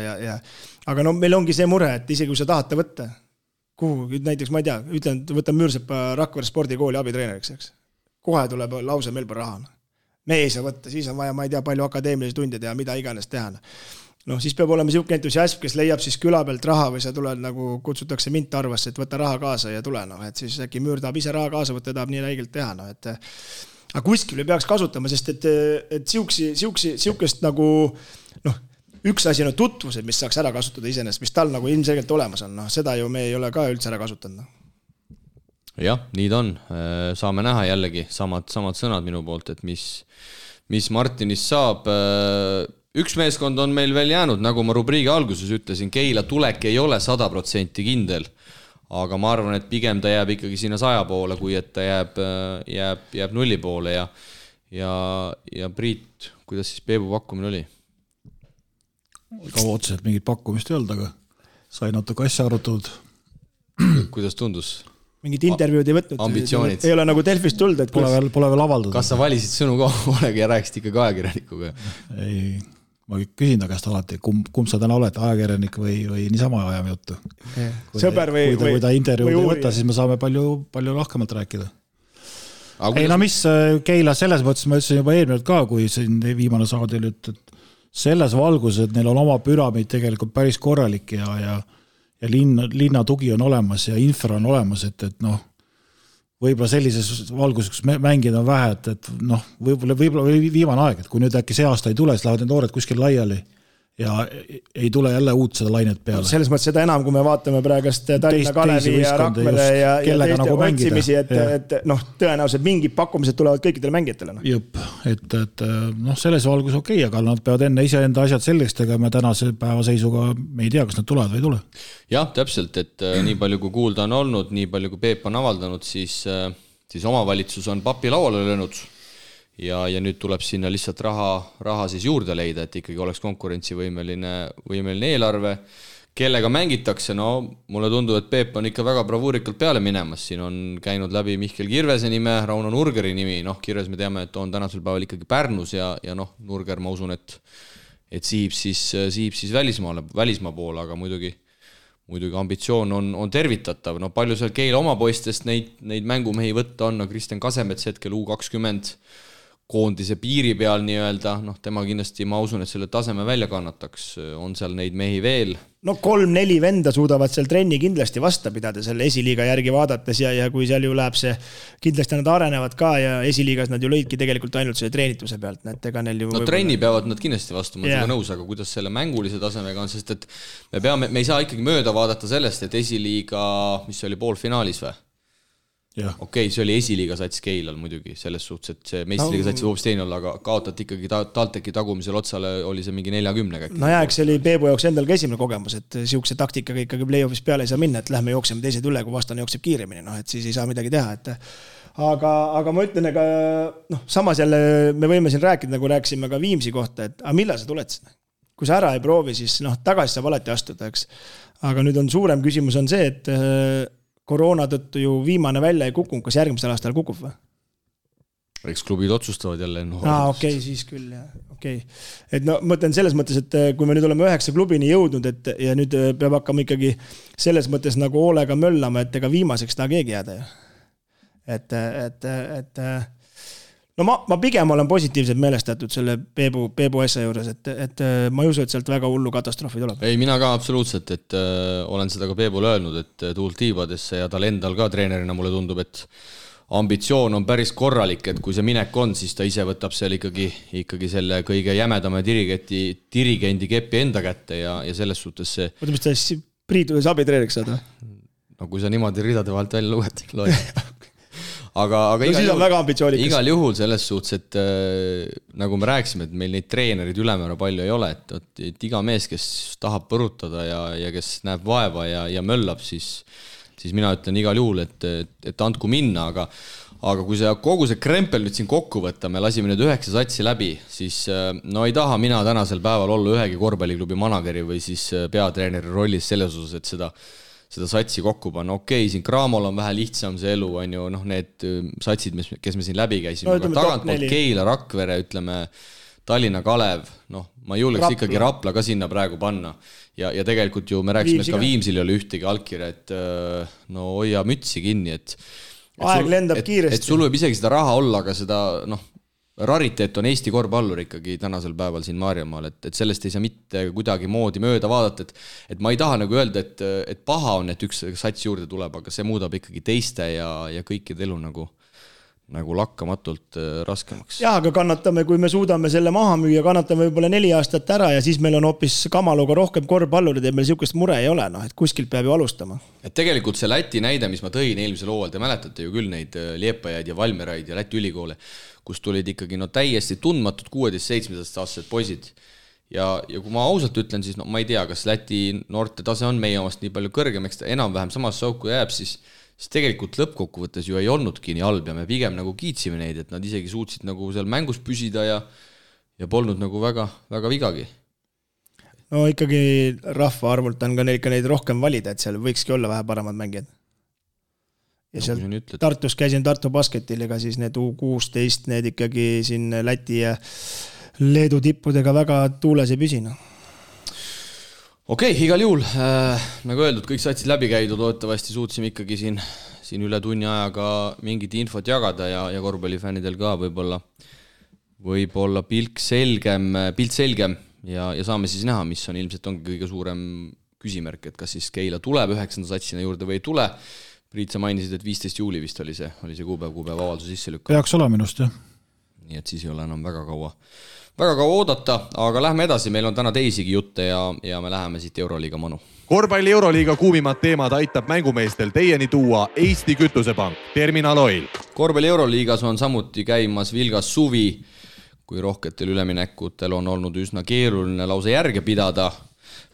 Speaker 4: aga meil ongi see mure, et isegi kui sa tahad ta võtta, kuhu, näiteks ma ei tea, ütlen, võtan Müürsepa Rakvere spordikooli abitreeneriks, eks. Kohe tuleb lause meil pole raha. Me ei saa võtta, siis on vaja, ma ei tea, palju akadeemilisi tunde teha, mida iganes teha. Siis peab olema siuke entusiasm, kes leiab siis küla pealt raha või sa tuled nagu kutsutakse mind Tarvasse, et võta raha kaasa ja tule, et siis äkki Müür tahab ise raha kaasa võtta, tahab nii räigelt teha, aga kuskil peaks kasutama, sest et siukest nagu, üks asi on tutvused, mis saaks ära kasutada iseenesest, mis tal nagu ilmselgelt olemas on, seda ju me ei ole ka üldse ära kasutanud.
Speaker 2: Jah, nii ta on. Saame näha jällegi samad sõnad minu poolt, et mis Martinist saab. Üks meeskond on meil veel jäänud, nagu ma rubriigi alguses ütlesin, Keila tulek ei ole 100% kindel, aga ma arvan, et pigem ta jääb ikkagi sinna 100 poole, kui et ta jääb 0 poole ja Priit, kuidas siis Peebu pakkumine oli?
Speaker 3: Kaua otseselt mingit pakkumist ei olnud, aga sai natuke asja arutatud.
Speaker 2: Kuidas tundus?
Speaker 4: Mingit intervjuud ei võtnud.
Speaker 2: Ambitsioonid.
Speaker 4: Ei ole nagu Delfist tulnud, et
Speaker 3: pole veel avaldatud.
Speaker 2: Kas sa valisid sõnu koolega ja rääkisid ikka ajakirjanikuga?
Speaker 3: Ei, ma küsin ta käest alati, kumb sa täna oled, ajakirjanik või niisama ajame juttu.
Speaker 4: Sõber või
Speaker 3: kui ta intervjuud ei võta, siis me saame palju lahkemalt rääkida. Ei, mis Keila selles mõttes, ma ütlesin juba eelmine ka, kui siin viimane saade oli, et selles valgus, et neil on oma püramiid tegelikult päris korralik ja linna tugi on olemas ja infra on olemas, et võib-olla sellises valguses, kus mängid on vähe, et võib-olla viimane aeg, et kui nüüd äkki see aasta ei tule, siis lähevad need noored kuskil laiali ja ei tule jälle uut seda lainet peale.
Speaker 4: Selles mõttes seda enam, kui me vaatame praegast Tallinna Kalevi ja Rakvere ja teiste otsimisi, et tõenäoliselt mingid pakkumised tulevad kõikidele mängijatele.
Speaker 3: Jõpp, et selles valgus okei, aga nad peavad enne iseenda asjad selgeks tegema tänase päeva seisuga, me ei tea, kas nad tulevad või ei tule.
Speaker 2: Jah, täpselt, et nii palju kui kuulda on olnud, nii palju kui Peep on avaldanud, siis omavalitsus on papi lauale löönud ja nüüd tuleb sinna lihtsalt raha siis juurde leida, et ikkagi oleks konkurentsivõimeline eelarve. Kellega mängitakse, mulle tundub, et Peep on ikka väga bravuurikalt peale minemas. Siin on käinud läbi Mihkel Kirvese nime, Rauno Nurgeri nimi. Kirves me teame, et on tänasel päeval ikkagi Pärnus ja Nurger, ma usun, et siib siis välismaa poole, aga muidugi ambitsioon on tervitatav. Palju seal Keila oma poistest neid mängumehi võtta on, Kristjan Kasemets hetkel U20 koondise piiri peal nii-öelda, tema kindlasti, ma usun, et selle taseme välja kannataks, on seal neid mehi veel.
Speaker 4: 3-4 venda suudavad seal trenni kindlasti vasta pidada selle esiliiga järgi vaadates ja kui seal ju läheb see, kindlasti nad arenevad ka ja esiliigas nad ju lõidki tegelikult ainult selle treenituse pealt.
Speaker 2: Trenni peavad nad kindlasti vastu, ma olen nõus, aga kuidas selle mängulise tasemega on, sest et me ei saa ikkagi mööda vaadata sellest, et esiliiga, mis oli poolfinaalis või? Okei, see oli esiliiga sats Keilal muidugi, selles suhtes, et see meistriliiga sats hoopis teine olla, aga kaotati ikkagi TalTechi tagumisel otsale, oli see mingi 40 käik.
Speaker 4: See oli Peebu jaoks endal ka esimene kogemus, et siukse taktikaga ikkagi play-offis peale ei saa minna, et lähme jookseme teised üle, kui vastane jookseb kiiremini, et siis ei saa midagi teha, aga ma ütlen, samas jälle me võime siin rääkida, nagu rääkisime ka Viimsi kohta, et millal sa tuled sinna? Kui sa ära ei proovi, siis tagasi saab alati astuda, eks. Aga nüüd on suurem küsimus on see, et koroona tõttu ju viimane välja ei kukunud, kas järgmisel aastal kukub või?
Speaker 2: Eks klubid otsustavad jälle.
Speaker 4: Okei, siis küll, jah. Okei. Et mõtlen selles mõttes, et kui me nüüd oleme 9 klubini jõudnud, ja nüüd peab hakkama ikkagi selles mõttes nagu hoolega möllama, et ega viimaseks ta keegi jääda ju. no ma pigem olen positiivselt meelestatud selle Peebu asja juures, et ma ei usu, et sealt väga hullu katastroofi tuleb.
Speaker 2: Ei, mina ka absoluutselt, et olen seda ka Peebule öelnud, et tuult tiibadesse ja tal endal ka treenerina mulle tundub, et ambitsioon on päris korralik, et kui see minek on, siis ta ise võtab seal ikkagi selle kõige jämedama dirigendi kepi enda kätte ja selles suhtes see...
Speaker 4: Mõtle, mis ta siis Priidu abitreeneriks saad või?
Speaker 2: No kui sa niimoodi ridade vahelt välja loed. aga
Speaker 4: no,
Speaker 2: igal juhul selles suhtes, et nagu me rääkisime, et meil neid treenerid ülemäära palju ei ole, et iga mees, kes tahab põrutada ja kes näeb vaeva ja möllab, siis mina ütlen igal juhul, et andku minna, aga kui kogu see krempel nüüd siin kokku võtta, me lasime nüüd 9 satsi läbi, siis no ei taha mina tänasel päeval olla ühegi korvpalliklubi manageri või siis peatreeneri rollis selles osas, et seda satsi kokku panna. Okei, siin Cramol on vähe lihtsam see elu, on ju, need satsid, kes me siin läbi käisime, aga tagantpoolt Keila, Rakvere, ütleme, Tallinna Kalev, ma julgeks ikkagi Rapla ka sinna praegu panna. Ja tegelikult ju me rääkisime, et ka Viimsil ei ole ühtegi allkirja, et no hoia mütsi kinni,
Speaker 4: aeg lendab kiiresti.
Speaker 2: Et sul võib isegi seda raha olla, aga seda, rariteet on Eesti korvpallur ikkagi tänasel päeval siin Maarjamaal, et sellest ei saa mitte kuidagi moodi mööda vaadata, et ma ei taha nagu öelda, et paha on, et üks sats juurde tuleb, aga see muudab ikkagi teiste ja kõikide elu nagu lakkamatult raskemaks.
Speaker 4: Jah, aga kannatame, kui me suudame selle maha müüa, kannatame võib-olla 4 aastat ära ja siis meil on hoopis Kamaluga rohkem korvpallurid ja meil siukest mure ei ole, et kuskilt peab ju alustama.
Speaker 2: Et tegelikult see Läti näide, mis ma tõin eelmisel hooajal, te mäletate ju küll neid Liepajaid ja Valmeraid ja Läti ülikoole, kus tulid ikkagi täiesti tundmatud 16-17-aastased poisid. Ja kui ma ausalt ütlen, siis ma ei tea, kas Läti noorte tase on meie omast nii palju kõrgem, eks ta enam-vähem samas sauku jääb, siis tegelikult lõppkokkuvõttes ju ei olnudki nii halb ja me pigem nagu kiitsime neid, et nad isegi suutsid nagu seal mängus püsida ja polnud nagu väga vigagi.
Speaker 4: No ikkagi rahva arvult on ka neid rohkem valida, et seal võikski olla vähe paremad mängijad. Ja seal Tartus käisin Tartu basketil, ega siis need U16, need ikkagi siin Läti ja Leedu tippudega väga tuules ei püsina.
Speaker 2: Okei, igal juhul, nagu öeldud, kõik satsid läbi käidud, loodetavasti suutsime ikkagi siin üle tunni ajaga mingit infot jagada ja korvpallifännidel ka võib-olla pilt selgem ja saame siis näha, mis on ilmselt ongi kõige suurem küsimärk, et kas siis Keila tuleb 9. satsina juurde või ei tule. Priit, sa mainisid, et 15 juuli vist oli see kuupäev avalduse sisse lükka.
Speaker 3: Peaks olema minust, jah.
Speaker 2: Nii et siis ei ole enam väga kaua oodata, aga lähme edasi, meil on täna teisigi jutte ja me läheme siit Euroliiga manu.
Speaker 1: Korvpalli Euroliiga kuumimad teemad aitab mängumeestel teieni tuua Eesti Kütusepank, Terminal Oil.
Speaker 2: Korvpalli Euroliigas on samuti käimas vilgas suvi, kui rohketel üleminekutel on olnud üsna keeruline lausa järge pidada.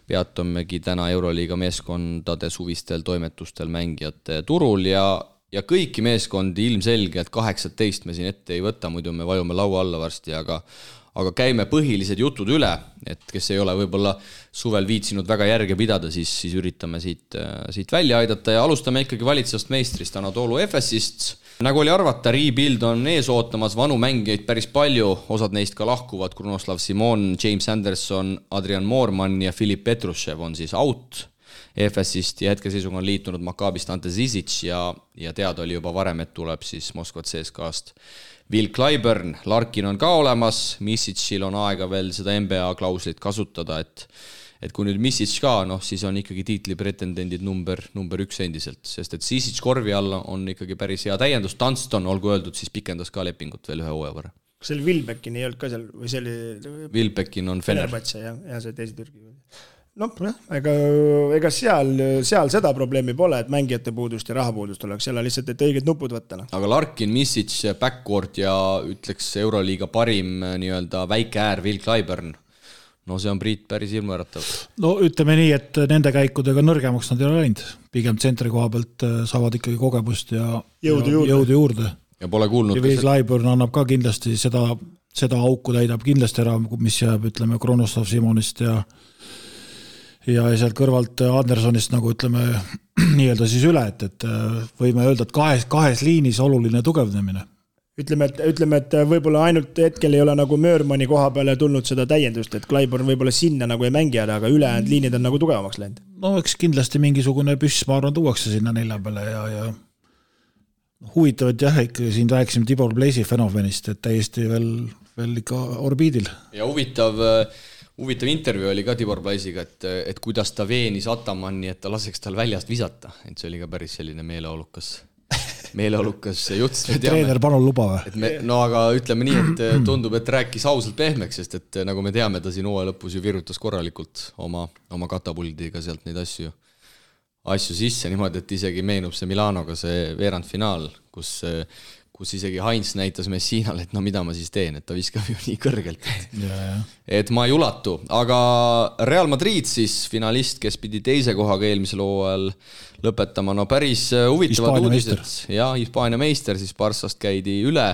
Speaker 2: Peatumegi täna Euroliiga meeskondade suvistel toimetustel mängijate turul ja kõiki meeskondi ilmselgelt 18 me siin ette ei võta, muidu me vajume laua alla varsti, aga käime põhilised jutud üle, et kes ei ole võib-olla suvel viitsinud väga järge pidada, siis üritame siit välja aidata ja alustame ikkagi valitsevast meistrist Anadolu Efesist. Nagu oli arvata, rebuild on ees ootamas, vanu mängijaid päris palju, osad neist ka lahkuvad, Krunoslav Simon, James Anderson, Adrian Moorman ja Filip Petrushev on siis out Efesist ja hetkeseisuga on liitunud Makabist Ante Zizic ja teada oli juba varem, et tuleb siis Moskva CSKA-st Will Clyburn, Larkin on ka olemas, Misicil on aega veel seda NBA klauslit kasutada, et kui nüüd Misic ka, siis on ikkagi tiitlipretendendid number 1 endiselt, sest et Zizic korvi alla on ikkagi päris hea täiendus, Dunston, olgu öeldud, siis pikendas ka lepingut veel 1 hooaja võrra.
Speaker 4: Kas seal Wilbekin ei olnud ka seal, või see oli...
Speaker 2: Wilbekin on Fener.
Speaker 4: Ja see teisi Türgi. Ega seal seda probleemi pole, et mängijate puudust ja rahapuudust oleks, seal on lihtsalt, et õiged nupud võtta.
Speaker 2: Aga Larkin, Misic, backcourt ja ütleks Euroliiga parim nii-öelda väike äär Will Clyburn. No see on Priit päris ilmuäratav. No
Speaker 3: ütleme nii, et nende käikudega nõrgemaks nad ei ole läinud. Pigem tsentri koha pealt saavad ikkagi kogemust ja jõudu juurde.
Speaker 2: Ja pole kuulnud.
Speaker 3: Ja Will Clyburn annab ka kindlasti seda auku täidab kindlasti ära, mis jääb, ütleme, Kronoslav Simonist ja sealt kõrvalt Andersonist nagu ütleme nii-öelda siis üle, et võime öelda, et kahes liinis oluline tugevnemine.
Speaker 4: Ütleme, et võib-olla ainult hetkel ei ole nagu Möörmani koha peale tulnud seda täiendust, et Clyburn võib-olla sinna nagu ei mängi, aga ülejäänud liinid on nagu tugevamaks läinud.
Speaker 3: No eks kindlasti mingisugune püss, ma arvan, tuuakse sinna 4 peale ja huvitavad jah, ikkagi siin rääkisime Tibor Pleisi fenomenist, et täiesti veel ikka orbiidil.
Speaker 2: Ja huvitav intervjuu oli ka Tibor Pleisiga, et kuidas ta veenis Atamanni, et ta laseks tal väljast visata, et see oli ka päris selline meeleolukas jutt.
Speaker 3: Treener palun luba või?
Speaker 2: No aga ütleme nii, et tundub, et rääkis ausalt pehmeks, sest et nagu me teame, ta siin hooaja lõpus ju virutas korralikult oma katapuldiga sealt neid asju sisse niimoodi, et isegi meenub see Milanoga see veerandfinaal, kus isegi Heinz näitas Messinale, et no mida ma siis teen, et ta viskab ju nii kõrgelt, et ma ei ulatu. Aga Real Madrid siis finalist, kes pidi teise kohaga eelmisel hooajal lõpetama, no päris huvitavad uudised. Ja Hispaania meister siis Barssast käidi üle.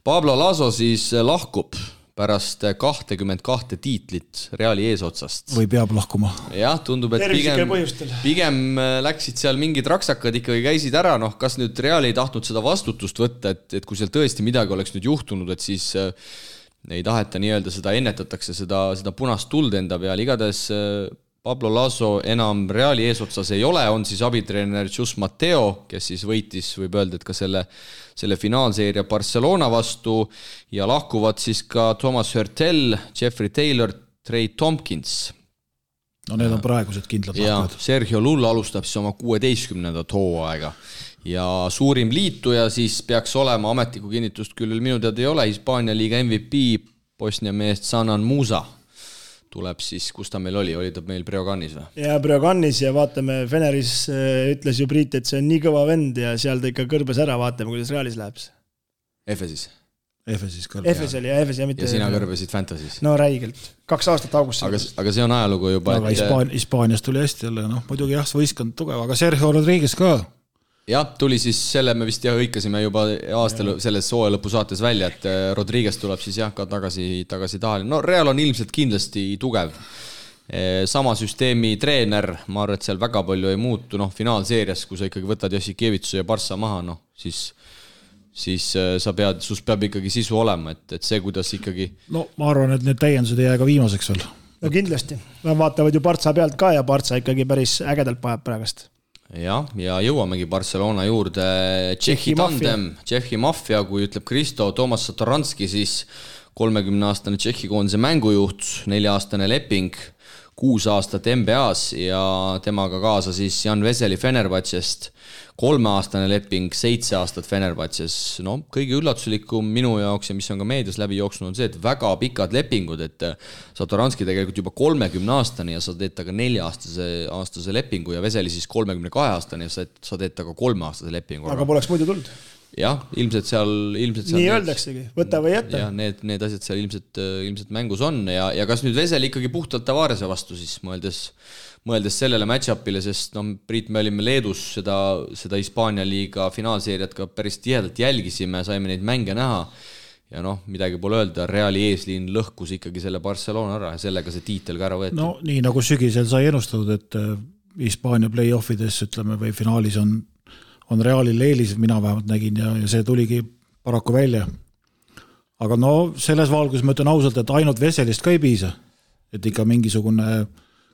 Speaker 2: Pablo Laso siis lahkub pärast 22 tiitlit Reali eesotsast.
Speaker 3: Või peab lahkuma.
Speaker 2: Jah, tundub, et pigem läksid seal mingid raksakad ikkagi käisid ära, noh, kas nüüd Real ei tahtnud seda vastutust võtta, et kui seal tõesti midagi oleks nüüd juhtunud, et siis ei taheta nii-öelda seda ennetatakse, seda punast tuld enda peal. Igades Pablo Laso enam Reali eesotsas ei ole, on siis abitreener Jus Mateo, kes siis võitis, võib öelda, et ka selle finaalseeria Barcelona vastu ja lahkuvad siis ka Thomas Hurtel, Jeffrey Taylor, Trey Tompkins.
Speaker 3: No need on praegused kindlad lahkujad.
Speaker 2: Sergio Lull alustab siis oma 16. hooaega ja suurim liituja siis peaks olema, ametlikku kinnitust küll minu teada ei ole, Hispaania liiga MVP Bosnia meest Sanan Musa. Tuleb siis, kus ta meil oli ta meil Breoganis või?
Speaker 4: Ja Breoganis ja vaatame, Feneris ütles ju Priit, et see on nii kõva vend ja seal ta ikka kõrbes ära, vaatame, kuidas Realis läheb.
Speaker 2: Efesis
Speaker 3: kõrbes.
Speaker 4: Efes oli ja Efes ja mitte...
Speaker 2: Ja sina kõrbesid Fantasy's.
Speaker 4: No räigelt. 2 aastat augustis.
Speaker 2: Aga see on ajalugu juba.
Speaker 3: Aga Hispaanias tuli hästi jälle, muidugi jah, võistkond tugev, aga Sergio Rodriguez ka.
Speaker 2: Jah, tuli siis selle, me vist hõikasime juba aastal selles hooaja lõpu saates välja, et Rodriguez tuleb siis jah ka tagasi tahali. No Real on ilmselt kindlasti tugev. Sama süsteemi treener, ma arvan, et seal väga palju ei muutu, finaalseerias, kui sa ikkagi võtad Jassikevitsu ja Barssa maha, siis sus peab ikkagi sisu olema, et see, kuidas ikkagi...
Speaker 3: No ma arvan, et need täiendused ei jää ka viimaseks veel.
Speaker 4: No kindlasti. Vaatavad ju Barssa pealt ka ja Barssa ikkagi päris ägedalt pajab praegast.
Speaker 2: Ja jõuamegi Barcelona juurde Tšehhi tandem, Tšehhi mafia, kui ütleb Kristo Tomas Satoranski, siis 30-aastane Tšehhi koondise mängujuht, 4-aastane leping, 6 aastat NBA-s ja temaga kaasa siis Jan Veseli Fenerbahcest, 3-aastane leping, 7 aastat Fenerbahces. No, kõige üllatuslikum minu jaoks ja mis on ka meedias läbi jooksnud on see, et väga pikad lepingud, et Satoranski tegelikult juba 30-aastane ja sa teed taga 4-aastase lepingu ja Veseli siis 32-aastane ja sa teed taga 3-aastase lepingu.
Speaker 4: Aga poleks muidu tulnud.
Speaker 2: Jah, ilmselt seal
Speaker 4: nii öeldaksegi, võta või jätta.
Speaker 2: Ja need asjad seal ilmselt mängus on ja kas nüüd Vesel ikkagi puhtalt Tavarese vastu siis mõeldes sellele match-upile, sest Priit, me olime Leedus seda Hispaania liiga finaalseeriat ka päris tihedalt jälgisime, saime neid mänge näha ja midagi pole öelda, Reali eesliin lõhkus ikkagi selle Barcelona ära ja sellega see tiitel ka ära võeti.
Speaker 3: No nii nagu sügisel sai ennustatud, et Hispaania play-offides ütleme või finaalis on Realil eelis, mina vähemalt nägin ja see tuligi paraku välja. Aga selles valgus ma ütlen ausalt, et ainult Veselist ka ei piisa, et ikka mingisugune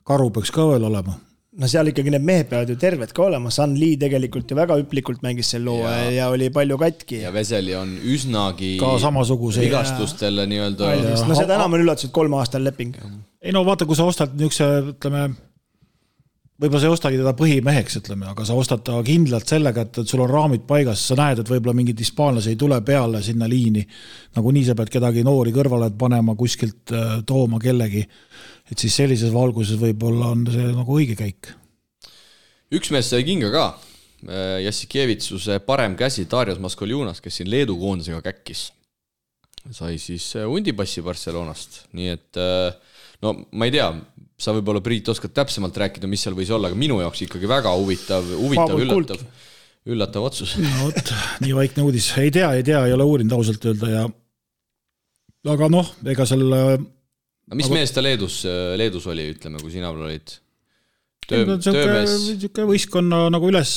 Speaker 3: karu peaks ka veel olema.
Speaker 4: No seal ikkagi need mehed peavad ju terved ka olema, San Lee tegelikult ju väga üplikult mängis sel loo ja oli palju katki.
Speaker 2: Ja Veseli on üsnagi
Speaker 3: ka samasuguse
Speaker 2: vigastustele nii-öelda.
Speaker 4: No seda enam on üllatus, et 3 aastal leping.
Speaker 3: Ei vaata, kui sa ostad niisuguse, ütleme, võib-olla sa ei ostagi teda põhimeheks, ütleme, aga sa ostad ta kindlalt sellega, et sul on raamid paigas, sa näed, et võib-olla mingid hispaanlasi ei tule peale sinna liini, nagu nii sa pead kedagi noori kõrvale panema, kuskilt tooma kellegi, et siis sellises valguses võib-olla on see nagu õige käik.
Speaker 2: Üks mees sai kinga ka, Jassikevitsuse parem käsi Darius Maskoljunas, kes siin Leedu koondisega käkkis, sai siis undipassi Barcelonast, nii et ma ei tea, sa võib-olla Priit oskad täpsemalt rääkida, mis seal võis olla, aga minu jaoks ikkagi väga huvitav üllatav otsus.
Speaker 3: No, nii vaikne uudis. Ei tea, ei ole uurinud ausalt öelda ja aga ega selle...
Speaker 2: Mis mees ta Leedus oli, ütleme, kui sina olid?
Speaker 3: Töömees? Võistkonna nagu üles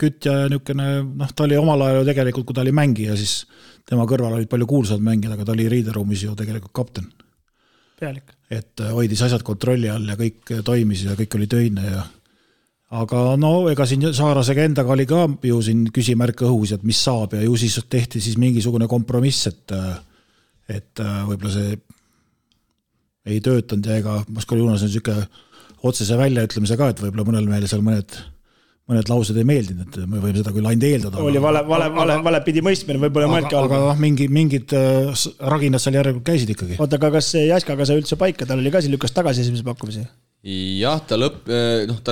Speaker 3: kütja ja niukene, ta oli omal ajal tegelikult, kui ta oli mängija, siis tema kõrval olid palju kuulsad mängijad, aga ta oli riideruumis ju tegelikult kapten.
Speaker 4: Pealik.
Speaker 3: Et hoidis asjad kontrolli all ja kõik toimis ja kõik oli töine ja aga no ega siin Saarasega endaga oli ka ju siin küsimärk õhus, et mis saab ja ju siis tehti siis mingisugune kompromiss, et võib-olla see ei töötanud ja ega Moskva Junas on niisugune otsese väljaütlemise ka, et võib-olla mõnel meile seal mõned laused ei meeldinud, et me võime seda küll ainult eeldada.
Speaker 4: Oli vale pidi mõistmine, võib-olla mõelgi
Speaker 3: aga mingid raginad seal järelikult käisid ikkagi.
Speaker 4: Oota, aga kas Jaskaga sai üldse paika, tal oli ka siin lükkas tagasi esimese pakkumisi?
Speaker 2: Jah, ta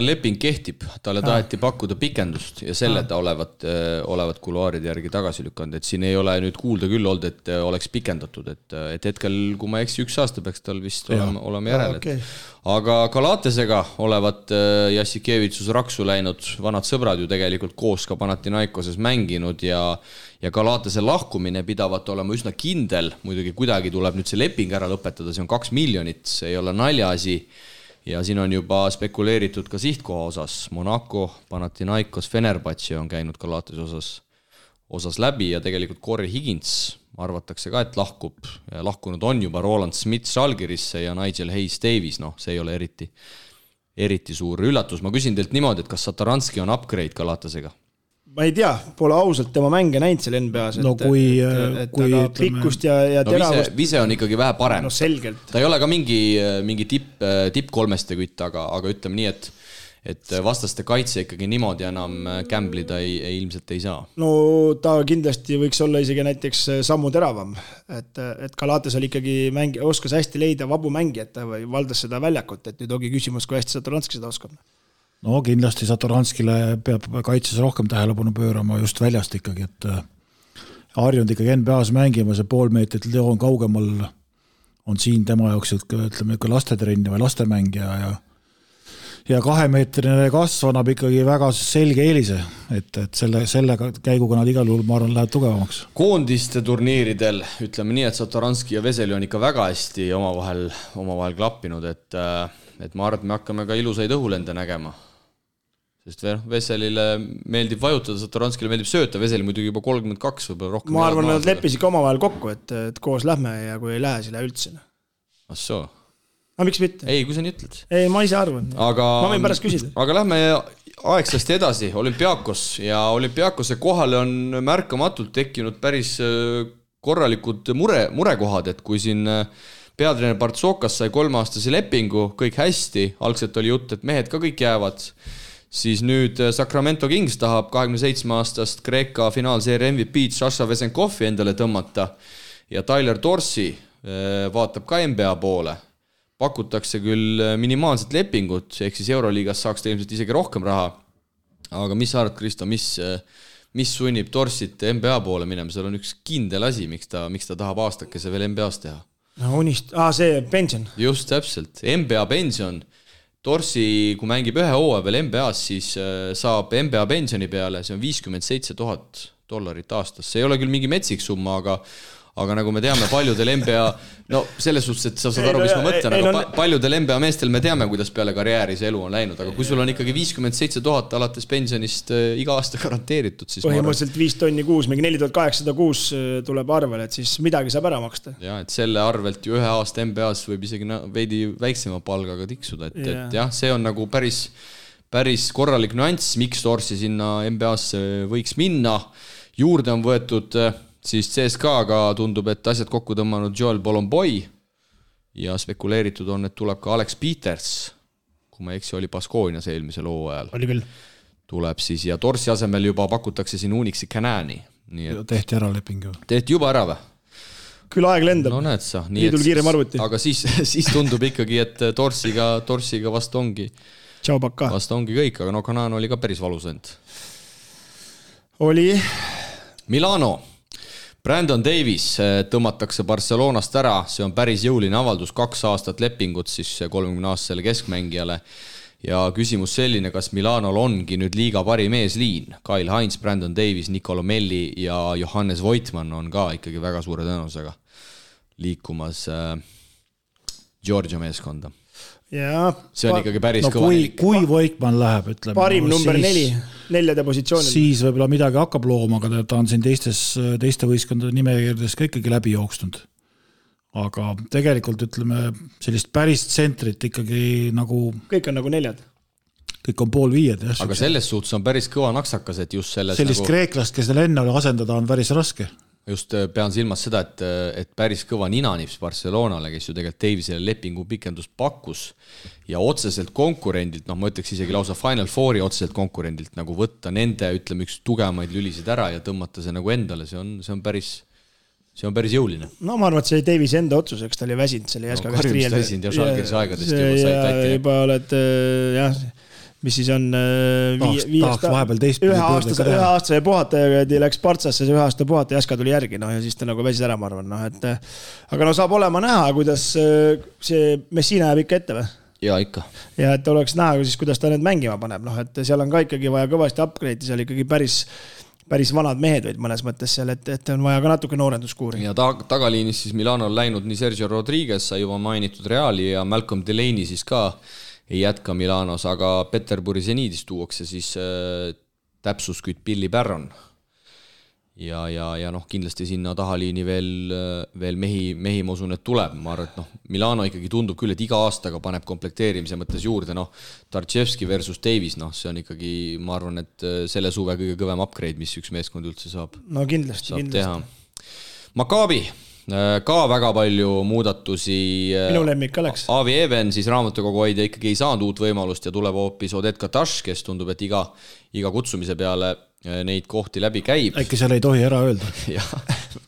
Speaker 2: leping kehtib, talle taheti pakkuda pikendust ja selle ta olevat kuluaaride järgi tagasi lükanud, et siin ei ole nüüd kuulda küll olnud, et oleks pikendatud, et hetkel, kui ma eksi 1 aasta peaks tal vist olema järel. Okay. Aga Galatesega olevat Jassikevitsus raksu läinud, vanad sõbrad ju tegelikult koos ka Panathinaikoses mänginud ja Galatese lahkumine pidavat olema üsna kindel, muidugi kuidagi tuleb nüüd see leping ära lõpetada, see on 2 miljonit, see ei ole naljaasi. Ja siin on juba spekuleeritud ka sihtkoha osas. Monaco, Panathinaikos, Fenerbahce on käinud Galatese osas läbi ja tegelikult Corey Higgins arvatakse ka, et lahkub. Lahkunud on juba Roland Smith Žalgirisse ja Nigel Hayes Davies. See ei ole eriti suur üllatus. Ma küsin teilt niimoodi, et kas Satoranski on upgrade Galatesega?
Speaker 4: Ma ei tea, pole ausalt tema mänge näinud seal NBA-s,
Speaker 3: kui
Speaker 4: pikkust ja teravust.
Speaker 2: Vise on ikkagi vähe parem.
Speaker 4: No selgelt.
Speaker 2: Ta ei ole ka mingi tipp kolmeste kütt, aga ütleme nii, et vastaste kaitse ikkagi niimoodi enam gamblida ilmselt ei saa.
Speaker 4: No ta kindlasti võiks olla isegi näiteks sammu teravam, et Galates oli ikkagi oskas hästi leida vabu mängijat või valdas seda väljakut, et nüüd ongi küsimus, kui hästi Satoranski seda oskab.
Speaker 3: No kindlasti Satoranskile peab kaitses rohkem tähelepanu pöörama just väljast ikkagi, et harjunud ikkagi NBA-s mängima, see pool meetrit Leon kaugemal on siin tema jaoks, ütleme, lastetrenni või lastemängija ja 2-meetrine kasv annab ikkagi väga selge eelise, et selle käiguga nad igal juhul, ma arvan, läheb tugevamaks.
Speaker 2: Koondiste turniiridel, ütleme nii, et Satoranski ja Veseli on ikka väga hästi omavahel klappinud, et ma arvan, et me hakkame ka ilusaid õhulende nägema. Sest Veselile meeldib vajutada, Satoranskile meeldib sööta, Veseli muidugi juba 32 võib rohkem.
Speaker 4: Ma arvan, nad leppisid ka omavahel kokku, et koos lähme ja kui ei lähe, siis lähe üldse.
Speaker 2: Assoo.
Speaker 4: Aga miks mitte?
Speaker 2: Ei, kui sa nii ütled.
Speaker 4: Ei, ma ise arvan. Ma võin pärast küsida.
Speaker 2: Aga lähme aegsasti edasi, Olümpiakos ja Olümpiakose kohale on märkamatult tekkinud päris korralikud murekohad, et kui siin peatreener Partsokas sai 3-aastase lepingu, kõik hästi, algselt oli jutt, et mehed ka kõik jäävad, siis nüüd Sacramento Kings tahab 27-aastast Kreeka finaalseeria MVP Sasha Vesenkovi endale tõmmata ja Tyler Dorsey vaatab ka NBA poole. Pakutakse küll minimaalset lepingut, ehk siis Euroliigas saaks ta ilmselt isegi rohkem raha. Aga mis sa arvad, Kristo, mis sunnib Dorseyt NBA poole minema? Seal on üks kindel asi, miks ta tahab aastakese veel NBA-s teha.
Speaker 4: See pension.
Speaker 2: Just täpselt, NBA pension. Dorsey, kui mängib ühe hooaja veel NBA-s, siis saab NBA pensioni peale, see on $57,000 aastas. See ei ole küll mingi metsik summa, aga nagu me teame, paljudel NBA, no selles suhtes, et sa saad aru, mis ma mõtlen, aga paljudel NBA meestel me teame, kuidas peale karjääri see elu on läinud, aga kui sul on ikkagi $57,000 alates pensionist iga aasta garanteeritud, siis
Speaker 4: põhimõtteliselt 5 tonni kuus, mingi 4806 tuleb arvele, et siis midagi saab ära maksta.
Speaker 2: Ja, et selle arvelt ju 1 aasta NBA-s võib isegi veidi väiksema palgaga tiksuda, et jah, see on nagu päris korralik nüanss, miks Dorsey sinna NBA-sse võiks minna. Juurde on võetud siis CSKA-ga tundub, et asjad kokku tõmmanud Joel Bolomboy ja spekuleeritud on, et tuleb ka Alex Peters, kui ma eksi, oli Baskoonias eelmisel hooajal.
Speaker 4: Oli küll.
Speaker 2: Tuleb siis ja Dorsey asemel juba pakutakse siin Unixi Canani.
Speaker 3: Tehti ära leping ju.
Speaker 2: Tehti juba ära või?
Speaker 4: Küll aeg lendab.
Speaker 2: No näed sa.
Speaker 4: Liidul kiirem arvuti.
Speaker 2: Aga siis tundub ikkagi, et Dorseyga vast ongi.
Speaker 4: Tšau pakka.
Speaker 2: Vast ongi kõik, aga no Canan oli ka päris valus end.
Speaker 4: Oli.
Speaker 2: Milano. Brandon Davis tõmmatakse Barcelonast ära, see on päris jõuline avaldus, 2 aastat lepingut siis 30-aastasele keskmängijale ja küsimus selline, kas Milanol ongi nüüd liiga parim eesliin. Kyle Hines, Brandon Davis, Nicolo Melli ja Johannes Voitmann on ka ikkagi väga suure tõenäosusega liikumas Georgia meeskonda.
Speaker 4: Ja,
Speaker 2: see on ikkagi päris kõva.
Speaker 3: Kui Voitmann läheb, ütleme.
Speaker 4: Parim number 4 positsioonil.
Speaker 3: Siis võib-olla midagi hakkab looma, aga ta on siin teiste võistkondade nimekirjades ka ikkagi läbi jooksnud. Aga tegelikult ütleme sellist päris tsentrit ikkagi nagu...
Speaker 4: Kõik on nagu 4.
Speaker 3: kõik on 4:30.
Speaker 2: Aga selles suhtes on päris kõva naksakas, et just selles
Speaker 3: sellist nagu... kreeklast, kes neil enne asendada on päris raske.
Speaker 2: Just pean silmas seda, et päris kõva ninanips Barcelonale, kes ju tegelikult Davisele lepingu pikendust pakkus ja otseselt konkurendilt, ma ütleks isegi lausa Final Fouri otseselt konkurendilt nagu võtta nende, ütleme, üks tugevamaid lülisid ära ja tõmmata see nagu endale, see on päris jõuline.
Speaker 4: No ma arvan, et see oli Davise enda otsus, eks ta oli väsinud selle Jaska käest riiel.
Speaker 2: Ja Žalgirise aegadest juba sai tatti.
Speaker 4: Juba oled, jah, mis siis on üheaastase puhataja läks Partsasse, see 1 aasta puhataja Jaska tuli järgi, ja siis ta nagu väsis ära, ma arvan. Aga saab olema näha, kuidas see Messina jääb ikka ette või?
Speaker 2: Ja ikka.
Speaker 4: Ja et oleks näha, siis, kuidas ta need mängima paneb. Et seal on ka ikkagi vaja kõvasti upgrade'i, seal ikkagi päris vanad mehed võid mõnes mõttes seal, et on vaja ka natuke noorenduskuuri.
Speaker 2: Ja tagaliinis siis Milano on läinud nii Sergio Rodriguez, sai juba mainitud Reali ja Malcolm Delaney siis ka ei jätka Milanos, aga Peterburi Zeniidis tuuakse siis täpsuskütt Billy Barron. Ja kindlasti sinna tahaliini veel mehi ma usun, et tuleb. Ma arvan, et Milano ikkagi tundub küll, et iga aastaga paneb komplekteerimise mõttes juurde. Tartševski versus Davis, see on ikkagi, ma arvan, et selle suve kõige kõvem upgrade, mis üks meeskond üldse saab.
Speaker 4: No kindlasti.
Speaker 2: Teha. Maccabi, ka väga palju muudatusi.
Speaker 4: Minu lemmik oleks.
Speaker 2: Avi Even, siis raamatukogu hoidja ikkagi ei saanud uut võimalust ja tuleb hoopis Oded Kataš, kes tundub, et iga kutsumise peale neid kohti läbi käib.
Speaker 3: Äkki seal ei tohi ära öelda.
Speaker 2: Jah,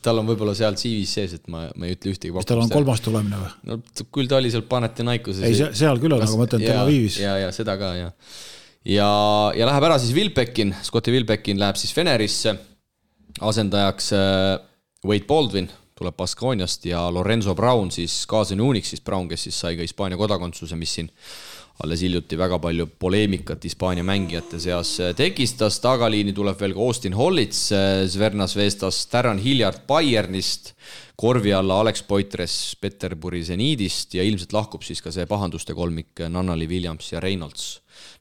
Speaker 2: tal on võib-olla seal CV-s sees, et ma ei ütle ühtegi pakkumist.
Speaker 3: Tal on 3. tulemine või?
Speaker 2: No küll ta oli seal Panetinaikuses.
Speaker 3: Ei, seal küll on, aga mõtlen Tel Avivis.
Speaker 2: Ja seda ka, ja. Ja läheb ära siis Wilbekin, Scotti Wilbekin läheb siis Fenerisse, asendajaks Wade Baldwin tuleb Baskooniast ja Lorenzo Brown siis kaasani Unix, siis Brown, kes siis sai ka Hispaania kodakondsuse, mis siin alles hiljuti väga palju poleemikat Hispaania mängijate seas tekistas. Tagaliini tuleb veel ka Austin Hollits, Zvernas Vestas, Darren Hilliard Bayernist, korvi alla Alex Poitres Peterburi Zeniidist ja ilmselt lahkub siis ka see pahanduste kolmik Nannali, Williams ja Reynolds.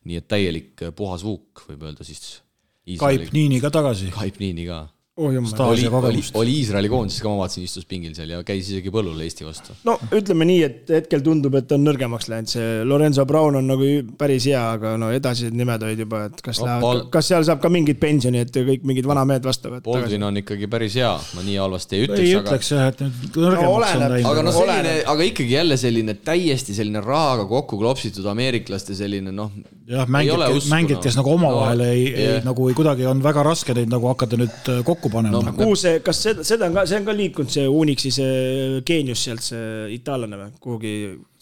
Speaker 2: Nii et täielik puhas vuuk, võib öelda siis.
Speaker 3: Kaip Niini ka tagasi.
Speaker 2: Kaip Niini ka.
Speaker 3: Oli
Speaker 2: Iisraeli koondis ka, ma vaatasin, istus pingil seal ja käis isegi põllul Eesti vastu.
Speaker 4: No ütleme nii, et hetkel tundub, et on nõrgemaks läinud. See Lorenzo Brown on nagu päris hea, aga edasi nimed olid juba, et kas seal saab ka mingid pensioni, et kõik mingid vana mehed vastavad.
Speaker 2: Baldwin on ikkagi päris hea, ma nii halvasti ei
Speaker 3: ütleks, et nõrgemaks on
Speaker 2: läinud. Aga ikkagi jälle selline täiesti selline rahaga kokku klopsitud ameeriklaste selline,
Speaker 3: jah, mängid, kes nagu omavahel nagu kuidagi on väga raske neid nagu hakata nüüd kokku panema.
Speaker 4: Kas see on ka liikunud see Unixi see geenius sealt, see itaallane või? Kuhugi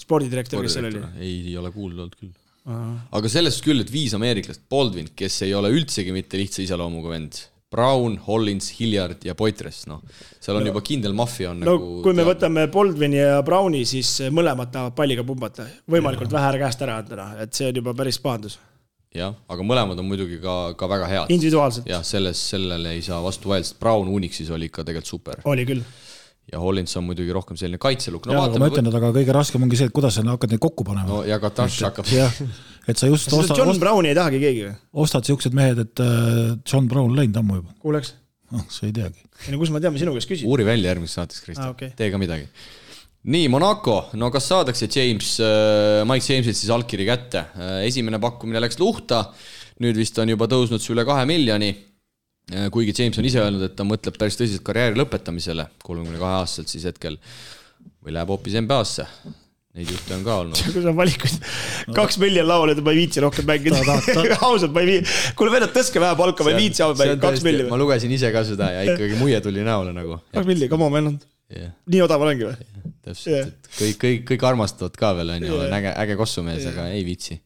Speaker 4: spordidirektor, kes seal oli?
Speaker 2: Ei ole kuulnud küll. Aga sellest küll, et 5 ameeriklast, Baldwin, kes ei ole üldsegi mitte lihtsa iseloomuga vend, Brown, Hollins, Hilliard ja Poitres, seal on juba kindel maffia on nagu...
Speaker 4: Kui me võtame Baldwini ja Browni, siis mõlemad tahavad palliga pumbata, võimalikult vähe käest ära anda, et see on juba päris pahandus.
Speaker 2: Jah, aga mõlemad on muidugi ka väga head.
Speaker 4: Individuaalselt.
Speaker 2: Jah, sellele ei saa vastu vaja, sest Brown Unixis oli ikka tegelikult super.
Speaker 4: Oli küll.
Speaker 2: Ja Hollins on muidugi rohkem selline kaitseluk.
Speaker 3: Aga ma ütlen, aga kõige raskem ongi see, et kuidas sa hakkad neid kokku panema.
Speaker 2: Ja Kataš hakkab.
Speaker 3: Et sa just
Speaker 4: John Browni ei tahagi keegi või?
Speaker 3: Ostad siuksed mehed, et John Brown läinud ammu juba.
Speaker 4: Kuuleks?
Speaker 3: Sa ei teagi.
Speaker 4: Kus ma tean, sinu käest küsin?
Speaker 2: Uuri välja järgmises saates, Kristjan. Tee ka midagi. Nii, Monaco, kas saadakse Mike Jamesilt siis allkiri kätte? Esimene pakkumine läks luhta, nüüd vist on juba tõusnud see üle 2 miljoni, kuigi James on ise öelnud, et ta mõtleb päris tõsiselt karjääri lõpetamisele 32-aastaselt siis hetkel või läheb hoopis NBA-sse. Neid juhte on ka olnud.
Speaker 4: Kui sa valikuid 2 miljon lauale, et ma ei viitsi rohkem mängida. Ausalt, ma ei viitsi. Kuule venad, tõske vähe palka, ma ei viitsi 2 miljon.
Speaker 2: Ma lugesin ise ka seda ja ikkagi muie tuli näole nagu.
Speaker 4: 2 miljon, come on, meil on. Nii odav olengi või?
Speaker 2: Täpselt, kõik armastavad ka veel, on äge kossumees, aga ei viitsi.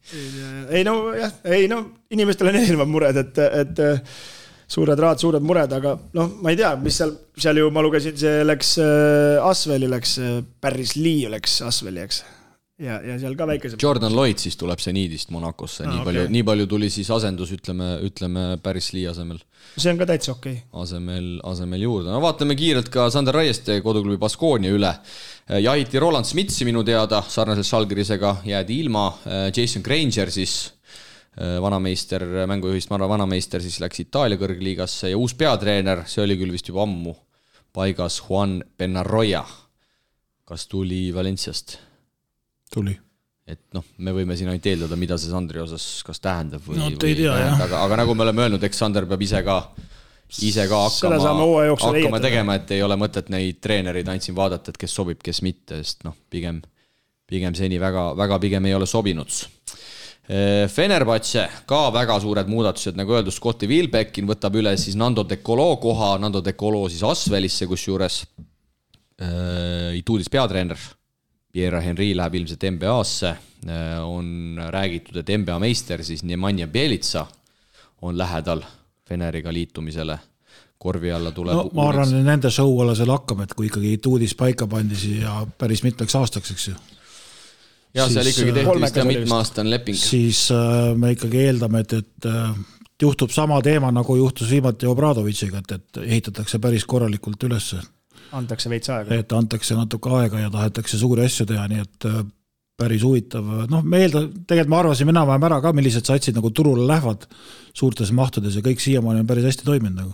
Speaker 4: Inimestel on erinevad mured, et suured rahad, suured mured, aga ma ei tea, mis seal ju ma lugesin, see läks Asveli, Paris Lee läks Asveli, eks. Ja seal ka väikese...
Speaker 2: Jordan Lloyd siis tuleb see Niidist Monacosse, nii palju tuli siis asendus, ütleme Paris Lee asemel.
Speaker 4: See on ka täitsa okei.
Speaker 2: Asemel juurde. Vaatame kiirelt ka Sander Raieste koduklubi Baskoonia üle. Jahiti Roland Smitsi minu teada, sarnaselt Žalgirisega jäädi ilma. Jason Granger siis, vanameister, mängujuhist vanameister, siis läks Itaalia kõrgliigasse ja uus peatreener, see oli küll vist juba ammu paigas, Juan Benarroya. Kas tuli Valenciast?
Speaker 3: Tuli.
Speaker 2: et noh, me võime siin ainult eeldada, mida see Sandri osas kas tähendab või,
Speaker 3: no, ei tea,
Speaker 2: aga nagu me oleme öelnud, eks Sander peab ise ka hakkama tegema, et ei ole mõtet neid treenereid ainult siin vaadata, et kes sobib, kes mitte, sest noh, pigem seni väga pigem ei ole sobinud. Fenerbahce ka väga suured muudatused, nagu öeldud, Scotti Wilbeckin võtab üle siis Nando De Colo koha, Nando De Colo siis Asvelisse, kus juures Ituudis peatreener Pierre Henry läheb ilmselt NBA-sse, on räägitud, et NBA meister siis Nemanja Bjelica on lähedal Feneriga liitumisele, korvi alla tuleb
Speaker 3: no, ma arvan, et nende show alla seal hakkame, et kui ikkagi Ituudis paika pandisi ja päris mitmeks aastaks, eks ju.
Speaker 2: Ja seal ikkagi tehti vist mitmeaastane leping.
Speaker 3: Siis me ikkagi eeldame, et juhtub sama teema, nagu juhtus viimati Obradovitšiga, et ehitatakse päris korralikult üles.
Speaker 4: Antakse veits aega.
Speaker 3: Et antakse natuke aega ja tahetakse suuri asju teha, nii et päris huvitav. Noh, tegelikult ma arvasin enam-vähem ära ka, millised satsid nagu turule lähevad suurtes mahtudes ja kõik siiamaani on päris hästi toiminud nagu.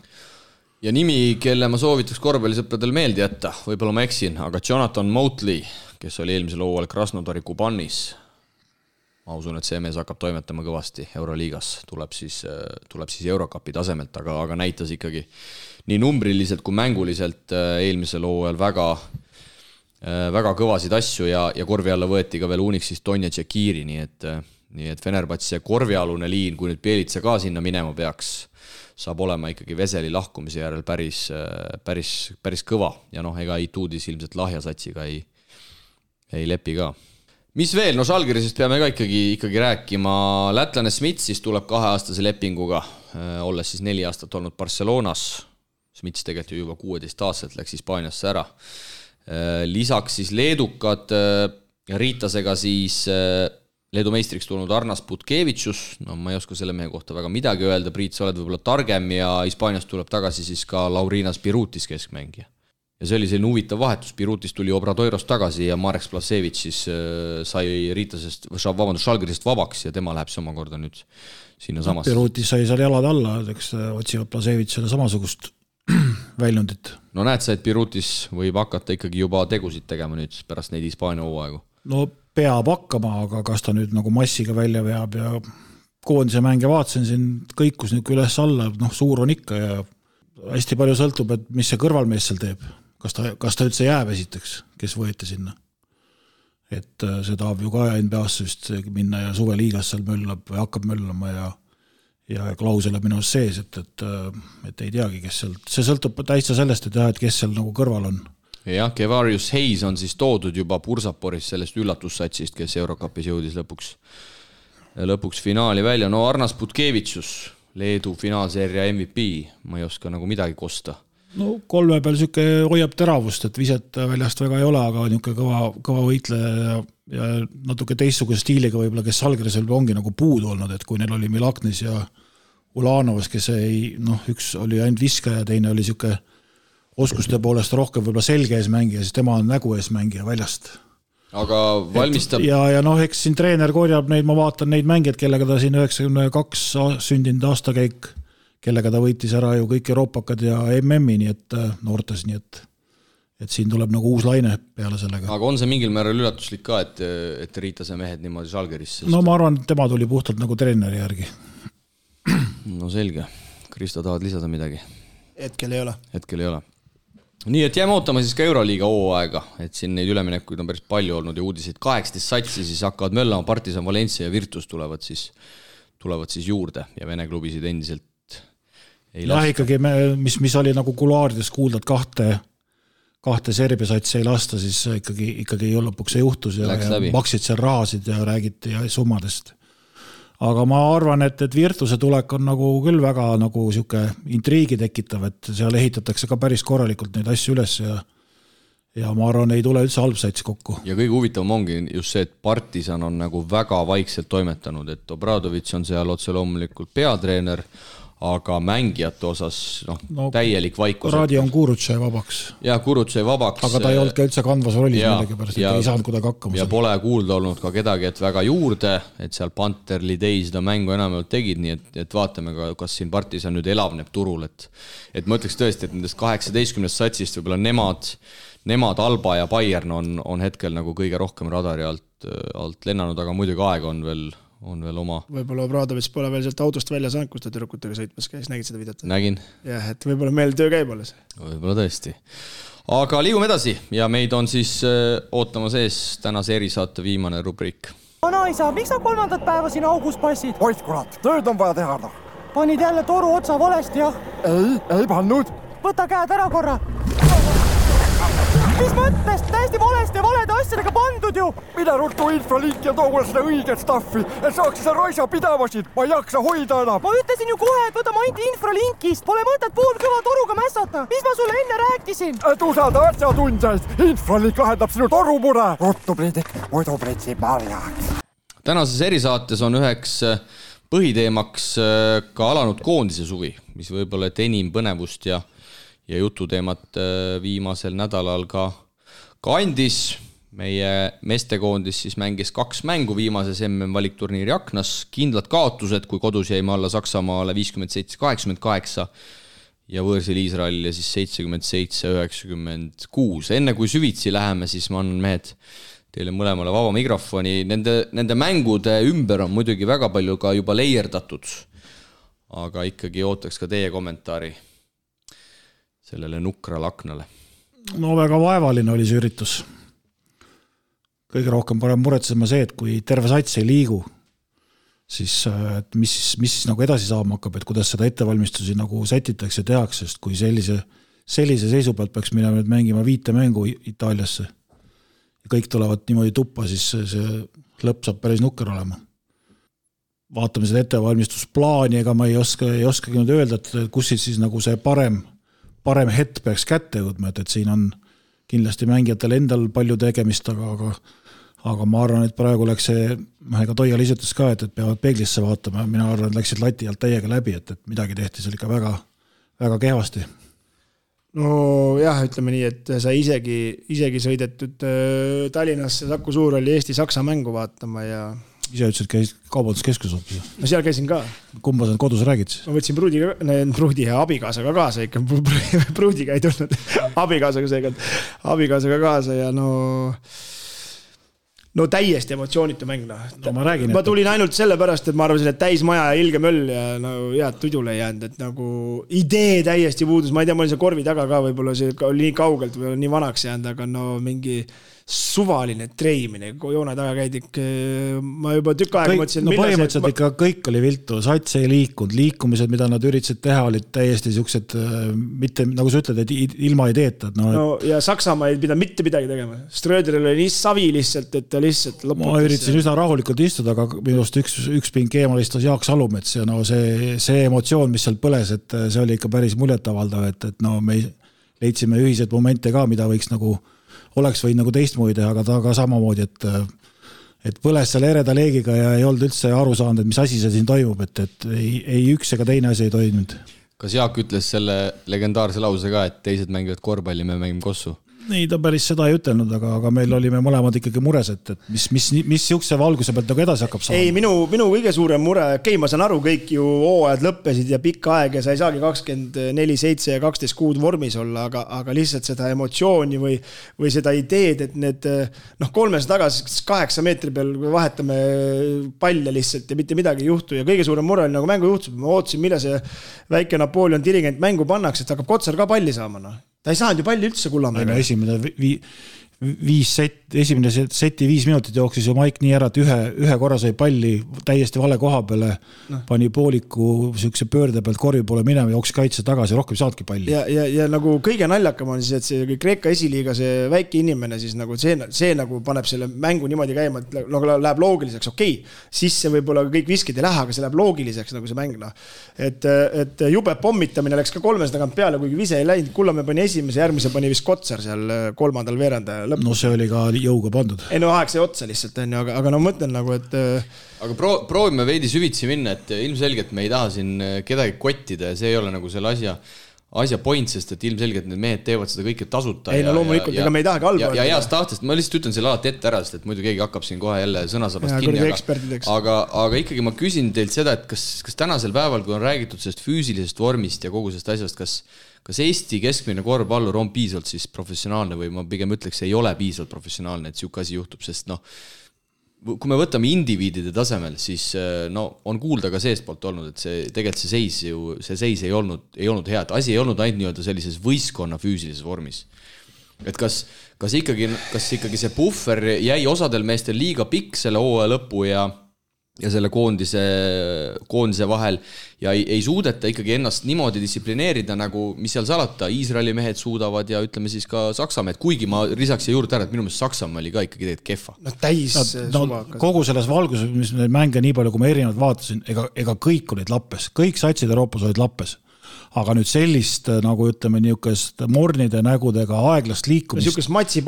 Speaker 2: Ja nimi, kelle ma soovitaks korvpallisõpradel meeldi jätta, võib-olla ma eksin, aga Jonathan Motley, kes oli eelmisel hooajal Krasnodari Kubanis. Ma usun, et see mees hakkab toimetama kõvasti Euroliigas, tuleb siis Eurocupi tasemelt, aga näitas ikkagi nii numbriliselt kui mänguliselt eelmisel hooajal väga kõvasid asju ja korvi alla võeti ka veel Unixist Tonja Tšekiri, nii et Fenerbahce korvialune liin, kui nüüd Bjelica ka sinna minema peaks, saab olema ikkagi Veseli lahkumise järel päris kõva ja noh, ega Ituudis ilmselt lahjasatsiga ei lepi ka. Mis veel? No Žalgirisest peame ka ikkagi rääkima. Lätlane Smits tuleb 2-aastase lepinguga, olles siis 4 aastat olnud Barcelonas. Smits tegelikult juba 16 aastat läks Hispaaniasse ära. Lisaks siis leedukad Riitasega siis Leedu meistriks tulnud Arnas Putkevitšus, no ma ei oska selle mehe kohta väga midagi öelda, Priit, sa oled võib-olla targem ja Hispaaniast tuleb tagasi siis ka Laurinas Pirutis keskmängija. Ja see oli selline huvitav vahetus, Pirutis tuli Obradoirost tagasi ja Marek Splasevitš siis sai Žalgirisest vabaks ja tema läheb see omakorda nüüd sinna samasse.
Speaker 3: Pirutis sai seal jalad alla, eks otsivad Plasevitšile samasugust väljundit.
Speaker 2: No näed sa, et Pirutis võib hakata ikkagi juba tegusid tegema nüüd pärast neid Hispaania hooaegu?
Speaker 3: No peab hakkama, aga kas ta nüüd nagu massiga välja veab ja koondise mänge vaatasin siin kõikus nüüd üles alla, noh suur on ikka ja hästi palju sõltub, et mis see kõrvalmees seal teeb. Kas ta üldse jääb esiteks, kes võeti sinna. Et see tahab ju ka NBA-sse vist minna ja suveliigas seal möllab või hakkab möllama ja klausel on minu sees, et ei teagi, kes seal. See sõltub täitsa sellest, et kes seal nagu kõrval on.
Speaker 2: Jah, Kevarius Hayes on siis toodud juba Bursaporis sellest üllatussatsist, kes Eurocupis jõudis lõpuks finaali välja. No Arnas Putkevitšus, Leedu finaalseeria MVP, ma ei oska nagu midagi kosta.
Speaker 3: No 3 peal süke hoiab teravust, et viset väljast väga ei ole, aga niisugune kõva võitleja ja natuke teistsuguse stiiliga võib-olla, kes Žalgiris ongi nagu puudu olnud, et kui neil oli Milaknis ja Ulanovas, kes üks oli ainult viskaja ja teine oli niisugune oskuste poolest rohkem võib-olla selge ees mängija, siis tema on nägu ees mängija väljast.
Speaker 2: Aga valmistab...
Speaker 3: Ja eks siin treener korjab neid, ma vaatan neid mängijad, kellega ta siin 92 sündinud aastakäik, kellega ta võitis ära ju kõik Euroopakad ja MM-i, nii et noortes, nii et siin tuleb nagu uus laine peale sellega.
Speaker 2: Aga on see mingil määral üllatuslik ka, et Riitase mehed niimoodi Žalgirisse?
Speaker 3: No ma arvan, et tema tuli puhtalt nagu treeneri järgi.
Speaker 2: No selge. Kristo, tahad lisada midagi?
Speaker 4: Hetkel ei ole.
Speaker 2: Nii, et jääme ootama siis ka Euroliiga hooaega, et siin neid üleminekuid on päris palju olnud ja uudiseid 18 satsi siis hakkavad möllama, Partisan, Valencia ja Virtus tulevad siis juurde ja Vene klubisid endiselt ei lasta.
Speaker 3: Ikkagi, mis oli nagu kuluaarides kuuldad kahte Serbia satsi ei lasta, siis ikkagi lõpuks ei juhtus ja maksid seal rahasid ja räägiti summadest. Aga ma arvan, et Virtuse tulek on nagu küll väga nagu siuke intriigi tekitav, et seal ehitatakse ka päris korralikult neid asju üles ja ma arvan, ei tule üldse halb sats kokku.
Speaker 2: Ja kõige huvitavam ongi just see, et Partisan on nagu väga vaikselt toimetanud, et Obradovitš on seal otse loomulikult peatreener, aga mängijate osas täielik vaikus.
Speaker 3: Radi on Kurutšai vabaks.
Speaker 2: Ja Kurutšai vabaks.
Speaker 3: Aga ta ei olnud ka üldse kandvas rollis millegi pärast, et ei saanud kuidagi hakkama.
Speaker 2: Ja pole kuulda olnud ka kedagi, et väga juurde, et seal Panter, Lidei seda mängu enamalt tegid, nii et vaatame ka, kas siin Partisan nüüd elavneb turul, et ma ütleks tõesti, et nendest 18 satsist võib-olla nemad, Alba ja Bayern on hetkel nagu kõige rohkem radari alt alt lennanud, aga muidugi aeg on veel oma.
Speaker 4: Võib-olla Obradovitš pole veel sealt autost välja saanud, kus ta tüdrukutega sõitmas käis, nägid seda videot?
Speaker 2: Nägin.
Speaker 4: Jah, et võib-olla meil töö käib alles.
Speaker 2: Võib-olla tõesti. Aga liigume edasi ja meid on siis ootamas ees tänase erisaate viimane rubriik.
Speaker 5: Vanaisa, miks sa 3. päeva siin augus passid?
Speaker 6: Oid kurat, tööd on vaja teha.
Speaker 5: Panid jälle toru otsa valesti, jah?
Speaker 6: Ei pannud.
Speaker 5: Võta käed ära korra. Mis mõttes? Täiesti valesti ja valede asjadega pandud ju.
Speaker 6: Mida ruttu infralink ja too seda õiget staffi, et saaks seda raisa pidavasid. Ma ei jaksa hoida enam.
Speaker 5: Ma ütlesin ju kohe, et võta mainti infralinkist. Pole mõtet pool kõva toruga mässata. Mis ma sulle enne rääkisin?
Speaker 6: Et usalda asjatundjaid. Infralink lahendab sinu torumure. Ruttu Priidik, muidu pritsi marjaks.
Speaker 2: Tänases erisaates on üheks põhiteemaks ka alanud koondise suvi, mis võib-olla et enim põnevust ja jututeemat viimasel nädalal ka andis. Meie meestekoondis siis mängis 2 mängu viimases MM-valikturniiri aknas, kindlad kaotused, kui kodus jäime alla Saksamaale 57-88 ja võõrsil Iisraelile siis 77-96. Enne kui süvitsi läheme, siis ma annan mehed teile mõlemale vaba mikrofoni. Nende mängude ümber on muidugi väga palju ka juba leierdatud, aga ikkagi ootaks ka teie kommentaari sellele nukrale aknale.
Speaker 3: No väga vaevaline oli see üritus. Kõige rohkem parem muretsema see, et kui terve sats ei liigu, siis et mis nagu edasi saama hakkab, et kuidas seda ettevalmistusi nagu sätitakse ja tehakse, sest kui sellise seisu pealt peaks minema nüüd mängima 5 mängu Itaaliasse ja kõik tulevad niimoodi tuppa, siis see lõpp saab päris nukker olema. Vaatame seda ettevalmistusplaani, ega ma ei oskagi nüüd öelda, et kus siis nagu see parem hetk peaks kätte jõudma, et siin on kindlasti mängijatel endal palju tegemist, aga ma arvan, et praegu läks see, ega Toia liisutas ka, et peavad peeglisse vaatama, mina arvan, et läksid lati alt täiega läbi, et midagi tehti seal ikka väga, väga kehvasti.
Speaker 4: No jah, ütleme nii, et sa isegi sõidetud Tallinnasse Saku Suurhalli Eesti-Saksa mängu vaatama ja
Speaker 3: ise ütlesid, käis kaubanduskeskus hoopis.
Speaker 4: No seal käisin ka.
Speaker 3: Kumba sa kodus räägid siis?
Speaker 4: Ma võtsin pruudi ja abikaasaga kaasa ikka. Pruudiga ei tulnud. Abikaasaga kaasa ja no täiesti emotsioonitu mäng. Ma tulin ainult selle pärast, et ma arvasin, et täis maja ja ilge möll ja head tudule ei jäänud, et nagu idee täiesti puudus. Ma ei tea, ma olin see korvi taga ka, võib-olla see oli nii kaugelt või nii vanaks jäänud, aga mingi suvaline treimine, kui joone taga käidik, ma juba tükk aega mõtlesin,
Speaker 3: põhimõtteliselt ikka kõik oli viltu, sats ei liikunud, liikumised, mida nad üritasid teha, olid täiesti siuksed, mitte nagu sa ütled, et ilma ei teeta.
Speaker 4: Ja Saksamaa ei pidanud mitte midagi tegema. Ströderil oli nii savi lihtsalt, et ta lihtsalt lõputas.
Speaker 3: Ma üritasin üsna rahulikult istuda, aga minust üks pink eemal istus Jaak Salumets ja see emotsioon, mis seal põles, et see oli ikka päris muljetavaldav, et me leidsime ühiseid momente ka, mida võiks nagu oleks võinud nagu teistmoodi teha, aga ta ka samamoodi, et põles seal ereda leegiga ja ei olnud üldse aru saanud, et mis asi see siin toimub, et ei üks ega teine asi ei toimunud.
Speaker 2: Kas Jaak ütles selle legendaarse lause ka, et teised mängivad korvpalli, me mängime kossu?
Speaker 3: Nii, ta päris seda ei ütelnud, aga meil olime mõlemad ikkagi mures, et mis siukse valguse pealt nagu edasi hakkab saama.
Speaker 4: Ei, minu kõige suurem mure, ma saan aru, kõik ju hooajad lõppesid ja pikka aeg ja sa ei saagi 24-7 ja 12 kuud vormis olla, aga lihtsalt seda emotsiooni või seda ideed, et need 300 tagasi 8 meetri peal vahetame palle lihtsalt ja mitte midagi ei juhtu ja kõige suurem mure oli nagu mängu juhtus. Ma ootasin, mille see väike Napoleon dirigent mängu pannaks, et hakkab Kotsar ka palli saama. Ta ei saanud ju palli üldse Kullamäega.
Speaker 3: Esimene seti 5 minutit jooksis ju Maik nii ära, et ühe korra sai palli täiesti vale koha peale, pani pooliku siukse pöörde pealt korvi poole minema, jooksis kaitse tagasi, rohkem saadki palli.
Speaker 4: Ja nagu kõige naljakam on siis, et see Kreeka esiliiga, see väike inimene siis nagu see nagu paneb selle mängu niimoodi käima, et nagu läheb loogiliseks, okei, sisse võib-olla kõik viskid ei lähe, aga see läheb loogiliseks nagu see mäng. Et jube pommitamine läks ka 300 tagant peale, kuigi vise ei läinud, Kullamäe pani esimese, järgmise pani vist Kotsar seal 3. veeranda lõppu.
Speaker 3: No see oli ka jõuga pandud.
Speaker 4: Ei aeg see otsa lihtsalt, aga mõtlen nagu, et
Speaker 2: aga proovime veidi süvitsi minna, et ilmselgelt me ei taha siin kedagi kottida ja see ei ole nagu selle asja point, sest et ilmselgelt need mehed teevad seda kõike tasuta.
Speaker 4: Ei, loomulikult, ega me ei tahagi halba.
Speaker 2: Ja heast tahtest, ma lihtsalt ütlen selle alati ette ära, sest et muidu keegi hakkab siin kohe jälle sõnasabast kinni. Aga ikkagi ma küsin teilt seda, et kas tänasel päeval, kui on räägitud sellest füüsilisest vormist ja kogu sellest asjast, kas Eesti keskmine korvpallur on piisavalt siis professionaalne või ma pigem ütleks, ei ole piisavalt professionaalne, et siuke asi juhtub, sest kui me võtame indiviidide tasemel, siis no on kuulda ka seestpoolt olnud, et see tegelikult see seis ei olnud hea, et asi ei olnud ainult nii-öelda sellises võistkonna füüsilises vormis. Et kas ikkagi see puffer jäi osadel meestel liiga pikk selle hooaja lõpu ja selle koondise vahel ja ei suudeta ikkagi ennast niimoodi distsiplineerida, nagu mis seal salata, Iisraeli mehed suudavad ja ütleme siis ka Saksa mehed, kuigi ma lisaks juurde ära, et minu meelest Saksamaa oli ka ikkagi tegelikult kehva.
Speaker 3: Kogu selles valguses, mis neid mänge nii palju, kui ma erinevad vaatasin, ega kõik olid lappes, kõik satsid Euroopas olid lappes. Aga nüüd sellist, nagu ütleme, niisugust mornide nägudega aeglast liikumist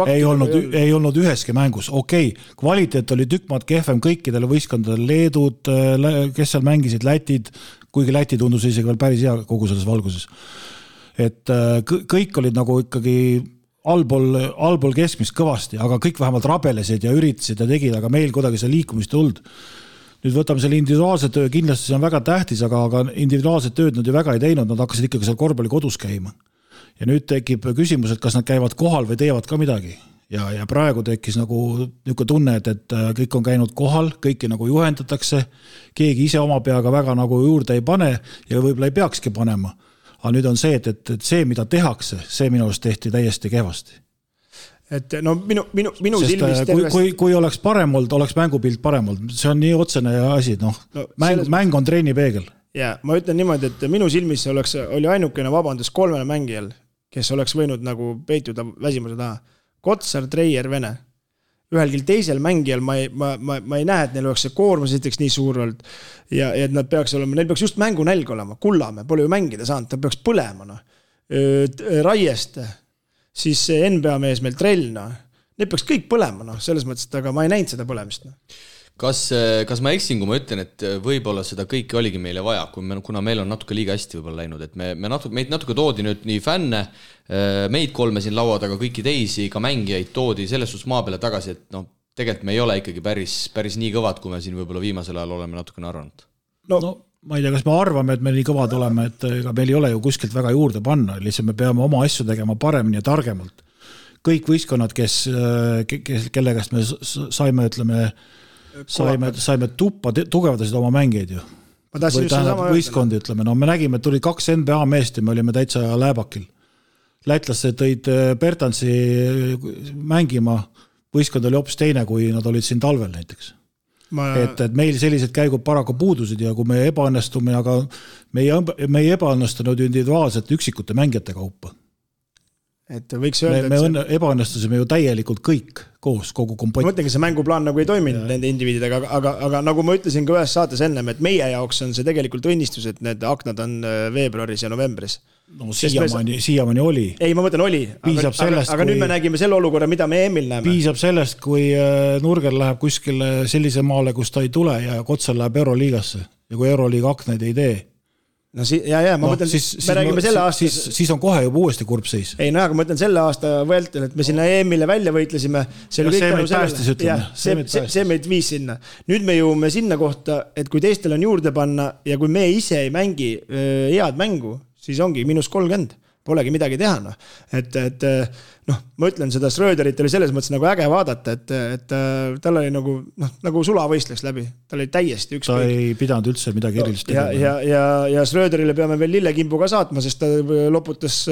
Speaker 3: ei olnud üheski mängus. Okei, kvaliteet oli tükmaad kehvem kõikidele võistkondadele, Leedud, kes seal mängisid, Lätid, kuigi Läti tundus isegi veel päris hea kogu selles valguses. Et kõik olid nagu ikkagi allpool keskmist kõvasti, aga kõik vähemalt rabelesid ja üritasid ja tegid, aga meil kuidagi see liikumist olnud. Nüüd võtame selle individuaalse töö, kindlasti see on väga tähtis, aga individuaalset tööd nad ju väga ei teinud, nad hakkasid ikkagi seal korvpalli kodus käima. Ja nüüd tekib küsimus, et kas nad käivad kohal või teevad ka midagi. Ja praegu tekkis nagu niisugune tunne, et kõik on käinud kohal, kõiki nagu juhendatakse, keegi ise oma peaga väga nagu juurde ei pane ja võib-olla ei peakski panema. Aga nüüd on see, et see, mida tehakse, see minu arust tehti täiesti kehvasti.
Speaker 4: Et no minu silmist
Speaker 3: kui oleks parem olnud, oleks mängupilt parem olnud. See on nii otsene asi, mäng on treenipeegel.
Speaker 4: Ja, ma ütlen niimoodi, et minu silmis oli ainukene vabandus 3 mängijal, kes oleks võinud nagu peituda väsimuse taha. Kotsar, Treier, Vene. Ühelgi teisel mängijal ma ei näe, et neil oleks see koormus esiteks nii suur olnud ja et nad peaks olema, neil peaks just mängu nälg olema. Kullamäe pole ju mängida saanud, ta peaks põlema. Raieste siis NBA mees meil Trellna, need peaks kõik põlema, selles mõttes, aga ma ei näinud seda põlemist.
Speaker 2: Kas ma eksin, kui ma ütlen, et võib-olla seda kõike oligi meile vaja, kuna meil on natuke liiga hästi võib-olla läinud, et meid natuke toodi nüüd nii fänne, meid 3 siin laua taga, kõiki teisi, ka mängijaid toodi selles suhtes maa peale tagasi, et tegelikult me ei ole ikkagi päris nii kõvad, kui me siin võib-olla viimasel ajal oleme natukene arvanud.
Speaker 3: Ma ei tea, kas me arvame, et me nii kõvad oleme, et ega meil ei ole ju kuskilt väga juurde panna, lihtsalt me peame oma asju tegema paremini ja targemalt. Kõik võistkonnad, kellegast me saime tuppa, tugevdasid oma mängeid ju. Või tähendab võistkondi, ütleme. Me nägime, et tuli 2 NBA meest ja me olime täitsa lääbakil. Lätlased tõid Bertansi mängima, võistkond oli hoopis teine, kui nad olid siin talvel näiteks. Et meil sellised käigud paraku puudusid ja kui me ebaõnnestume, aga me ei ebaõnnestunud individuaalselt üksikute mängijate kaupa.
Speaker 4: Et võiks öelda,
Speaker 3: me ebaõnnestusime ju täielikult kõik koos, kogu kompott.
Speaker 4: Ma mõtlengi, see mänguplaan nagu ei toiminud nende indiviididega, aga nagu ma ütlesin ka ühes saates ennem, et meie jaoks on see tegelikult õnnistus, et need aknad on veebruaris ja novembris.
Speaker 3: No siiamaani oli.
Speaker 4: Ei, ma mõtlen oli, aga nüüd me nägime selle olukorra, mida me EM-il näeme.
Speaker 3: Piisab sellest, kui Nurger läheb kuskile sellise maale, kus ta ei tule ja Kotsal läheb Euroliigasse ja kui Euroliiga aknaid ei tee.
Speaker 4: No ma mõtlen, me räägime selle aasta...
Speaker 3: Siis on kohe juba uuesti kurb seis.
Speaker 4: Ei, aga ma mõtlen selle aasta vältel, et me sinna EM-ile välja võitlesime.
Speaker 3: See meid päästis, ütleme.
Speaker 4: See meid viis sinna. Nüüd me jõuame sinna kohta, et kui teistel on juurde panna ja kui me ise ei mängi head mängu, siis ongi -30. Polegi midagi teha. Ma ütlen, seda Schröderit oli selles mõttes nagu äge vaadata, et tal oli nagu sulavõistleks läbi. Tal oli täiesti ükskõik.
Speaker 3: Ta ei pidanud üldse midagi erilist
Speaker 4: tegema. Ja Schröderile peame veel lillekimbu ka saatma, sest ta loputas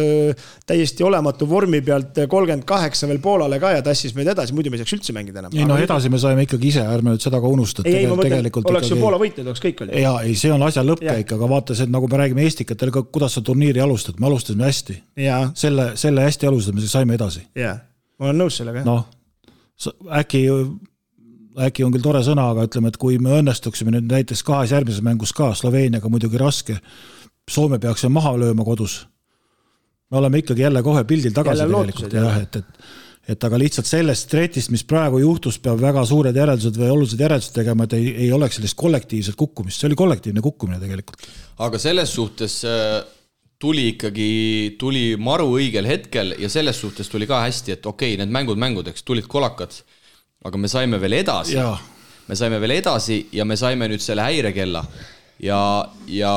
Speaker 4: täiesti olematu vormi pealt 38 veel Poolale ka ja tassis meid edasi, muidu me ei saaks üldse mängida enam.
Speaker 3: Ei, edasi me saime ikkagi ise, ärme nüüd seda ka unustada.
Speaker 4: Ei, ma mõtlen, oleks ju Poola võitnud, oleks kõik oli.
Speaker 3: Ja, see on asja lõppkäik, aga vaata see, nagu me räägime eestikatel, kuidas sa turniiri alustad, me alustasime hästi. Selle hästi alustame, siis saime edasi.
Speaker 4: Jaa, ma olen nõus sellega.
Speaker 3: Äkki on küll tore sõna, aga ütleme, et kui me õnnestuksime nüüd näiteks 2 järgmises mängus ka, Sloveeniaga muidugi raske, Soome peaks maha lööma kodus. Me oleme ikkagi jälle kohe pildil tagasi tegelikult. Et aga lihtsalt sellest stretist, mis praegu juhtus, peab väga suured järeldused või olulised järeldused tegema, et ei oleks sellist kollektiivset kukkumist. See oli kollektiivne kukkumine tegelikult.
Speaker 2: Aga selles suhtes... tuli maru õigel hetkel ja selles suhtes tuli ka hästi, et okei, need mängudeks tulid kolakad, aga me saime veel edasi. Me saime veel edasi ja me saime nüüd selle häirekella ja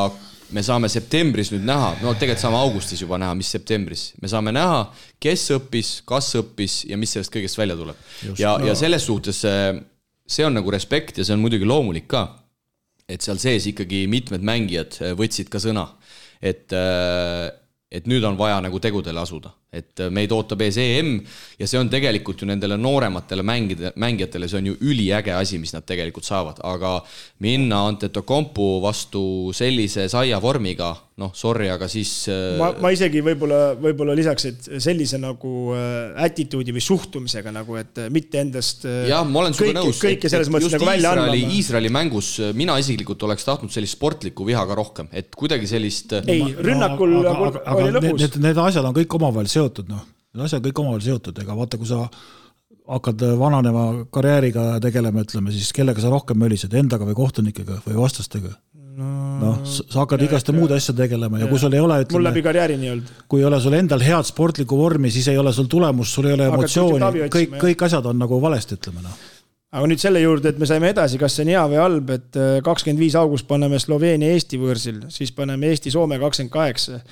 Speaker 2: me saame septembris nüüd näha, tegelikult saame augustis juba näha, mis septembris. Me saame näha, kes õppis, kas õppis ja mis sellest kõigest välja tuleb. Ja selles suhtes see on nagu respekt ja see on muidugi loomulik ka, et seal sees ikkagi mitmed mängijad võtsid ka sõna, et nüüd on vaja nagu tegudele asuda, et meid ootab ees EM ja see on tegelikult ju nendele noorematele mängijatele, see on ju üliäge asi, mis nad tegelikult saavad, aga minna Antetokounmpo vastu sellise saia vormiga, noh, sorry, aga siis...
Speaker 4: Ma isegi võib-olla lisaks, et sellise nagu attituudi või suhtumisega nagu, et mitte endast
Speaker 2: jah, ma olen sulle nõus,
Speaker 4: kõike selles mõttes nagu välja andma.
Speaker 2: Iisraeli mängus mina isiklikult oleks tahtnud sellist sportlikku viha ka rohkem, et kuidagi sellist...
Speaker 4: Ei, rünnakul oli lõpus.
Speaker 3: Need asjad on kõik omavahel seotud, noh. Need asjad kõik omavahel seotud, ega vaata, kui sa hakkad vananeva karjääriga tegelema, ütleme, siis kellega sa rohkem mölised, endaga või kohtunikega või vastastega? Noh, sa hakkad igaste muud asja tegelema ja kui sul ei ole, ütleme,
Speaker 4: mul läbi karjääri nii olnud.
Speaker 3: Kui ei ole sul endal head sportlikku vormi, siis ei ole sul tulemus, sul ei ole emotsiooni, kõik asjad on nagu valesti, ütleme. No.
Speaker 4: Aga nüüd selle juurde, et me saime edasi, kas see on hea või halb, et 25 august paneme Sloveenia Eesti võõrsil, siis paneme Eesti Soome 28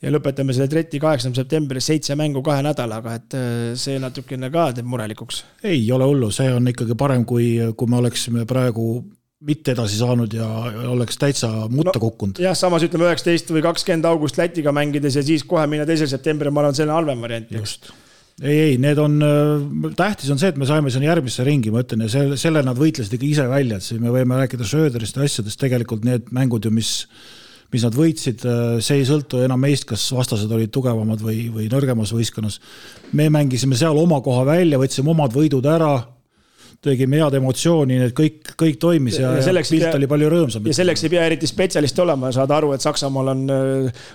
Speaker 4: ja lõpetame selle treti 8. septembri 7 mängu 2 nädalaga, et see natukene ka teeb murelikuks.
Speaker 3: Ei ole hullu, see on ikkagi parem, kui me oleksime praegu mitte edasi saanud ja oleks täitsa mutta kukkunud.
Speaker 4: Jah, samas ütleme 19 või 20 august Lätiga mängides ja siis kohe minna 2. septembri, ma arvan, selline halvem variant.
Speaker 3: Just. Ei, need on, tähtis on see, et me saime sinna järgmisse ringi, ma ütlen, ja selle nad võitlesid ikka ise välja, et siis me võime rääkida Sööderist ja asjadest, tegelikult need mängud ju, mis nad võitsid, see ei sõltu enam meist, kas vastased olid tugevamad või nõrgemas võistkonnas. Me mängisime seal oma koha välja, võtsime omad võidud ära, tegime head emotsiooni, need kõik toimis ja pilt oli palju rõõmsam.
Speaker 4: Ja selleks ei pea eriti spetsialist olema ja saada aru, et Saksamaal on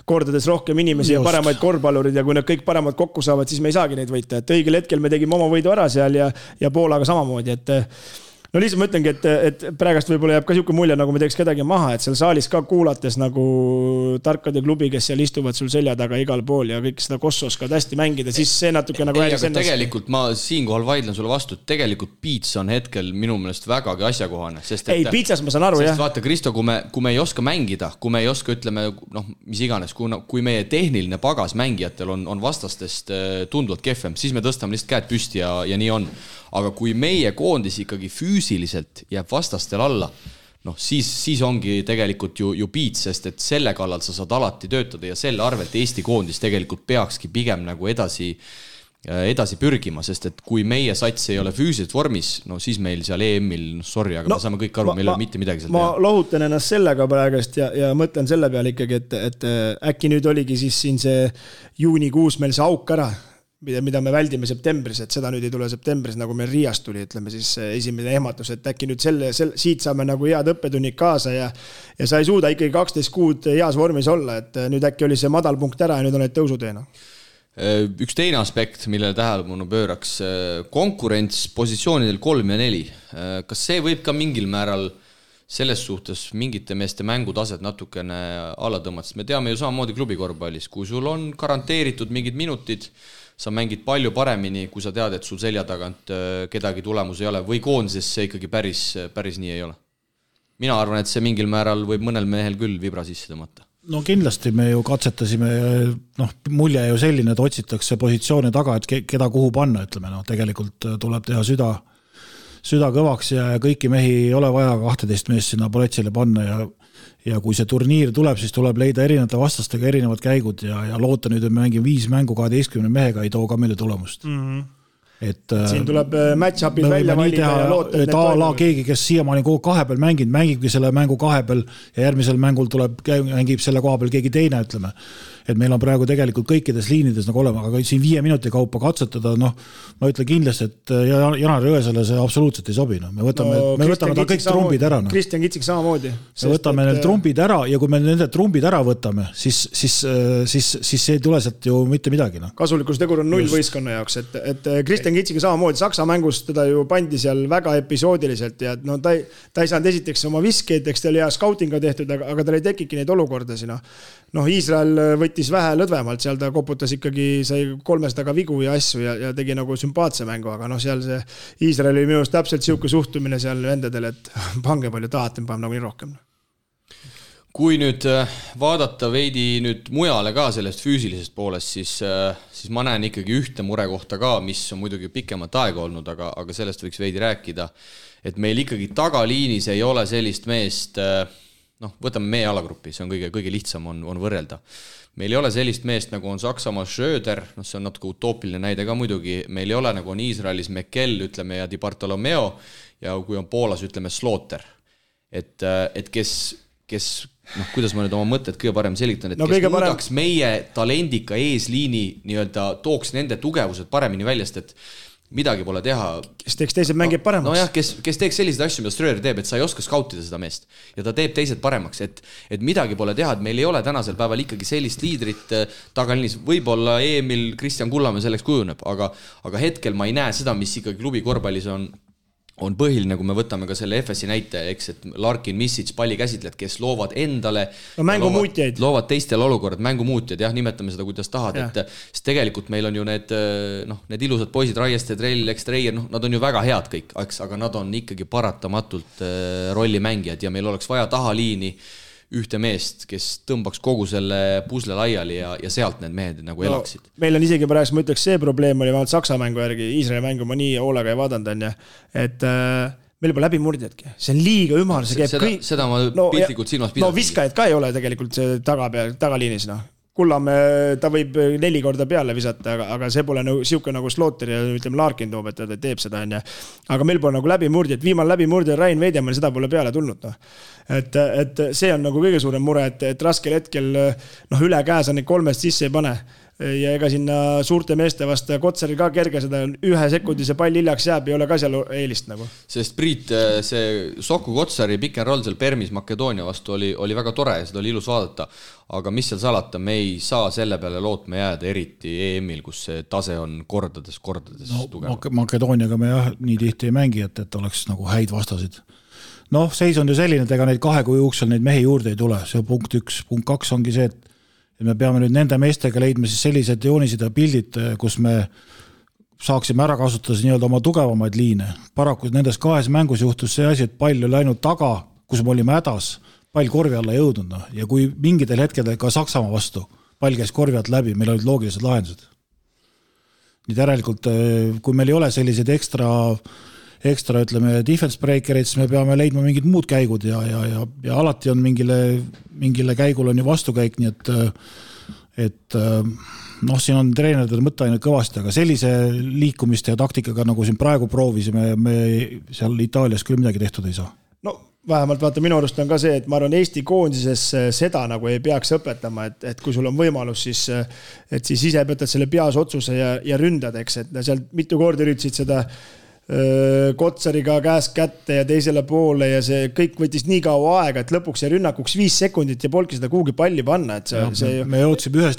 Speaker 4: kordades rohkem inimesi ja paremaid korvpallurid ja kui need kõik paremad kokku saavad, siis me ei saagi neid võita. Et õigel hetkel me tegime oma võidu ära seal ja Poolaga samamoodi, et no lihtsalt ma ütlengi, et praegast võib-olla jääb ka siuke mulje, nagu me teeks kedagi maha, et seal saalis ka kuulates nagu tarkade klubi, kes seal istuvad sul selja taga igal pool ja kõik seda kossu oskavad hästi mängida, siis see natuke nagu
Speaker 2: ennast. Tegelikult ma siinkohal vaidlen sulle vastu, et tegelikult piits on hetkel minu meelest vägagi asjakohane.
Speaker 4: Ei, piitsas ma saan aru, jah.
Speaker 2: Vaata, Kristo, kui me ei oska mängida, kui me ei oska, ütleme, noh, mis iganes, kui meie tehniline pagas mängijatel on vastastest tunduvalt kehvem, siis me tõstame lihtsalt käed püsti ja nii on. Aga kui meie koondis ikkagi füüsiliselt jääb vastastel alla, noh, siis ongi tegelikult ju piits, sest et selle kallal sa saad alati töötada ja selle arvelt Eesti koondis tegelikult peakski pigem nagu edasi pürgima, sest et kui meie sats ei ole füüsiliselt vormis, no siis meil seal EM-il, sorry, aga me saame kõik aru, meil ei ole mitte midagi seal
Speaker 4: teha. Ma lohutan ennast sellega praegust ja mõtlen selle peale ikkagi, et äkki nüüd oligi siis siin see juunikuus meil see auk ära, mida me väldime septembris, et seda nüüd ei tule septembris, nagu meil Riiast tuli, ütleme siis esimene ehmatus, et äkki nüüd siit saame nagu head õppetunnid kaasa ja sa ei suuda ikkagi 12 kuud heas vormis olla, et nüüd äkki oli see madal punkt ära ja nüüd on need tõusuteena.
Speaker 2: Üks teine aspekt, millele tähelepanu pööraks, konkurents positsioonidel 3 ja 4. Kas see võib ka mingil määral selles suhtes mingite meeste mängutased natukene alla tõmmata, sest me teame ju samamoodi klubikorvpallis, kui sul on garanteeritud mingid minutid, sa mängid palju paremini, kui sa tead, et sul selja tagant kedagi tulemus ei ole või koondises see ikkagi päris nii ei ole. Mina arvan, et see mingil määral võib mõnel mehel küll vibra sisse tõmmata.
Speaker 3: No kindlasti me ju katsetasime, noh, mulje ju selline, et otsitakse positsioone taga, et keda kuhu panna, ütleme, no tegelikult tuleb teha süda kõvaks ja kõiki mehi ei ole vaja 12 meest sinna poletsile panna ja kui see turniir tuleb, siis tuleb leida erinevate vastastega erinevad käigud ja loota nüüd, et me mängime 5 mängu 12 mehega ei too ka meile tulemust.
Speaker 4: Siin tuleb match-upid välja valida ja loota,
Speaker 3: et keegi, kes siiamaani kogu 2 peal mängibki selle mängu 2 peal ja järgmisel mängul mängib selle koha peal keegi teine, ütleme. Et meil on praegu tegelikult kõikides liinides nagu olema, aga siin 5 minuti kaupa katsetada, noh, ma ütlen kindlasti, et Janar Jõesele see absoluutselt ei sobi. No. Me võtame ta kõik trumbid ära. No.
Speaker 4: Kristjan Kitsik samamoodi.
Speaker 3: Me võtame need trumbid ära ja kui me nende trumbid ära võtame, siis ei tule sealt ju mitte midagi. No.
Speaker 4: Kasulikkustegur on 0 võistkonna jaoks, et Kristjan Kitsik samamoodi Saksa mängus teda ju pandi seal väga episoodiliselt ja no, ta ei saanud esiteks oma viskeid, eks ta oli hea skautinga tehtud, aga tal ei tekiki neid olukordasid. Noh, Iisrael võttis vähe lõdvemalt, seal ta koputas ikkagi, sai 300 vigu ja asju ja tegi nagu sümpaatse mängu, aga noh, seal see Iisrael oli minust täpselt siuke suhtumine seal vendadel, et pange palju tahate, me paneme nagu nii rohkem.
Speaker 2: kui nüüd vaadata veidi nüüd mujale ka sellest füüsilisest poolest, siis ma näen ikkagi ühte murekohta ka, mis on muidugi pikemat aega olnud, aga sellest võiks veidi rääkida, et meil ikkagi tagaliinis ei ole sellist meest, võtame meie alagrupi, see on kõige lihtsam on võrrelda. Meil ei ole sellist meest, nagu on Saksamaa Schröder, see on natuke utoopiline näide ka muidugi, meil ei ole nagu on Iisraelis Mekel, ütleme, ja Di Bartolomeo, ja kui on Poolas, ütleme, Slaughter. Et kes kuidas ma nüüd oma mõtted kõige parem selgitan, et kes muudaks meie talendika eesliini nii-öelda tooks nende tugevused paremini väljast, et midagi pole teha.
Speaker 4: Kes teeks teised mängib paremaks.
Speaker 2: No jah, kes teeks selliseid asju, mida Ströder teeb, et sa ei oska skautida seda meest ja ta teeb teised paremaks, et midagi pole teha, et meil ei ole tänasel päeval ikkagi sellist liidrit tagaliinis. Võib-olla Emil Kristjan Kullamäe selleks kujuneb, aga hetkel ma ei näe seda, mis ikkagi klubi korvpallis on põhiline, kui me võtame ka selle FSi näite, eks, et Larkin, Misic, pallikäsitlejad, kes loovad endale
Speaker 4: mängumuutjaid.
Speaker 2: Loovad teistel olukorrad, mängumuutjad, jah, nimetame seda, kuidas tahad, et tegelikult meil on ju need ilusad poisid, Raieste, Trell, Ekstreier, nad on ju väga head kõik, aga nad on ikkagi paratamatult rollimängijad ja meil oleks vaja tahaliini ühte meest, kes tõmbaks kogu selle pusle laiali ja sealt need mehed nagu elaksid.
Speaker 4: Meil on isegi praegu, ma ütleks, see probleem oli vähemalt Saksa mängu järgi, Iisraeli mängu ma nii hoolega ei vaadanud, on ja, et meil pole läbi murdjadki. See on liiga ümar, see käib kõik.
Speaker 2: Seda ma piltlikult silmas pidasin.
Speaker 4: No viskajad ka ei ole tegelikult see tagaliinis, Kullamäe, ta võib 4 korda peale visata, aga see pole siuke nagu Slaughter ja ütleme Larkin toob, et ta teeb seda, on ja. Aga meil pole nagu läbimurdjad, viimane läbimurdja Rain Veidjamäel, seda pole peale tulnud. Et see on nagu kõige suurem mure, et raskel hetkel üle käes on neid 3 sisse ei pane. Ja ega sinna suurte meeste vasta Kotsaril ka kerge seda 1 sekundi see pall hiljaks jääb, ei ole ka seal eelist nagu.
Speaker 2: Sest Priit, see Soku Kotsari pick and roll seal Permis Makedoonia vastu oli väga tore ja seda oli ilus vaadata, aga mis seal salata, me ei saa selle peale lootma jääda, eriti EM-il, kus see tase on kordades tugev.
Speaker 3: Makedooniaga me nii tihti ei mängi, et oleks nagu häid vastasid. Seis on ju selline, et ega neid 2 kuu jooksul neid mehi juurde ei tule, see on punkt 1. Punkt 2 ongi see, et me peame nüüd nende meestega leidma siis sellised joonised ja pildid, kus me saaksime ära kasutada nii-öelda oma tugevamaid liine. Paraku nendes 2 mängus juhtus see asi, et pall oli läinud taga, kus me olime hädas, pall korvi alla jõudnud. Ja kui mingitel hetkedel ka Saksamaa vastu, pall käis korvi alt läbi, meil olid loogilised lahendused. Nii järelikult, kui meil ei ole sellised ekstra ütleme, defense breakerid, siis me peame leidma mingid muud käigud ja alati on mingile käigul on ju vastukäik, nii et siin on treenerid mõtte ainult kõvasti, aga sellise liikumiste ja taktikaga, nagu siin praegu proovisime, me seal Itaalias küll midagi tehtud ei saa.
Speaker 4: Vähemalt vaata, minu arust on ka see, et ma arvan, Eesti koondises seda nagu ei peaks õpetama, et kui sul on võimalus, siis ise võtad selle peas otsuse ja ründad, eks, et seal mitu korda üritasid seda Kotsariga käest kätte ja teisele poole ja see kõik võttis nii kaua aega, et lõpuks see rünnakuks 5 sekundit ja polki seda kuhugi palli panna.
Speaker 3: Me jootsime ühes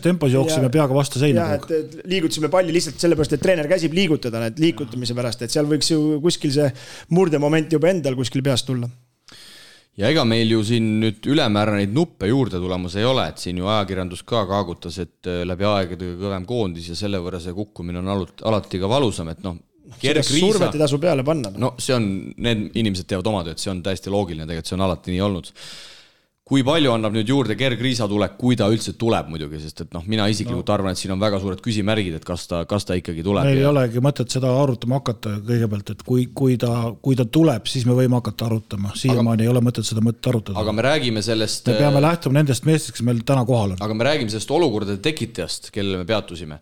Speaker 3: tempos jooksime peaga vastu seina.
Speaker 4: Et liigutasime palli lihtsalt sellepärast, et treener käsib liigutada need liigutamise pärast, et seal võiks ju kuskil see murdemoment juba endal kuskil peast tulla.
Speaker 2: Ja ega meil ju siin nüüd ülemäära neid nuppe juurde tulemas ei ole, et siin ju ajakirjandus ka kaagutas, et läbi aegade kõvem koondis ja selle võrra see kukkumine on alati ka valusam, et
Speaker 4: survet ei tasu peale panna.
Speaker 2: See on, need inimesed teevad oma tööd, see on täiesti loogiline, tegelikult see on alati nii olnud. Kui palju annab nüüd juurde Gerg Riisa tulek, kui ta üldse tuleb muidugi, sest et mina isiklikult arvan, et siin on väga suured küsimärgid, et kas ta ikkagi tuleb.
Speaker 3: Meil ei olegi mõtet seda arutama hakata kõigepealt, et kui ta tuleb, siis me võime hakata arutama. Siiamaani ei ole mõtet seda mõtet arutada.
Speaker 2: Aga me räägime sellest...
Speaker 3: Me peame lähtuma nendest meestest, kes meil täna kohal on.
Speaker 2: Aga me räägime sellest olukordade tekitajast, kellele me peatusime.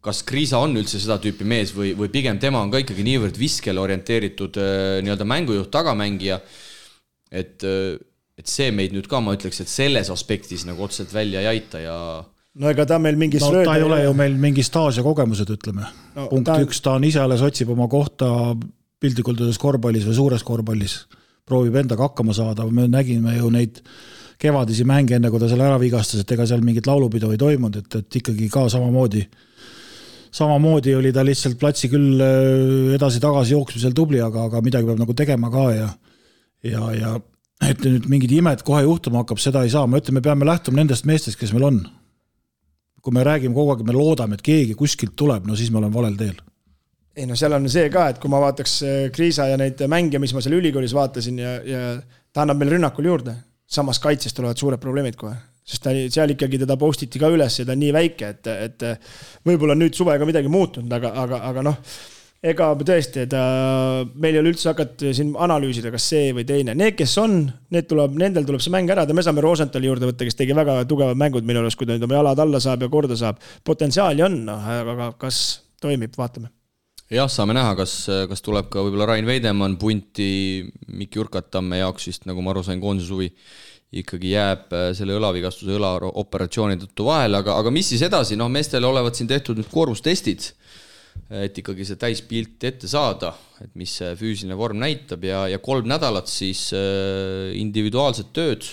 Speaker 2: Kas Kriisa on üldse seda tüüpi mees või pigem tema on ka ikkagi niivõrd viskele orienteeritud nii-öelda mängujuht tagamängija, et see meid nüüd ka, ma ütleks, et selles aspektis nagu otseselt välja ei aita ja...
Speaker 4: ega ta meil mingi
Speaker 3: ta ei ole ju meil mingi staas ja kogemused, ütleme. Punkt 1, ta on ise alles otsib oma kohta piltlikult korvpallis või suures korvpallis. Proovib endaga hakkama saada, me nägime ju neid kevadisi mänge enne, kui ta seal ära vigastas, et ega seal mingit laulupidu ei toimunud, et ikkagi ka samamoodi oli ta lihtsalt platsi küll edasi-tagasi jooksmisel tubli, aga midagi peab nagu tegema ka ja et nüüd mingid imed kohe juhtuma hakkab, seda ei saa. Ma ütlen, me peame lähtuma nendest meestest, kes meil on. Kui me räägime kogu aeg, me loodame, et keegi kuskilt tuleb, siis me oleme valel teel.
Speaker 4: Ei seal on see ka, et kui ma vaataks Kriisa ja neid mänge, mis ma seal ülikoolis vaatasin ja ta annab meil rünnakul juurde. samas kaitses tulevad suured probleemid kohe. Sest seal ikkagi teda postiti ka üles ja ta on nii väike, et võib-olla nüüd suvega midagi muutunud, aga noh, ega tõesti, meil ei ole üldse hakata siin analüüsida, kas see või teine. Need, kes on, nendel tuleb see mäng ära, me saame Rosenthali juurde võtta, kes tegi väga tugevad mängud minu arust, kui ta nüüd oma jalad alla saab ja korda saab. Potentsiaali on, aga kas toimib, vaatame.
Speaker 2: Jah, saame näha, kas tuleb ka võib-olla Rain Veidemann punti Mikki Urkatamme jaoks vist, nagu ma aru sain, koondise suvi ikkagi jääb selle õlavigastuse õlaoperatsiooni tõttu vahele, aga mis siis edasi? Noh, meestele olevat siin tehtud nüüd koormustestid, et ikkagi see täispilt ette saada, et mis see füüsiline vorm näitab ja 3 nädalat siis individuaalset tööd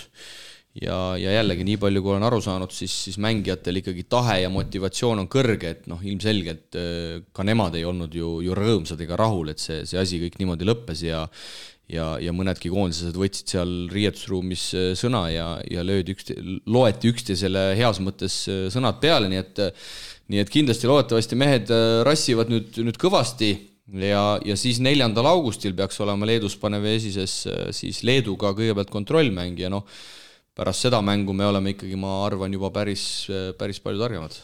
Speaker 2: ja jällegi nii palju, kui olen aru saanud, siis mängijatel ikkagi tahe ja motivatsioon on kõrge, et noh, ilmselgelt ka nemad ei olnud ju rõõmsad ega rahul, et see asi kõik niimoodi lõppes ja mõnedki koondised võtsid seal riietusruumis sõna ja loeti üksteisele heas mõttes sõnad peale, nii et kindlasti loodetavasti mehed rassivad nüüd kõvasti ja siis 4. augustil peaks olema Leedus Paneveesises siis Leeduga kõigepealt kontrollmäng ja noh, pärast seda mängu me oleme ikkagi, ma arvan, juba päris palju targemad.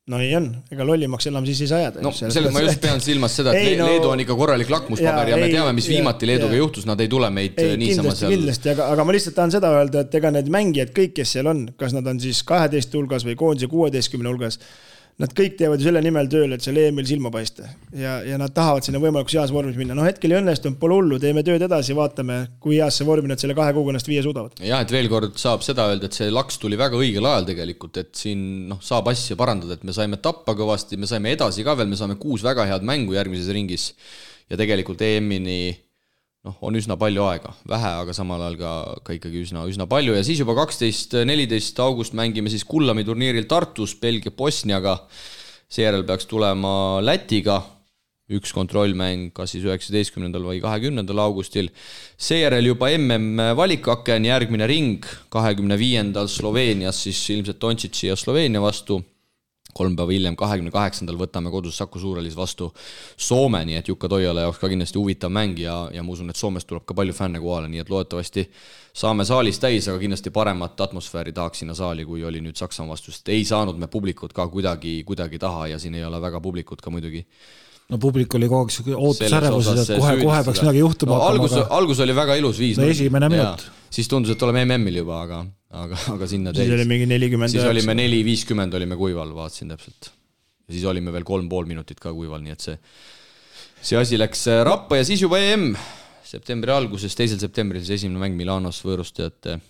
Speaker 4: No nii on, ega lollimaks enam siis ei saa jääda.
Speaker 2: No, selles ma just pean silmas seda, et Leedu on ikka korralik lakmuspaber ja me teame, mis viimati Leeduga juhtus, nad ei tule meid niisama seal.
Speaker 4: Kindlasti, aga ma lihtsalt tahan seda öelda, et ega need mängijad kõik, kes seal on, kas nad on siis 12 hulgas või koondise 16 hulgas, nad kõik teevad ju selle nimel tööl, et seal EM-il silma paista ja nad tahavad sinna võimalikus heas vormis minna. No hetkel ei õnnestunud, pole hullu, teeme tööd edasi, vaatame, kui heas see vormi nad selle 2 kuuga ennast 5 suudavad.
Speaker 2: Jah, et veel kord saab seda öelda, et see laks tuli väga õigel ajal tegelikult, et siin saab asja parandada, et me saime tappa kõvasti, me saime edasi ka veel, me saame 6 väga head mängu järgmises ringis ja tegelikult EM-ini on üsna palju aega, vähe, aga samal ajal ka ikkagi üsna palju ja siis juba 12-14 august mängime siis Kullami turniiril Tartus Belgia Bosniaga, seejärel peaks tulema Lätiga 1 kontrollmäng, kas siis 19. või 20. augustil, seejärel juba valikkaken, järgmine ring 25. Sloveenias siis ilmselt Dontšići ja Sloveenia vastu, 3 päeva hiljem, 28. võtame kodus Saku Suurelis vastu Soome, nii et Jukka Toiala jaoks ka kindlasti huvitav mäng ja ma usun, et Soomest tuleb ka palju fänne kohale, nii et loodetavasti saame saalis täis, aga kindlasti paremat atmosfääri tahaks sinna saali, kui oli nüüd Saksamaa vastu, sest ei saanud me publikut ka kuidagi taha ja siin ei ole väga publikut ka muidugi.
Speaker 3: No publik oli kogu aeg ootusärevus, et kohe peaks midagi juhtuma.
Speaker 2: Algus oli väga ilus 5.
Speaker 3: Esimene minut.
Speaker 2: Siis tundus, et oleme MM-il juba, aga sinna
Speaker 4: siis oli mingi 40.
Speaker 2: Siis olime 4-50 olime kuival, vaatasin täpselt. Ja siis olime veel 3,5 minutit ka kuival, nii et see asi läks rappa ja siis juba EM septembri alguses, 2. septembril siis esimene mäng Milanos võõrustajate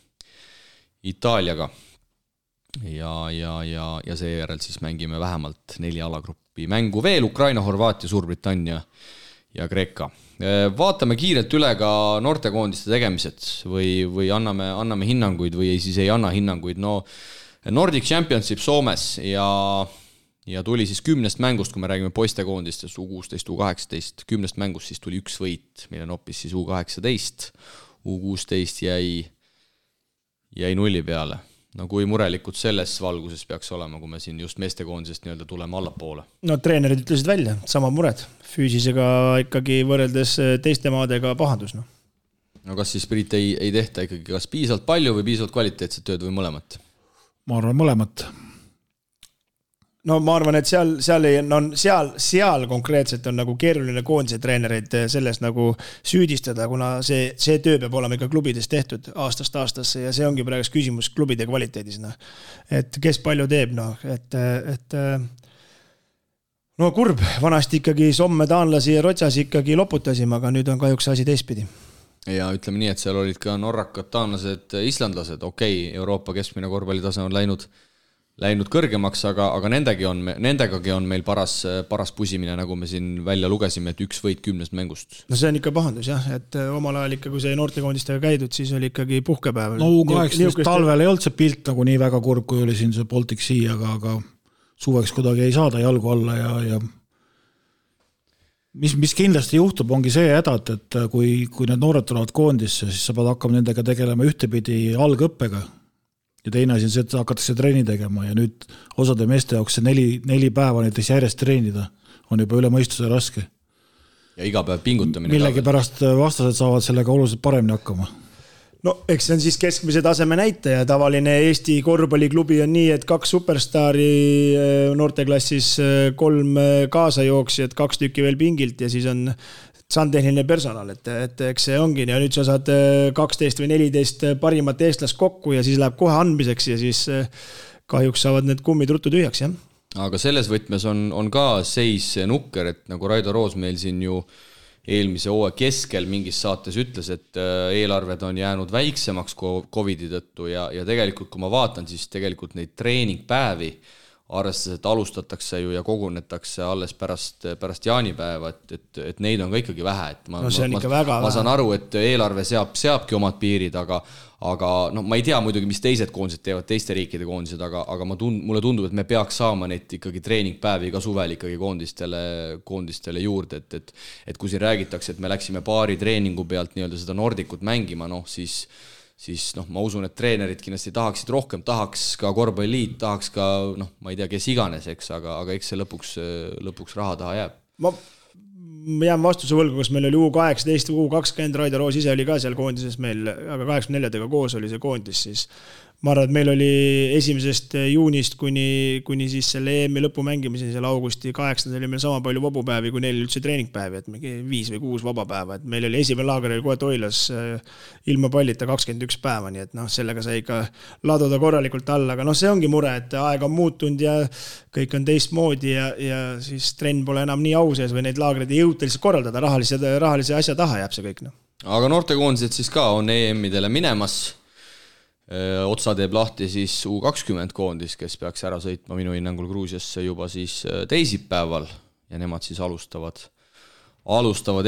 Speaker 2: Itaaliaga. Ja seejärel siis mängime vähemalt 4 alagruppi mängu veel, Ukraina, Horvaatia, Suurbritannia ja Kreeka. Vaatame kiirelt üle ka noortekoondiste tegemised või anname hinnanguid või siis ei anna hinnanguid. No Nordic Championship Soomes ja tuli siis 10 mängust, kui me räägime poistekoondistest, U16, U18, 10 mängust siis tuli 1 võit, mille noppis siis U18, U16 jäi 0 peale. No kui murelikult selles valguses peaks olema, kui me siin just meestekoondisest nii-öelda tuleme allapoole?
Speaker 4: No treenerid ütlesid välja, sama mured. Füüsisega ikkagi võrreldes teiste maadega pahandus.
Speaker 2: No kas siis Priit ei tehta ikkagi kas piisavalt palju või piisavalt kvaliteetset tööd või mõlemat?
Speaker 3: Ma arvan mõlemat.
Speaker 4: No ma arvan, et seal konkreetselt on nagu keeruline koondise treenereid sellest nagu süüdistada, kuna see töö peab olema ikka klubides tehtud aastast aastasse ja see ongi praegu küsimus klubide kvaliteedis. Et kes palju teeb, no kurb, vanasti ikkagi Somme, taanlasi ja Rotsas ikkagi loputasime, aga nüüd on kahjuks asi teistpidi.
Speaker 2: Ja ütleme nii, et seal olid ka norrakad, taanlased, islandlased, Euroopa keskmine korvpallitase on läinud kõrgemaks, aga nendegagi on meil paras pusimine, nagu me siin välja lugesime, et 1 võit 10 mängust.
Speaker 4: No see on ikka pahandus, jah, et omal ajal ikka, kui see noortekoondistega käidud, siis oli ikkagi puhkepäev.
Speaker 3: No U18 talvel ei olnud see pilt nagu nii väga kurb, kui oli siin see Baltic Sea, aga suveks kuidagi ei saada jalgu alla ja mis kindlasti juhtub, ongi see häda, et kui need noored tulevad koondisse, siis sa pead hakkama nendega tegelema ühtepidi algõppega. Ja teine asi on see, et hakatakse treeni tegema ja nüüd osade meeste jaoks see 4 päeva näiteks järjest treenida on juba üle mõistuse raske.
Speaker 2: Ja iga päev pingutamine.
Speaker 3: Millegi pärast vastased saavad sellega oluliselt paremini hakkama.
Speaker 4: no eks see on siis keskmise taseme näitaja, tavaline Eesti korvpalliklubi on nii, et 2 superstaari noorteklassis, 3 kaasajooksjad, 2 tükki veel pingilt ja siis on sandtehniline personal, et eks see ongi ja nüüd sa saad 12 või 14 parimat eestlast kokku ja siis läheb kohe andmiseks ja siis kahjuks saavad need kummid ruttu tühjaks, jah.
Speaker 2: Aga selles võtmes on ka seis nukker, et nagu Raido Roos meil siin ju eelmise hooaja keskel mingis saates ütles, et eelarved on jäänud väiksemaks Covidi tõttu ja tegelikult kui ma vaatan, siis tegelikult neid treeningpäevi arvestades, et alustatakse ju ja kogunetakse alles pärast jaanipäeva, et neid on ka ikkagi vähe. Et
Speaker 4: no see on ikka väga
Speaker 2: ma saan aru, et eelarve seabki omad piirid, aga no, ma ei tea muidugi, mis teised koondised teevad, teiste riikide koondised, aga mulle tundub, et me peaks saama neid ikkagi treeningpäevi ka suvel ikkagi koondistele juurde, et kui siin räägitakse, et me läksime paari treeningu pealt nii-öelda seda Nordicut mängima, siis ma usun, et treenerid kindlasti tahaksid rohkem, tahaks ka korvpalliliit, tahaks ka, ma ei tea, kes iganes, eks, aga eks see lõpuks raha taha jääb.
Speaker 4: Ma jään vastuse võlgu, kas meil oli U18, U20, Raido Roos ise oli ka seal koondises meil, aga 84-dega koos oli see koondis, siis ma arvan, et meil oli 1. juunist kuni siis selle EM-i lõpu mängimiseni seal augusti 8. oli meil sama palju vabupäevi, kui neil üldse treeningpäevi, et 5 või 6 vabapäeva, et meil oli esimene laager oli kohe Toilas ilma pallita 21 päeva, nii et sellega sai ikka laduda korralikult alla, aga see ongi mure, et aeg on muutunud ja kõik on teistmoodi ja siis trenn pole enam nii au sees või neid laagreid ei jõuta lihtsalt korraldada, rahalise asja taha jääb see kõik.
Speaker 2: Aga noortekoondised siis ka on EM-idele minemas. Otsa teeb lahti siis U20 koondis, kes peaks ära sõitma minu hinnangul Gruusiasse juba siis teisipäeval ja nemad siis alustavad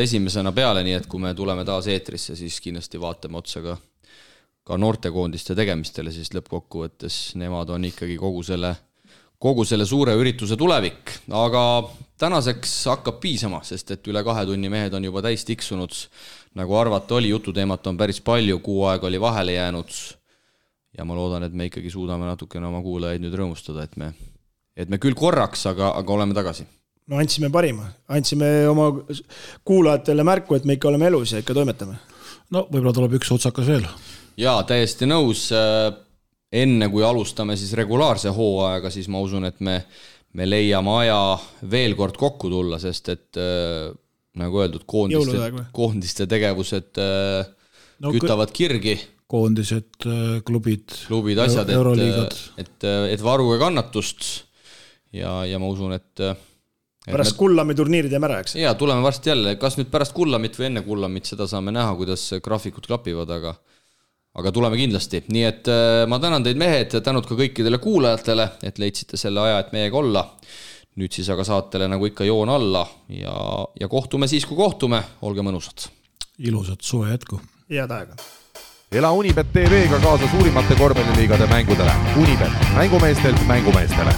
Speaker 2: esimesena peale, nii et kui me tuleme taas eetrisse, siis kindlasti vaatame otsa ka noortekoondiste tegemistele, siis lõppkokkuvõttes nemad on ikkagi kogu selle suure ürituse tulevik, aga tänaseks hakkab piisama, sest et üle 2 tunni mehed on juba täis tiksunud, nagu arvata oli, jututeemat on päris palju, kuu aega oli vahele jäänud ja ma loodan, et me ikkagi suudame natukene oma kuulajaid nüüd rõõmustada, et me küll korraks, aga oleme tagasi.
Speaker 4: No andsime parima, andsime oma kuulajatele märku, et me ikka oleme elus ja ikka toimetame.
Speaker 3: No võib-olla tuleb üks otsakas veel.
Speaker 2: Jaa, täiesti nõus. Enne kui alustame siis regulaarse hooaega, siis ma usun, et me leiame aja veel kord kokku tulla, sest et nagu öeldud, koondiste tegevused kütavad kirgi.
Speaker 3: Koondised, klubid
Speaker 2: asjad,
Speaker 3: euroliigad.
Speaker 2: Et varuge kannatust ja ma usun, et
Speaker 4: pärast Kullami turniirid jääme ära, eks?
Speaker 2: Jaa, tuleme varsti jälle, kas nüüd pärast Kullamit või enne Kullamit, seda saame näha, kuidas graafikud klapivad, aga tuleme kindlasti. Nii et ma tänan teid mehed, tänud ka kõikidele kuulajatele, et leidsite selle aja, et meiega olla. Nüüd siis aga saatele nagu ikka joon alla ja kohtume siis, kui kohtume. Olge mõnusad.
Speaker 3: Ilusat suve jätku.
Speaker 4: Head aega.
Speaker 1: Ela Unibet TV-ga kaasa suurimate korvpalliliigade mängudele. Unibet, mängumeestelt mängumeestele.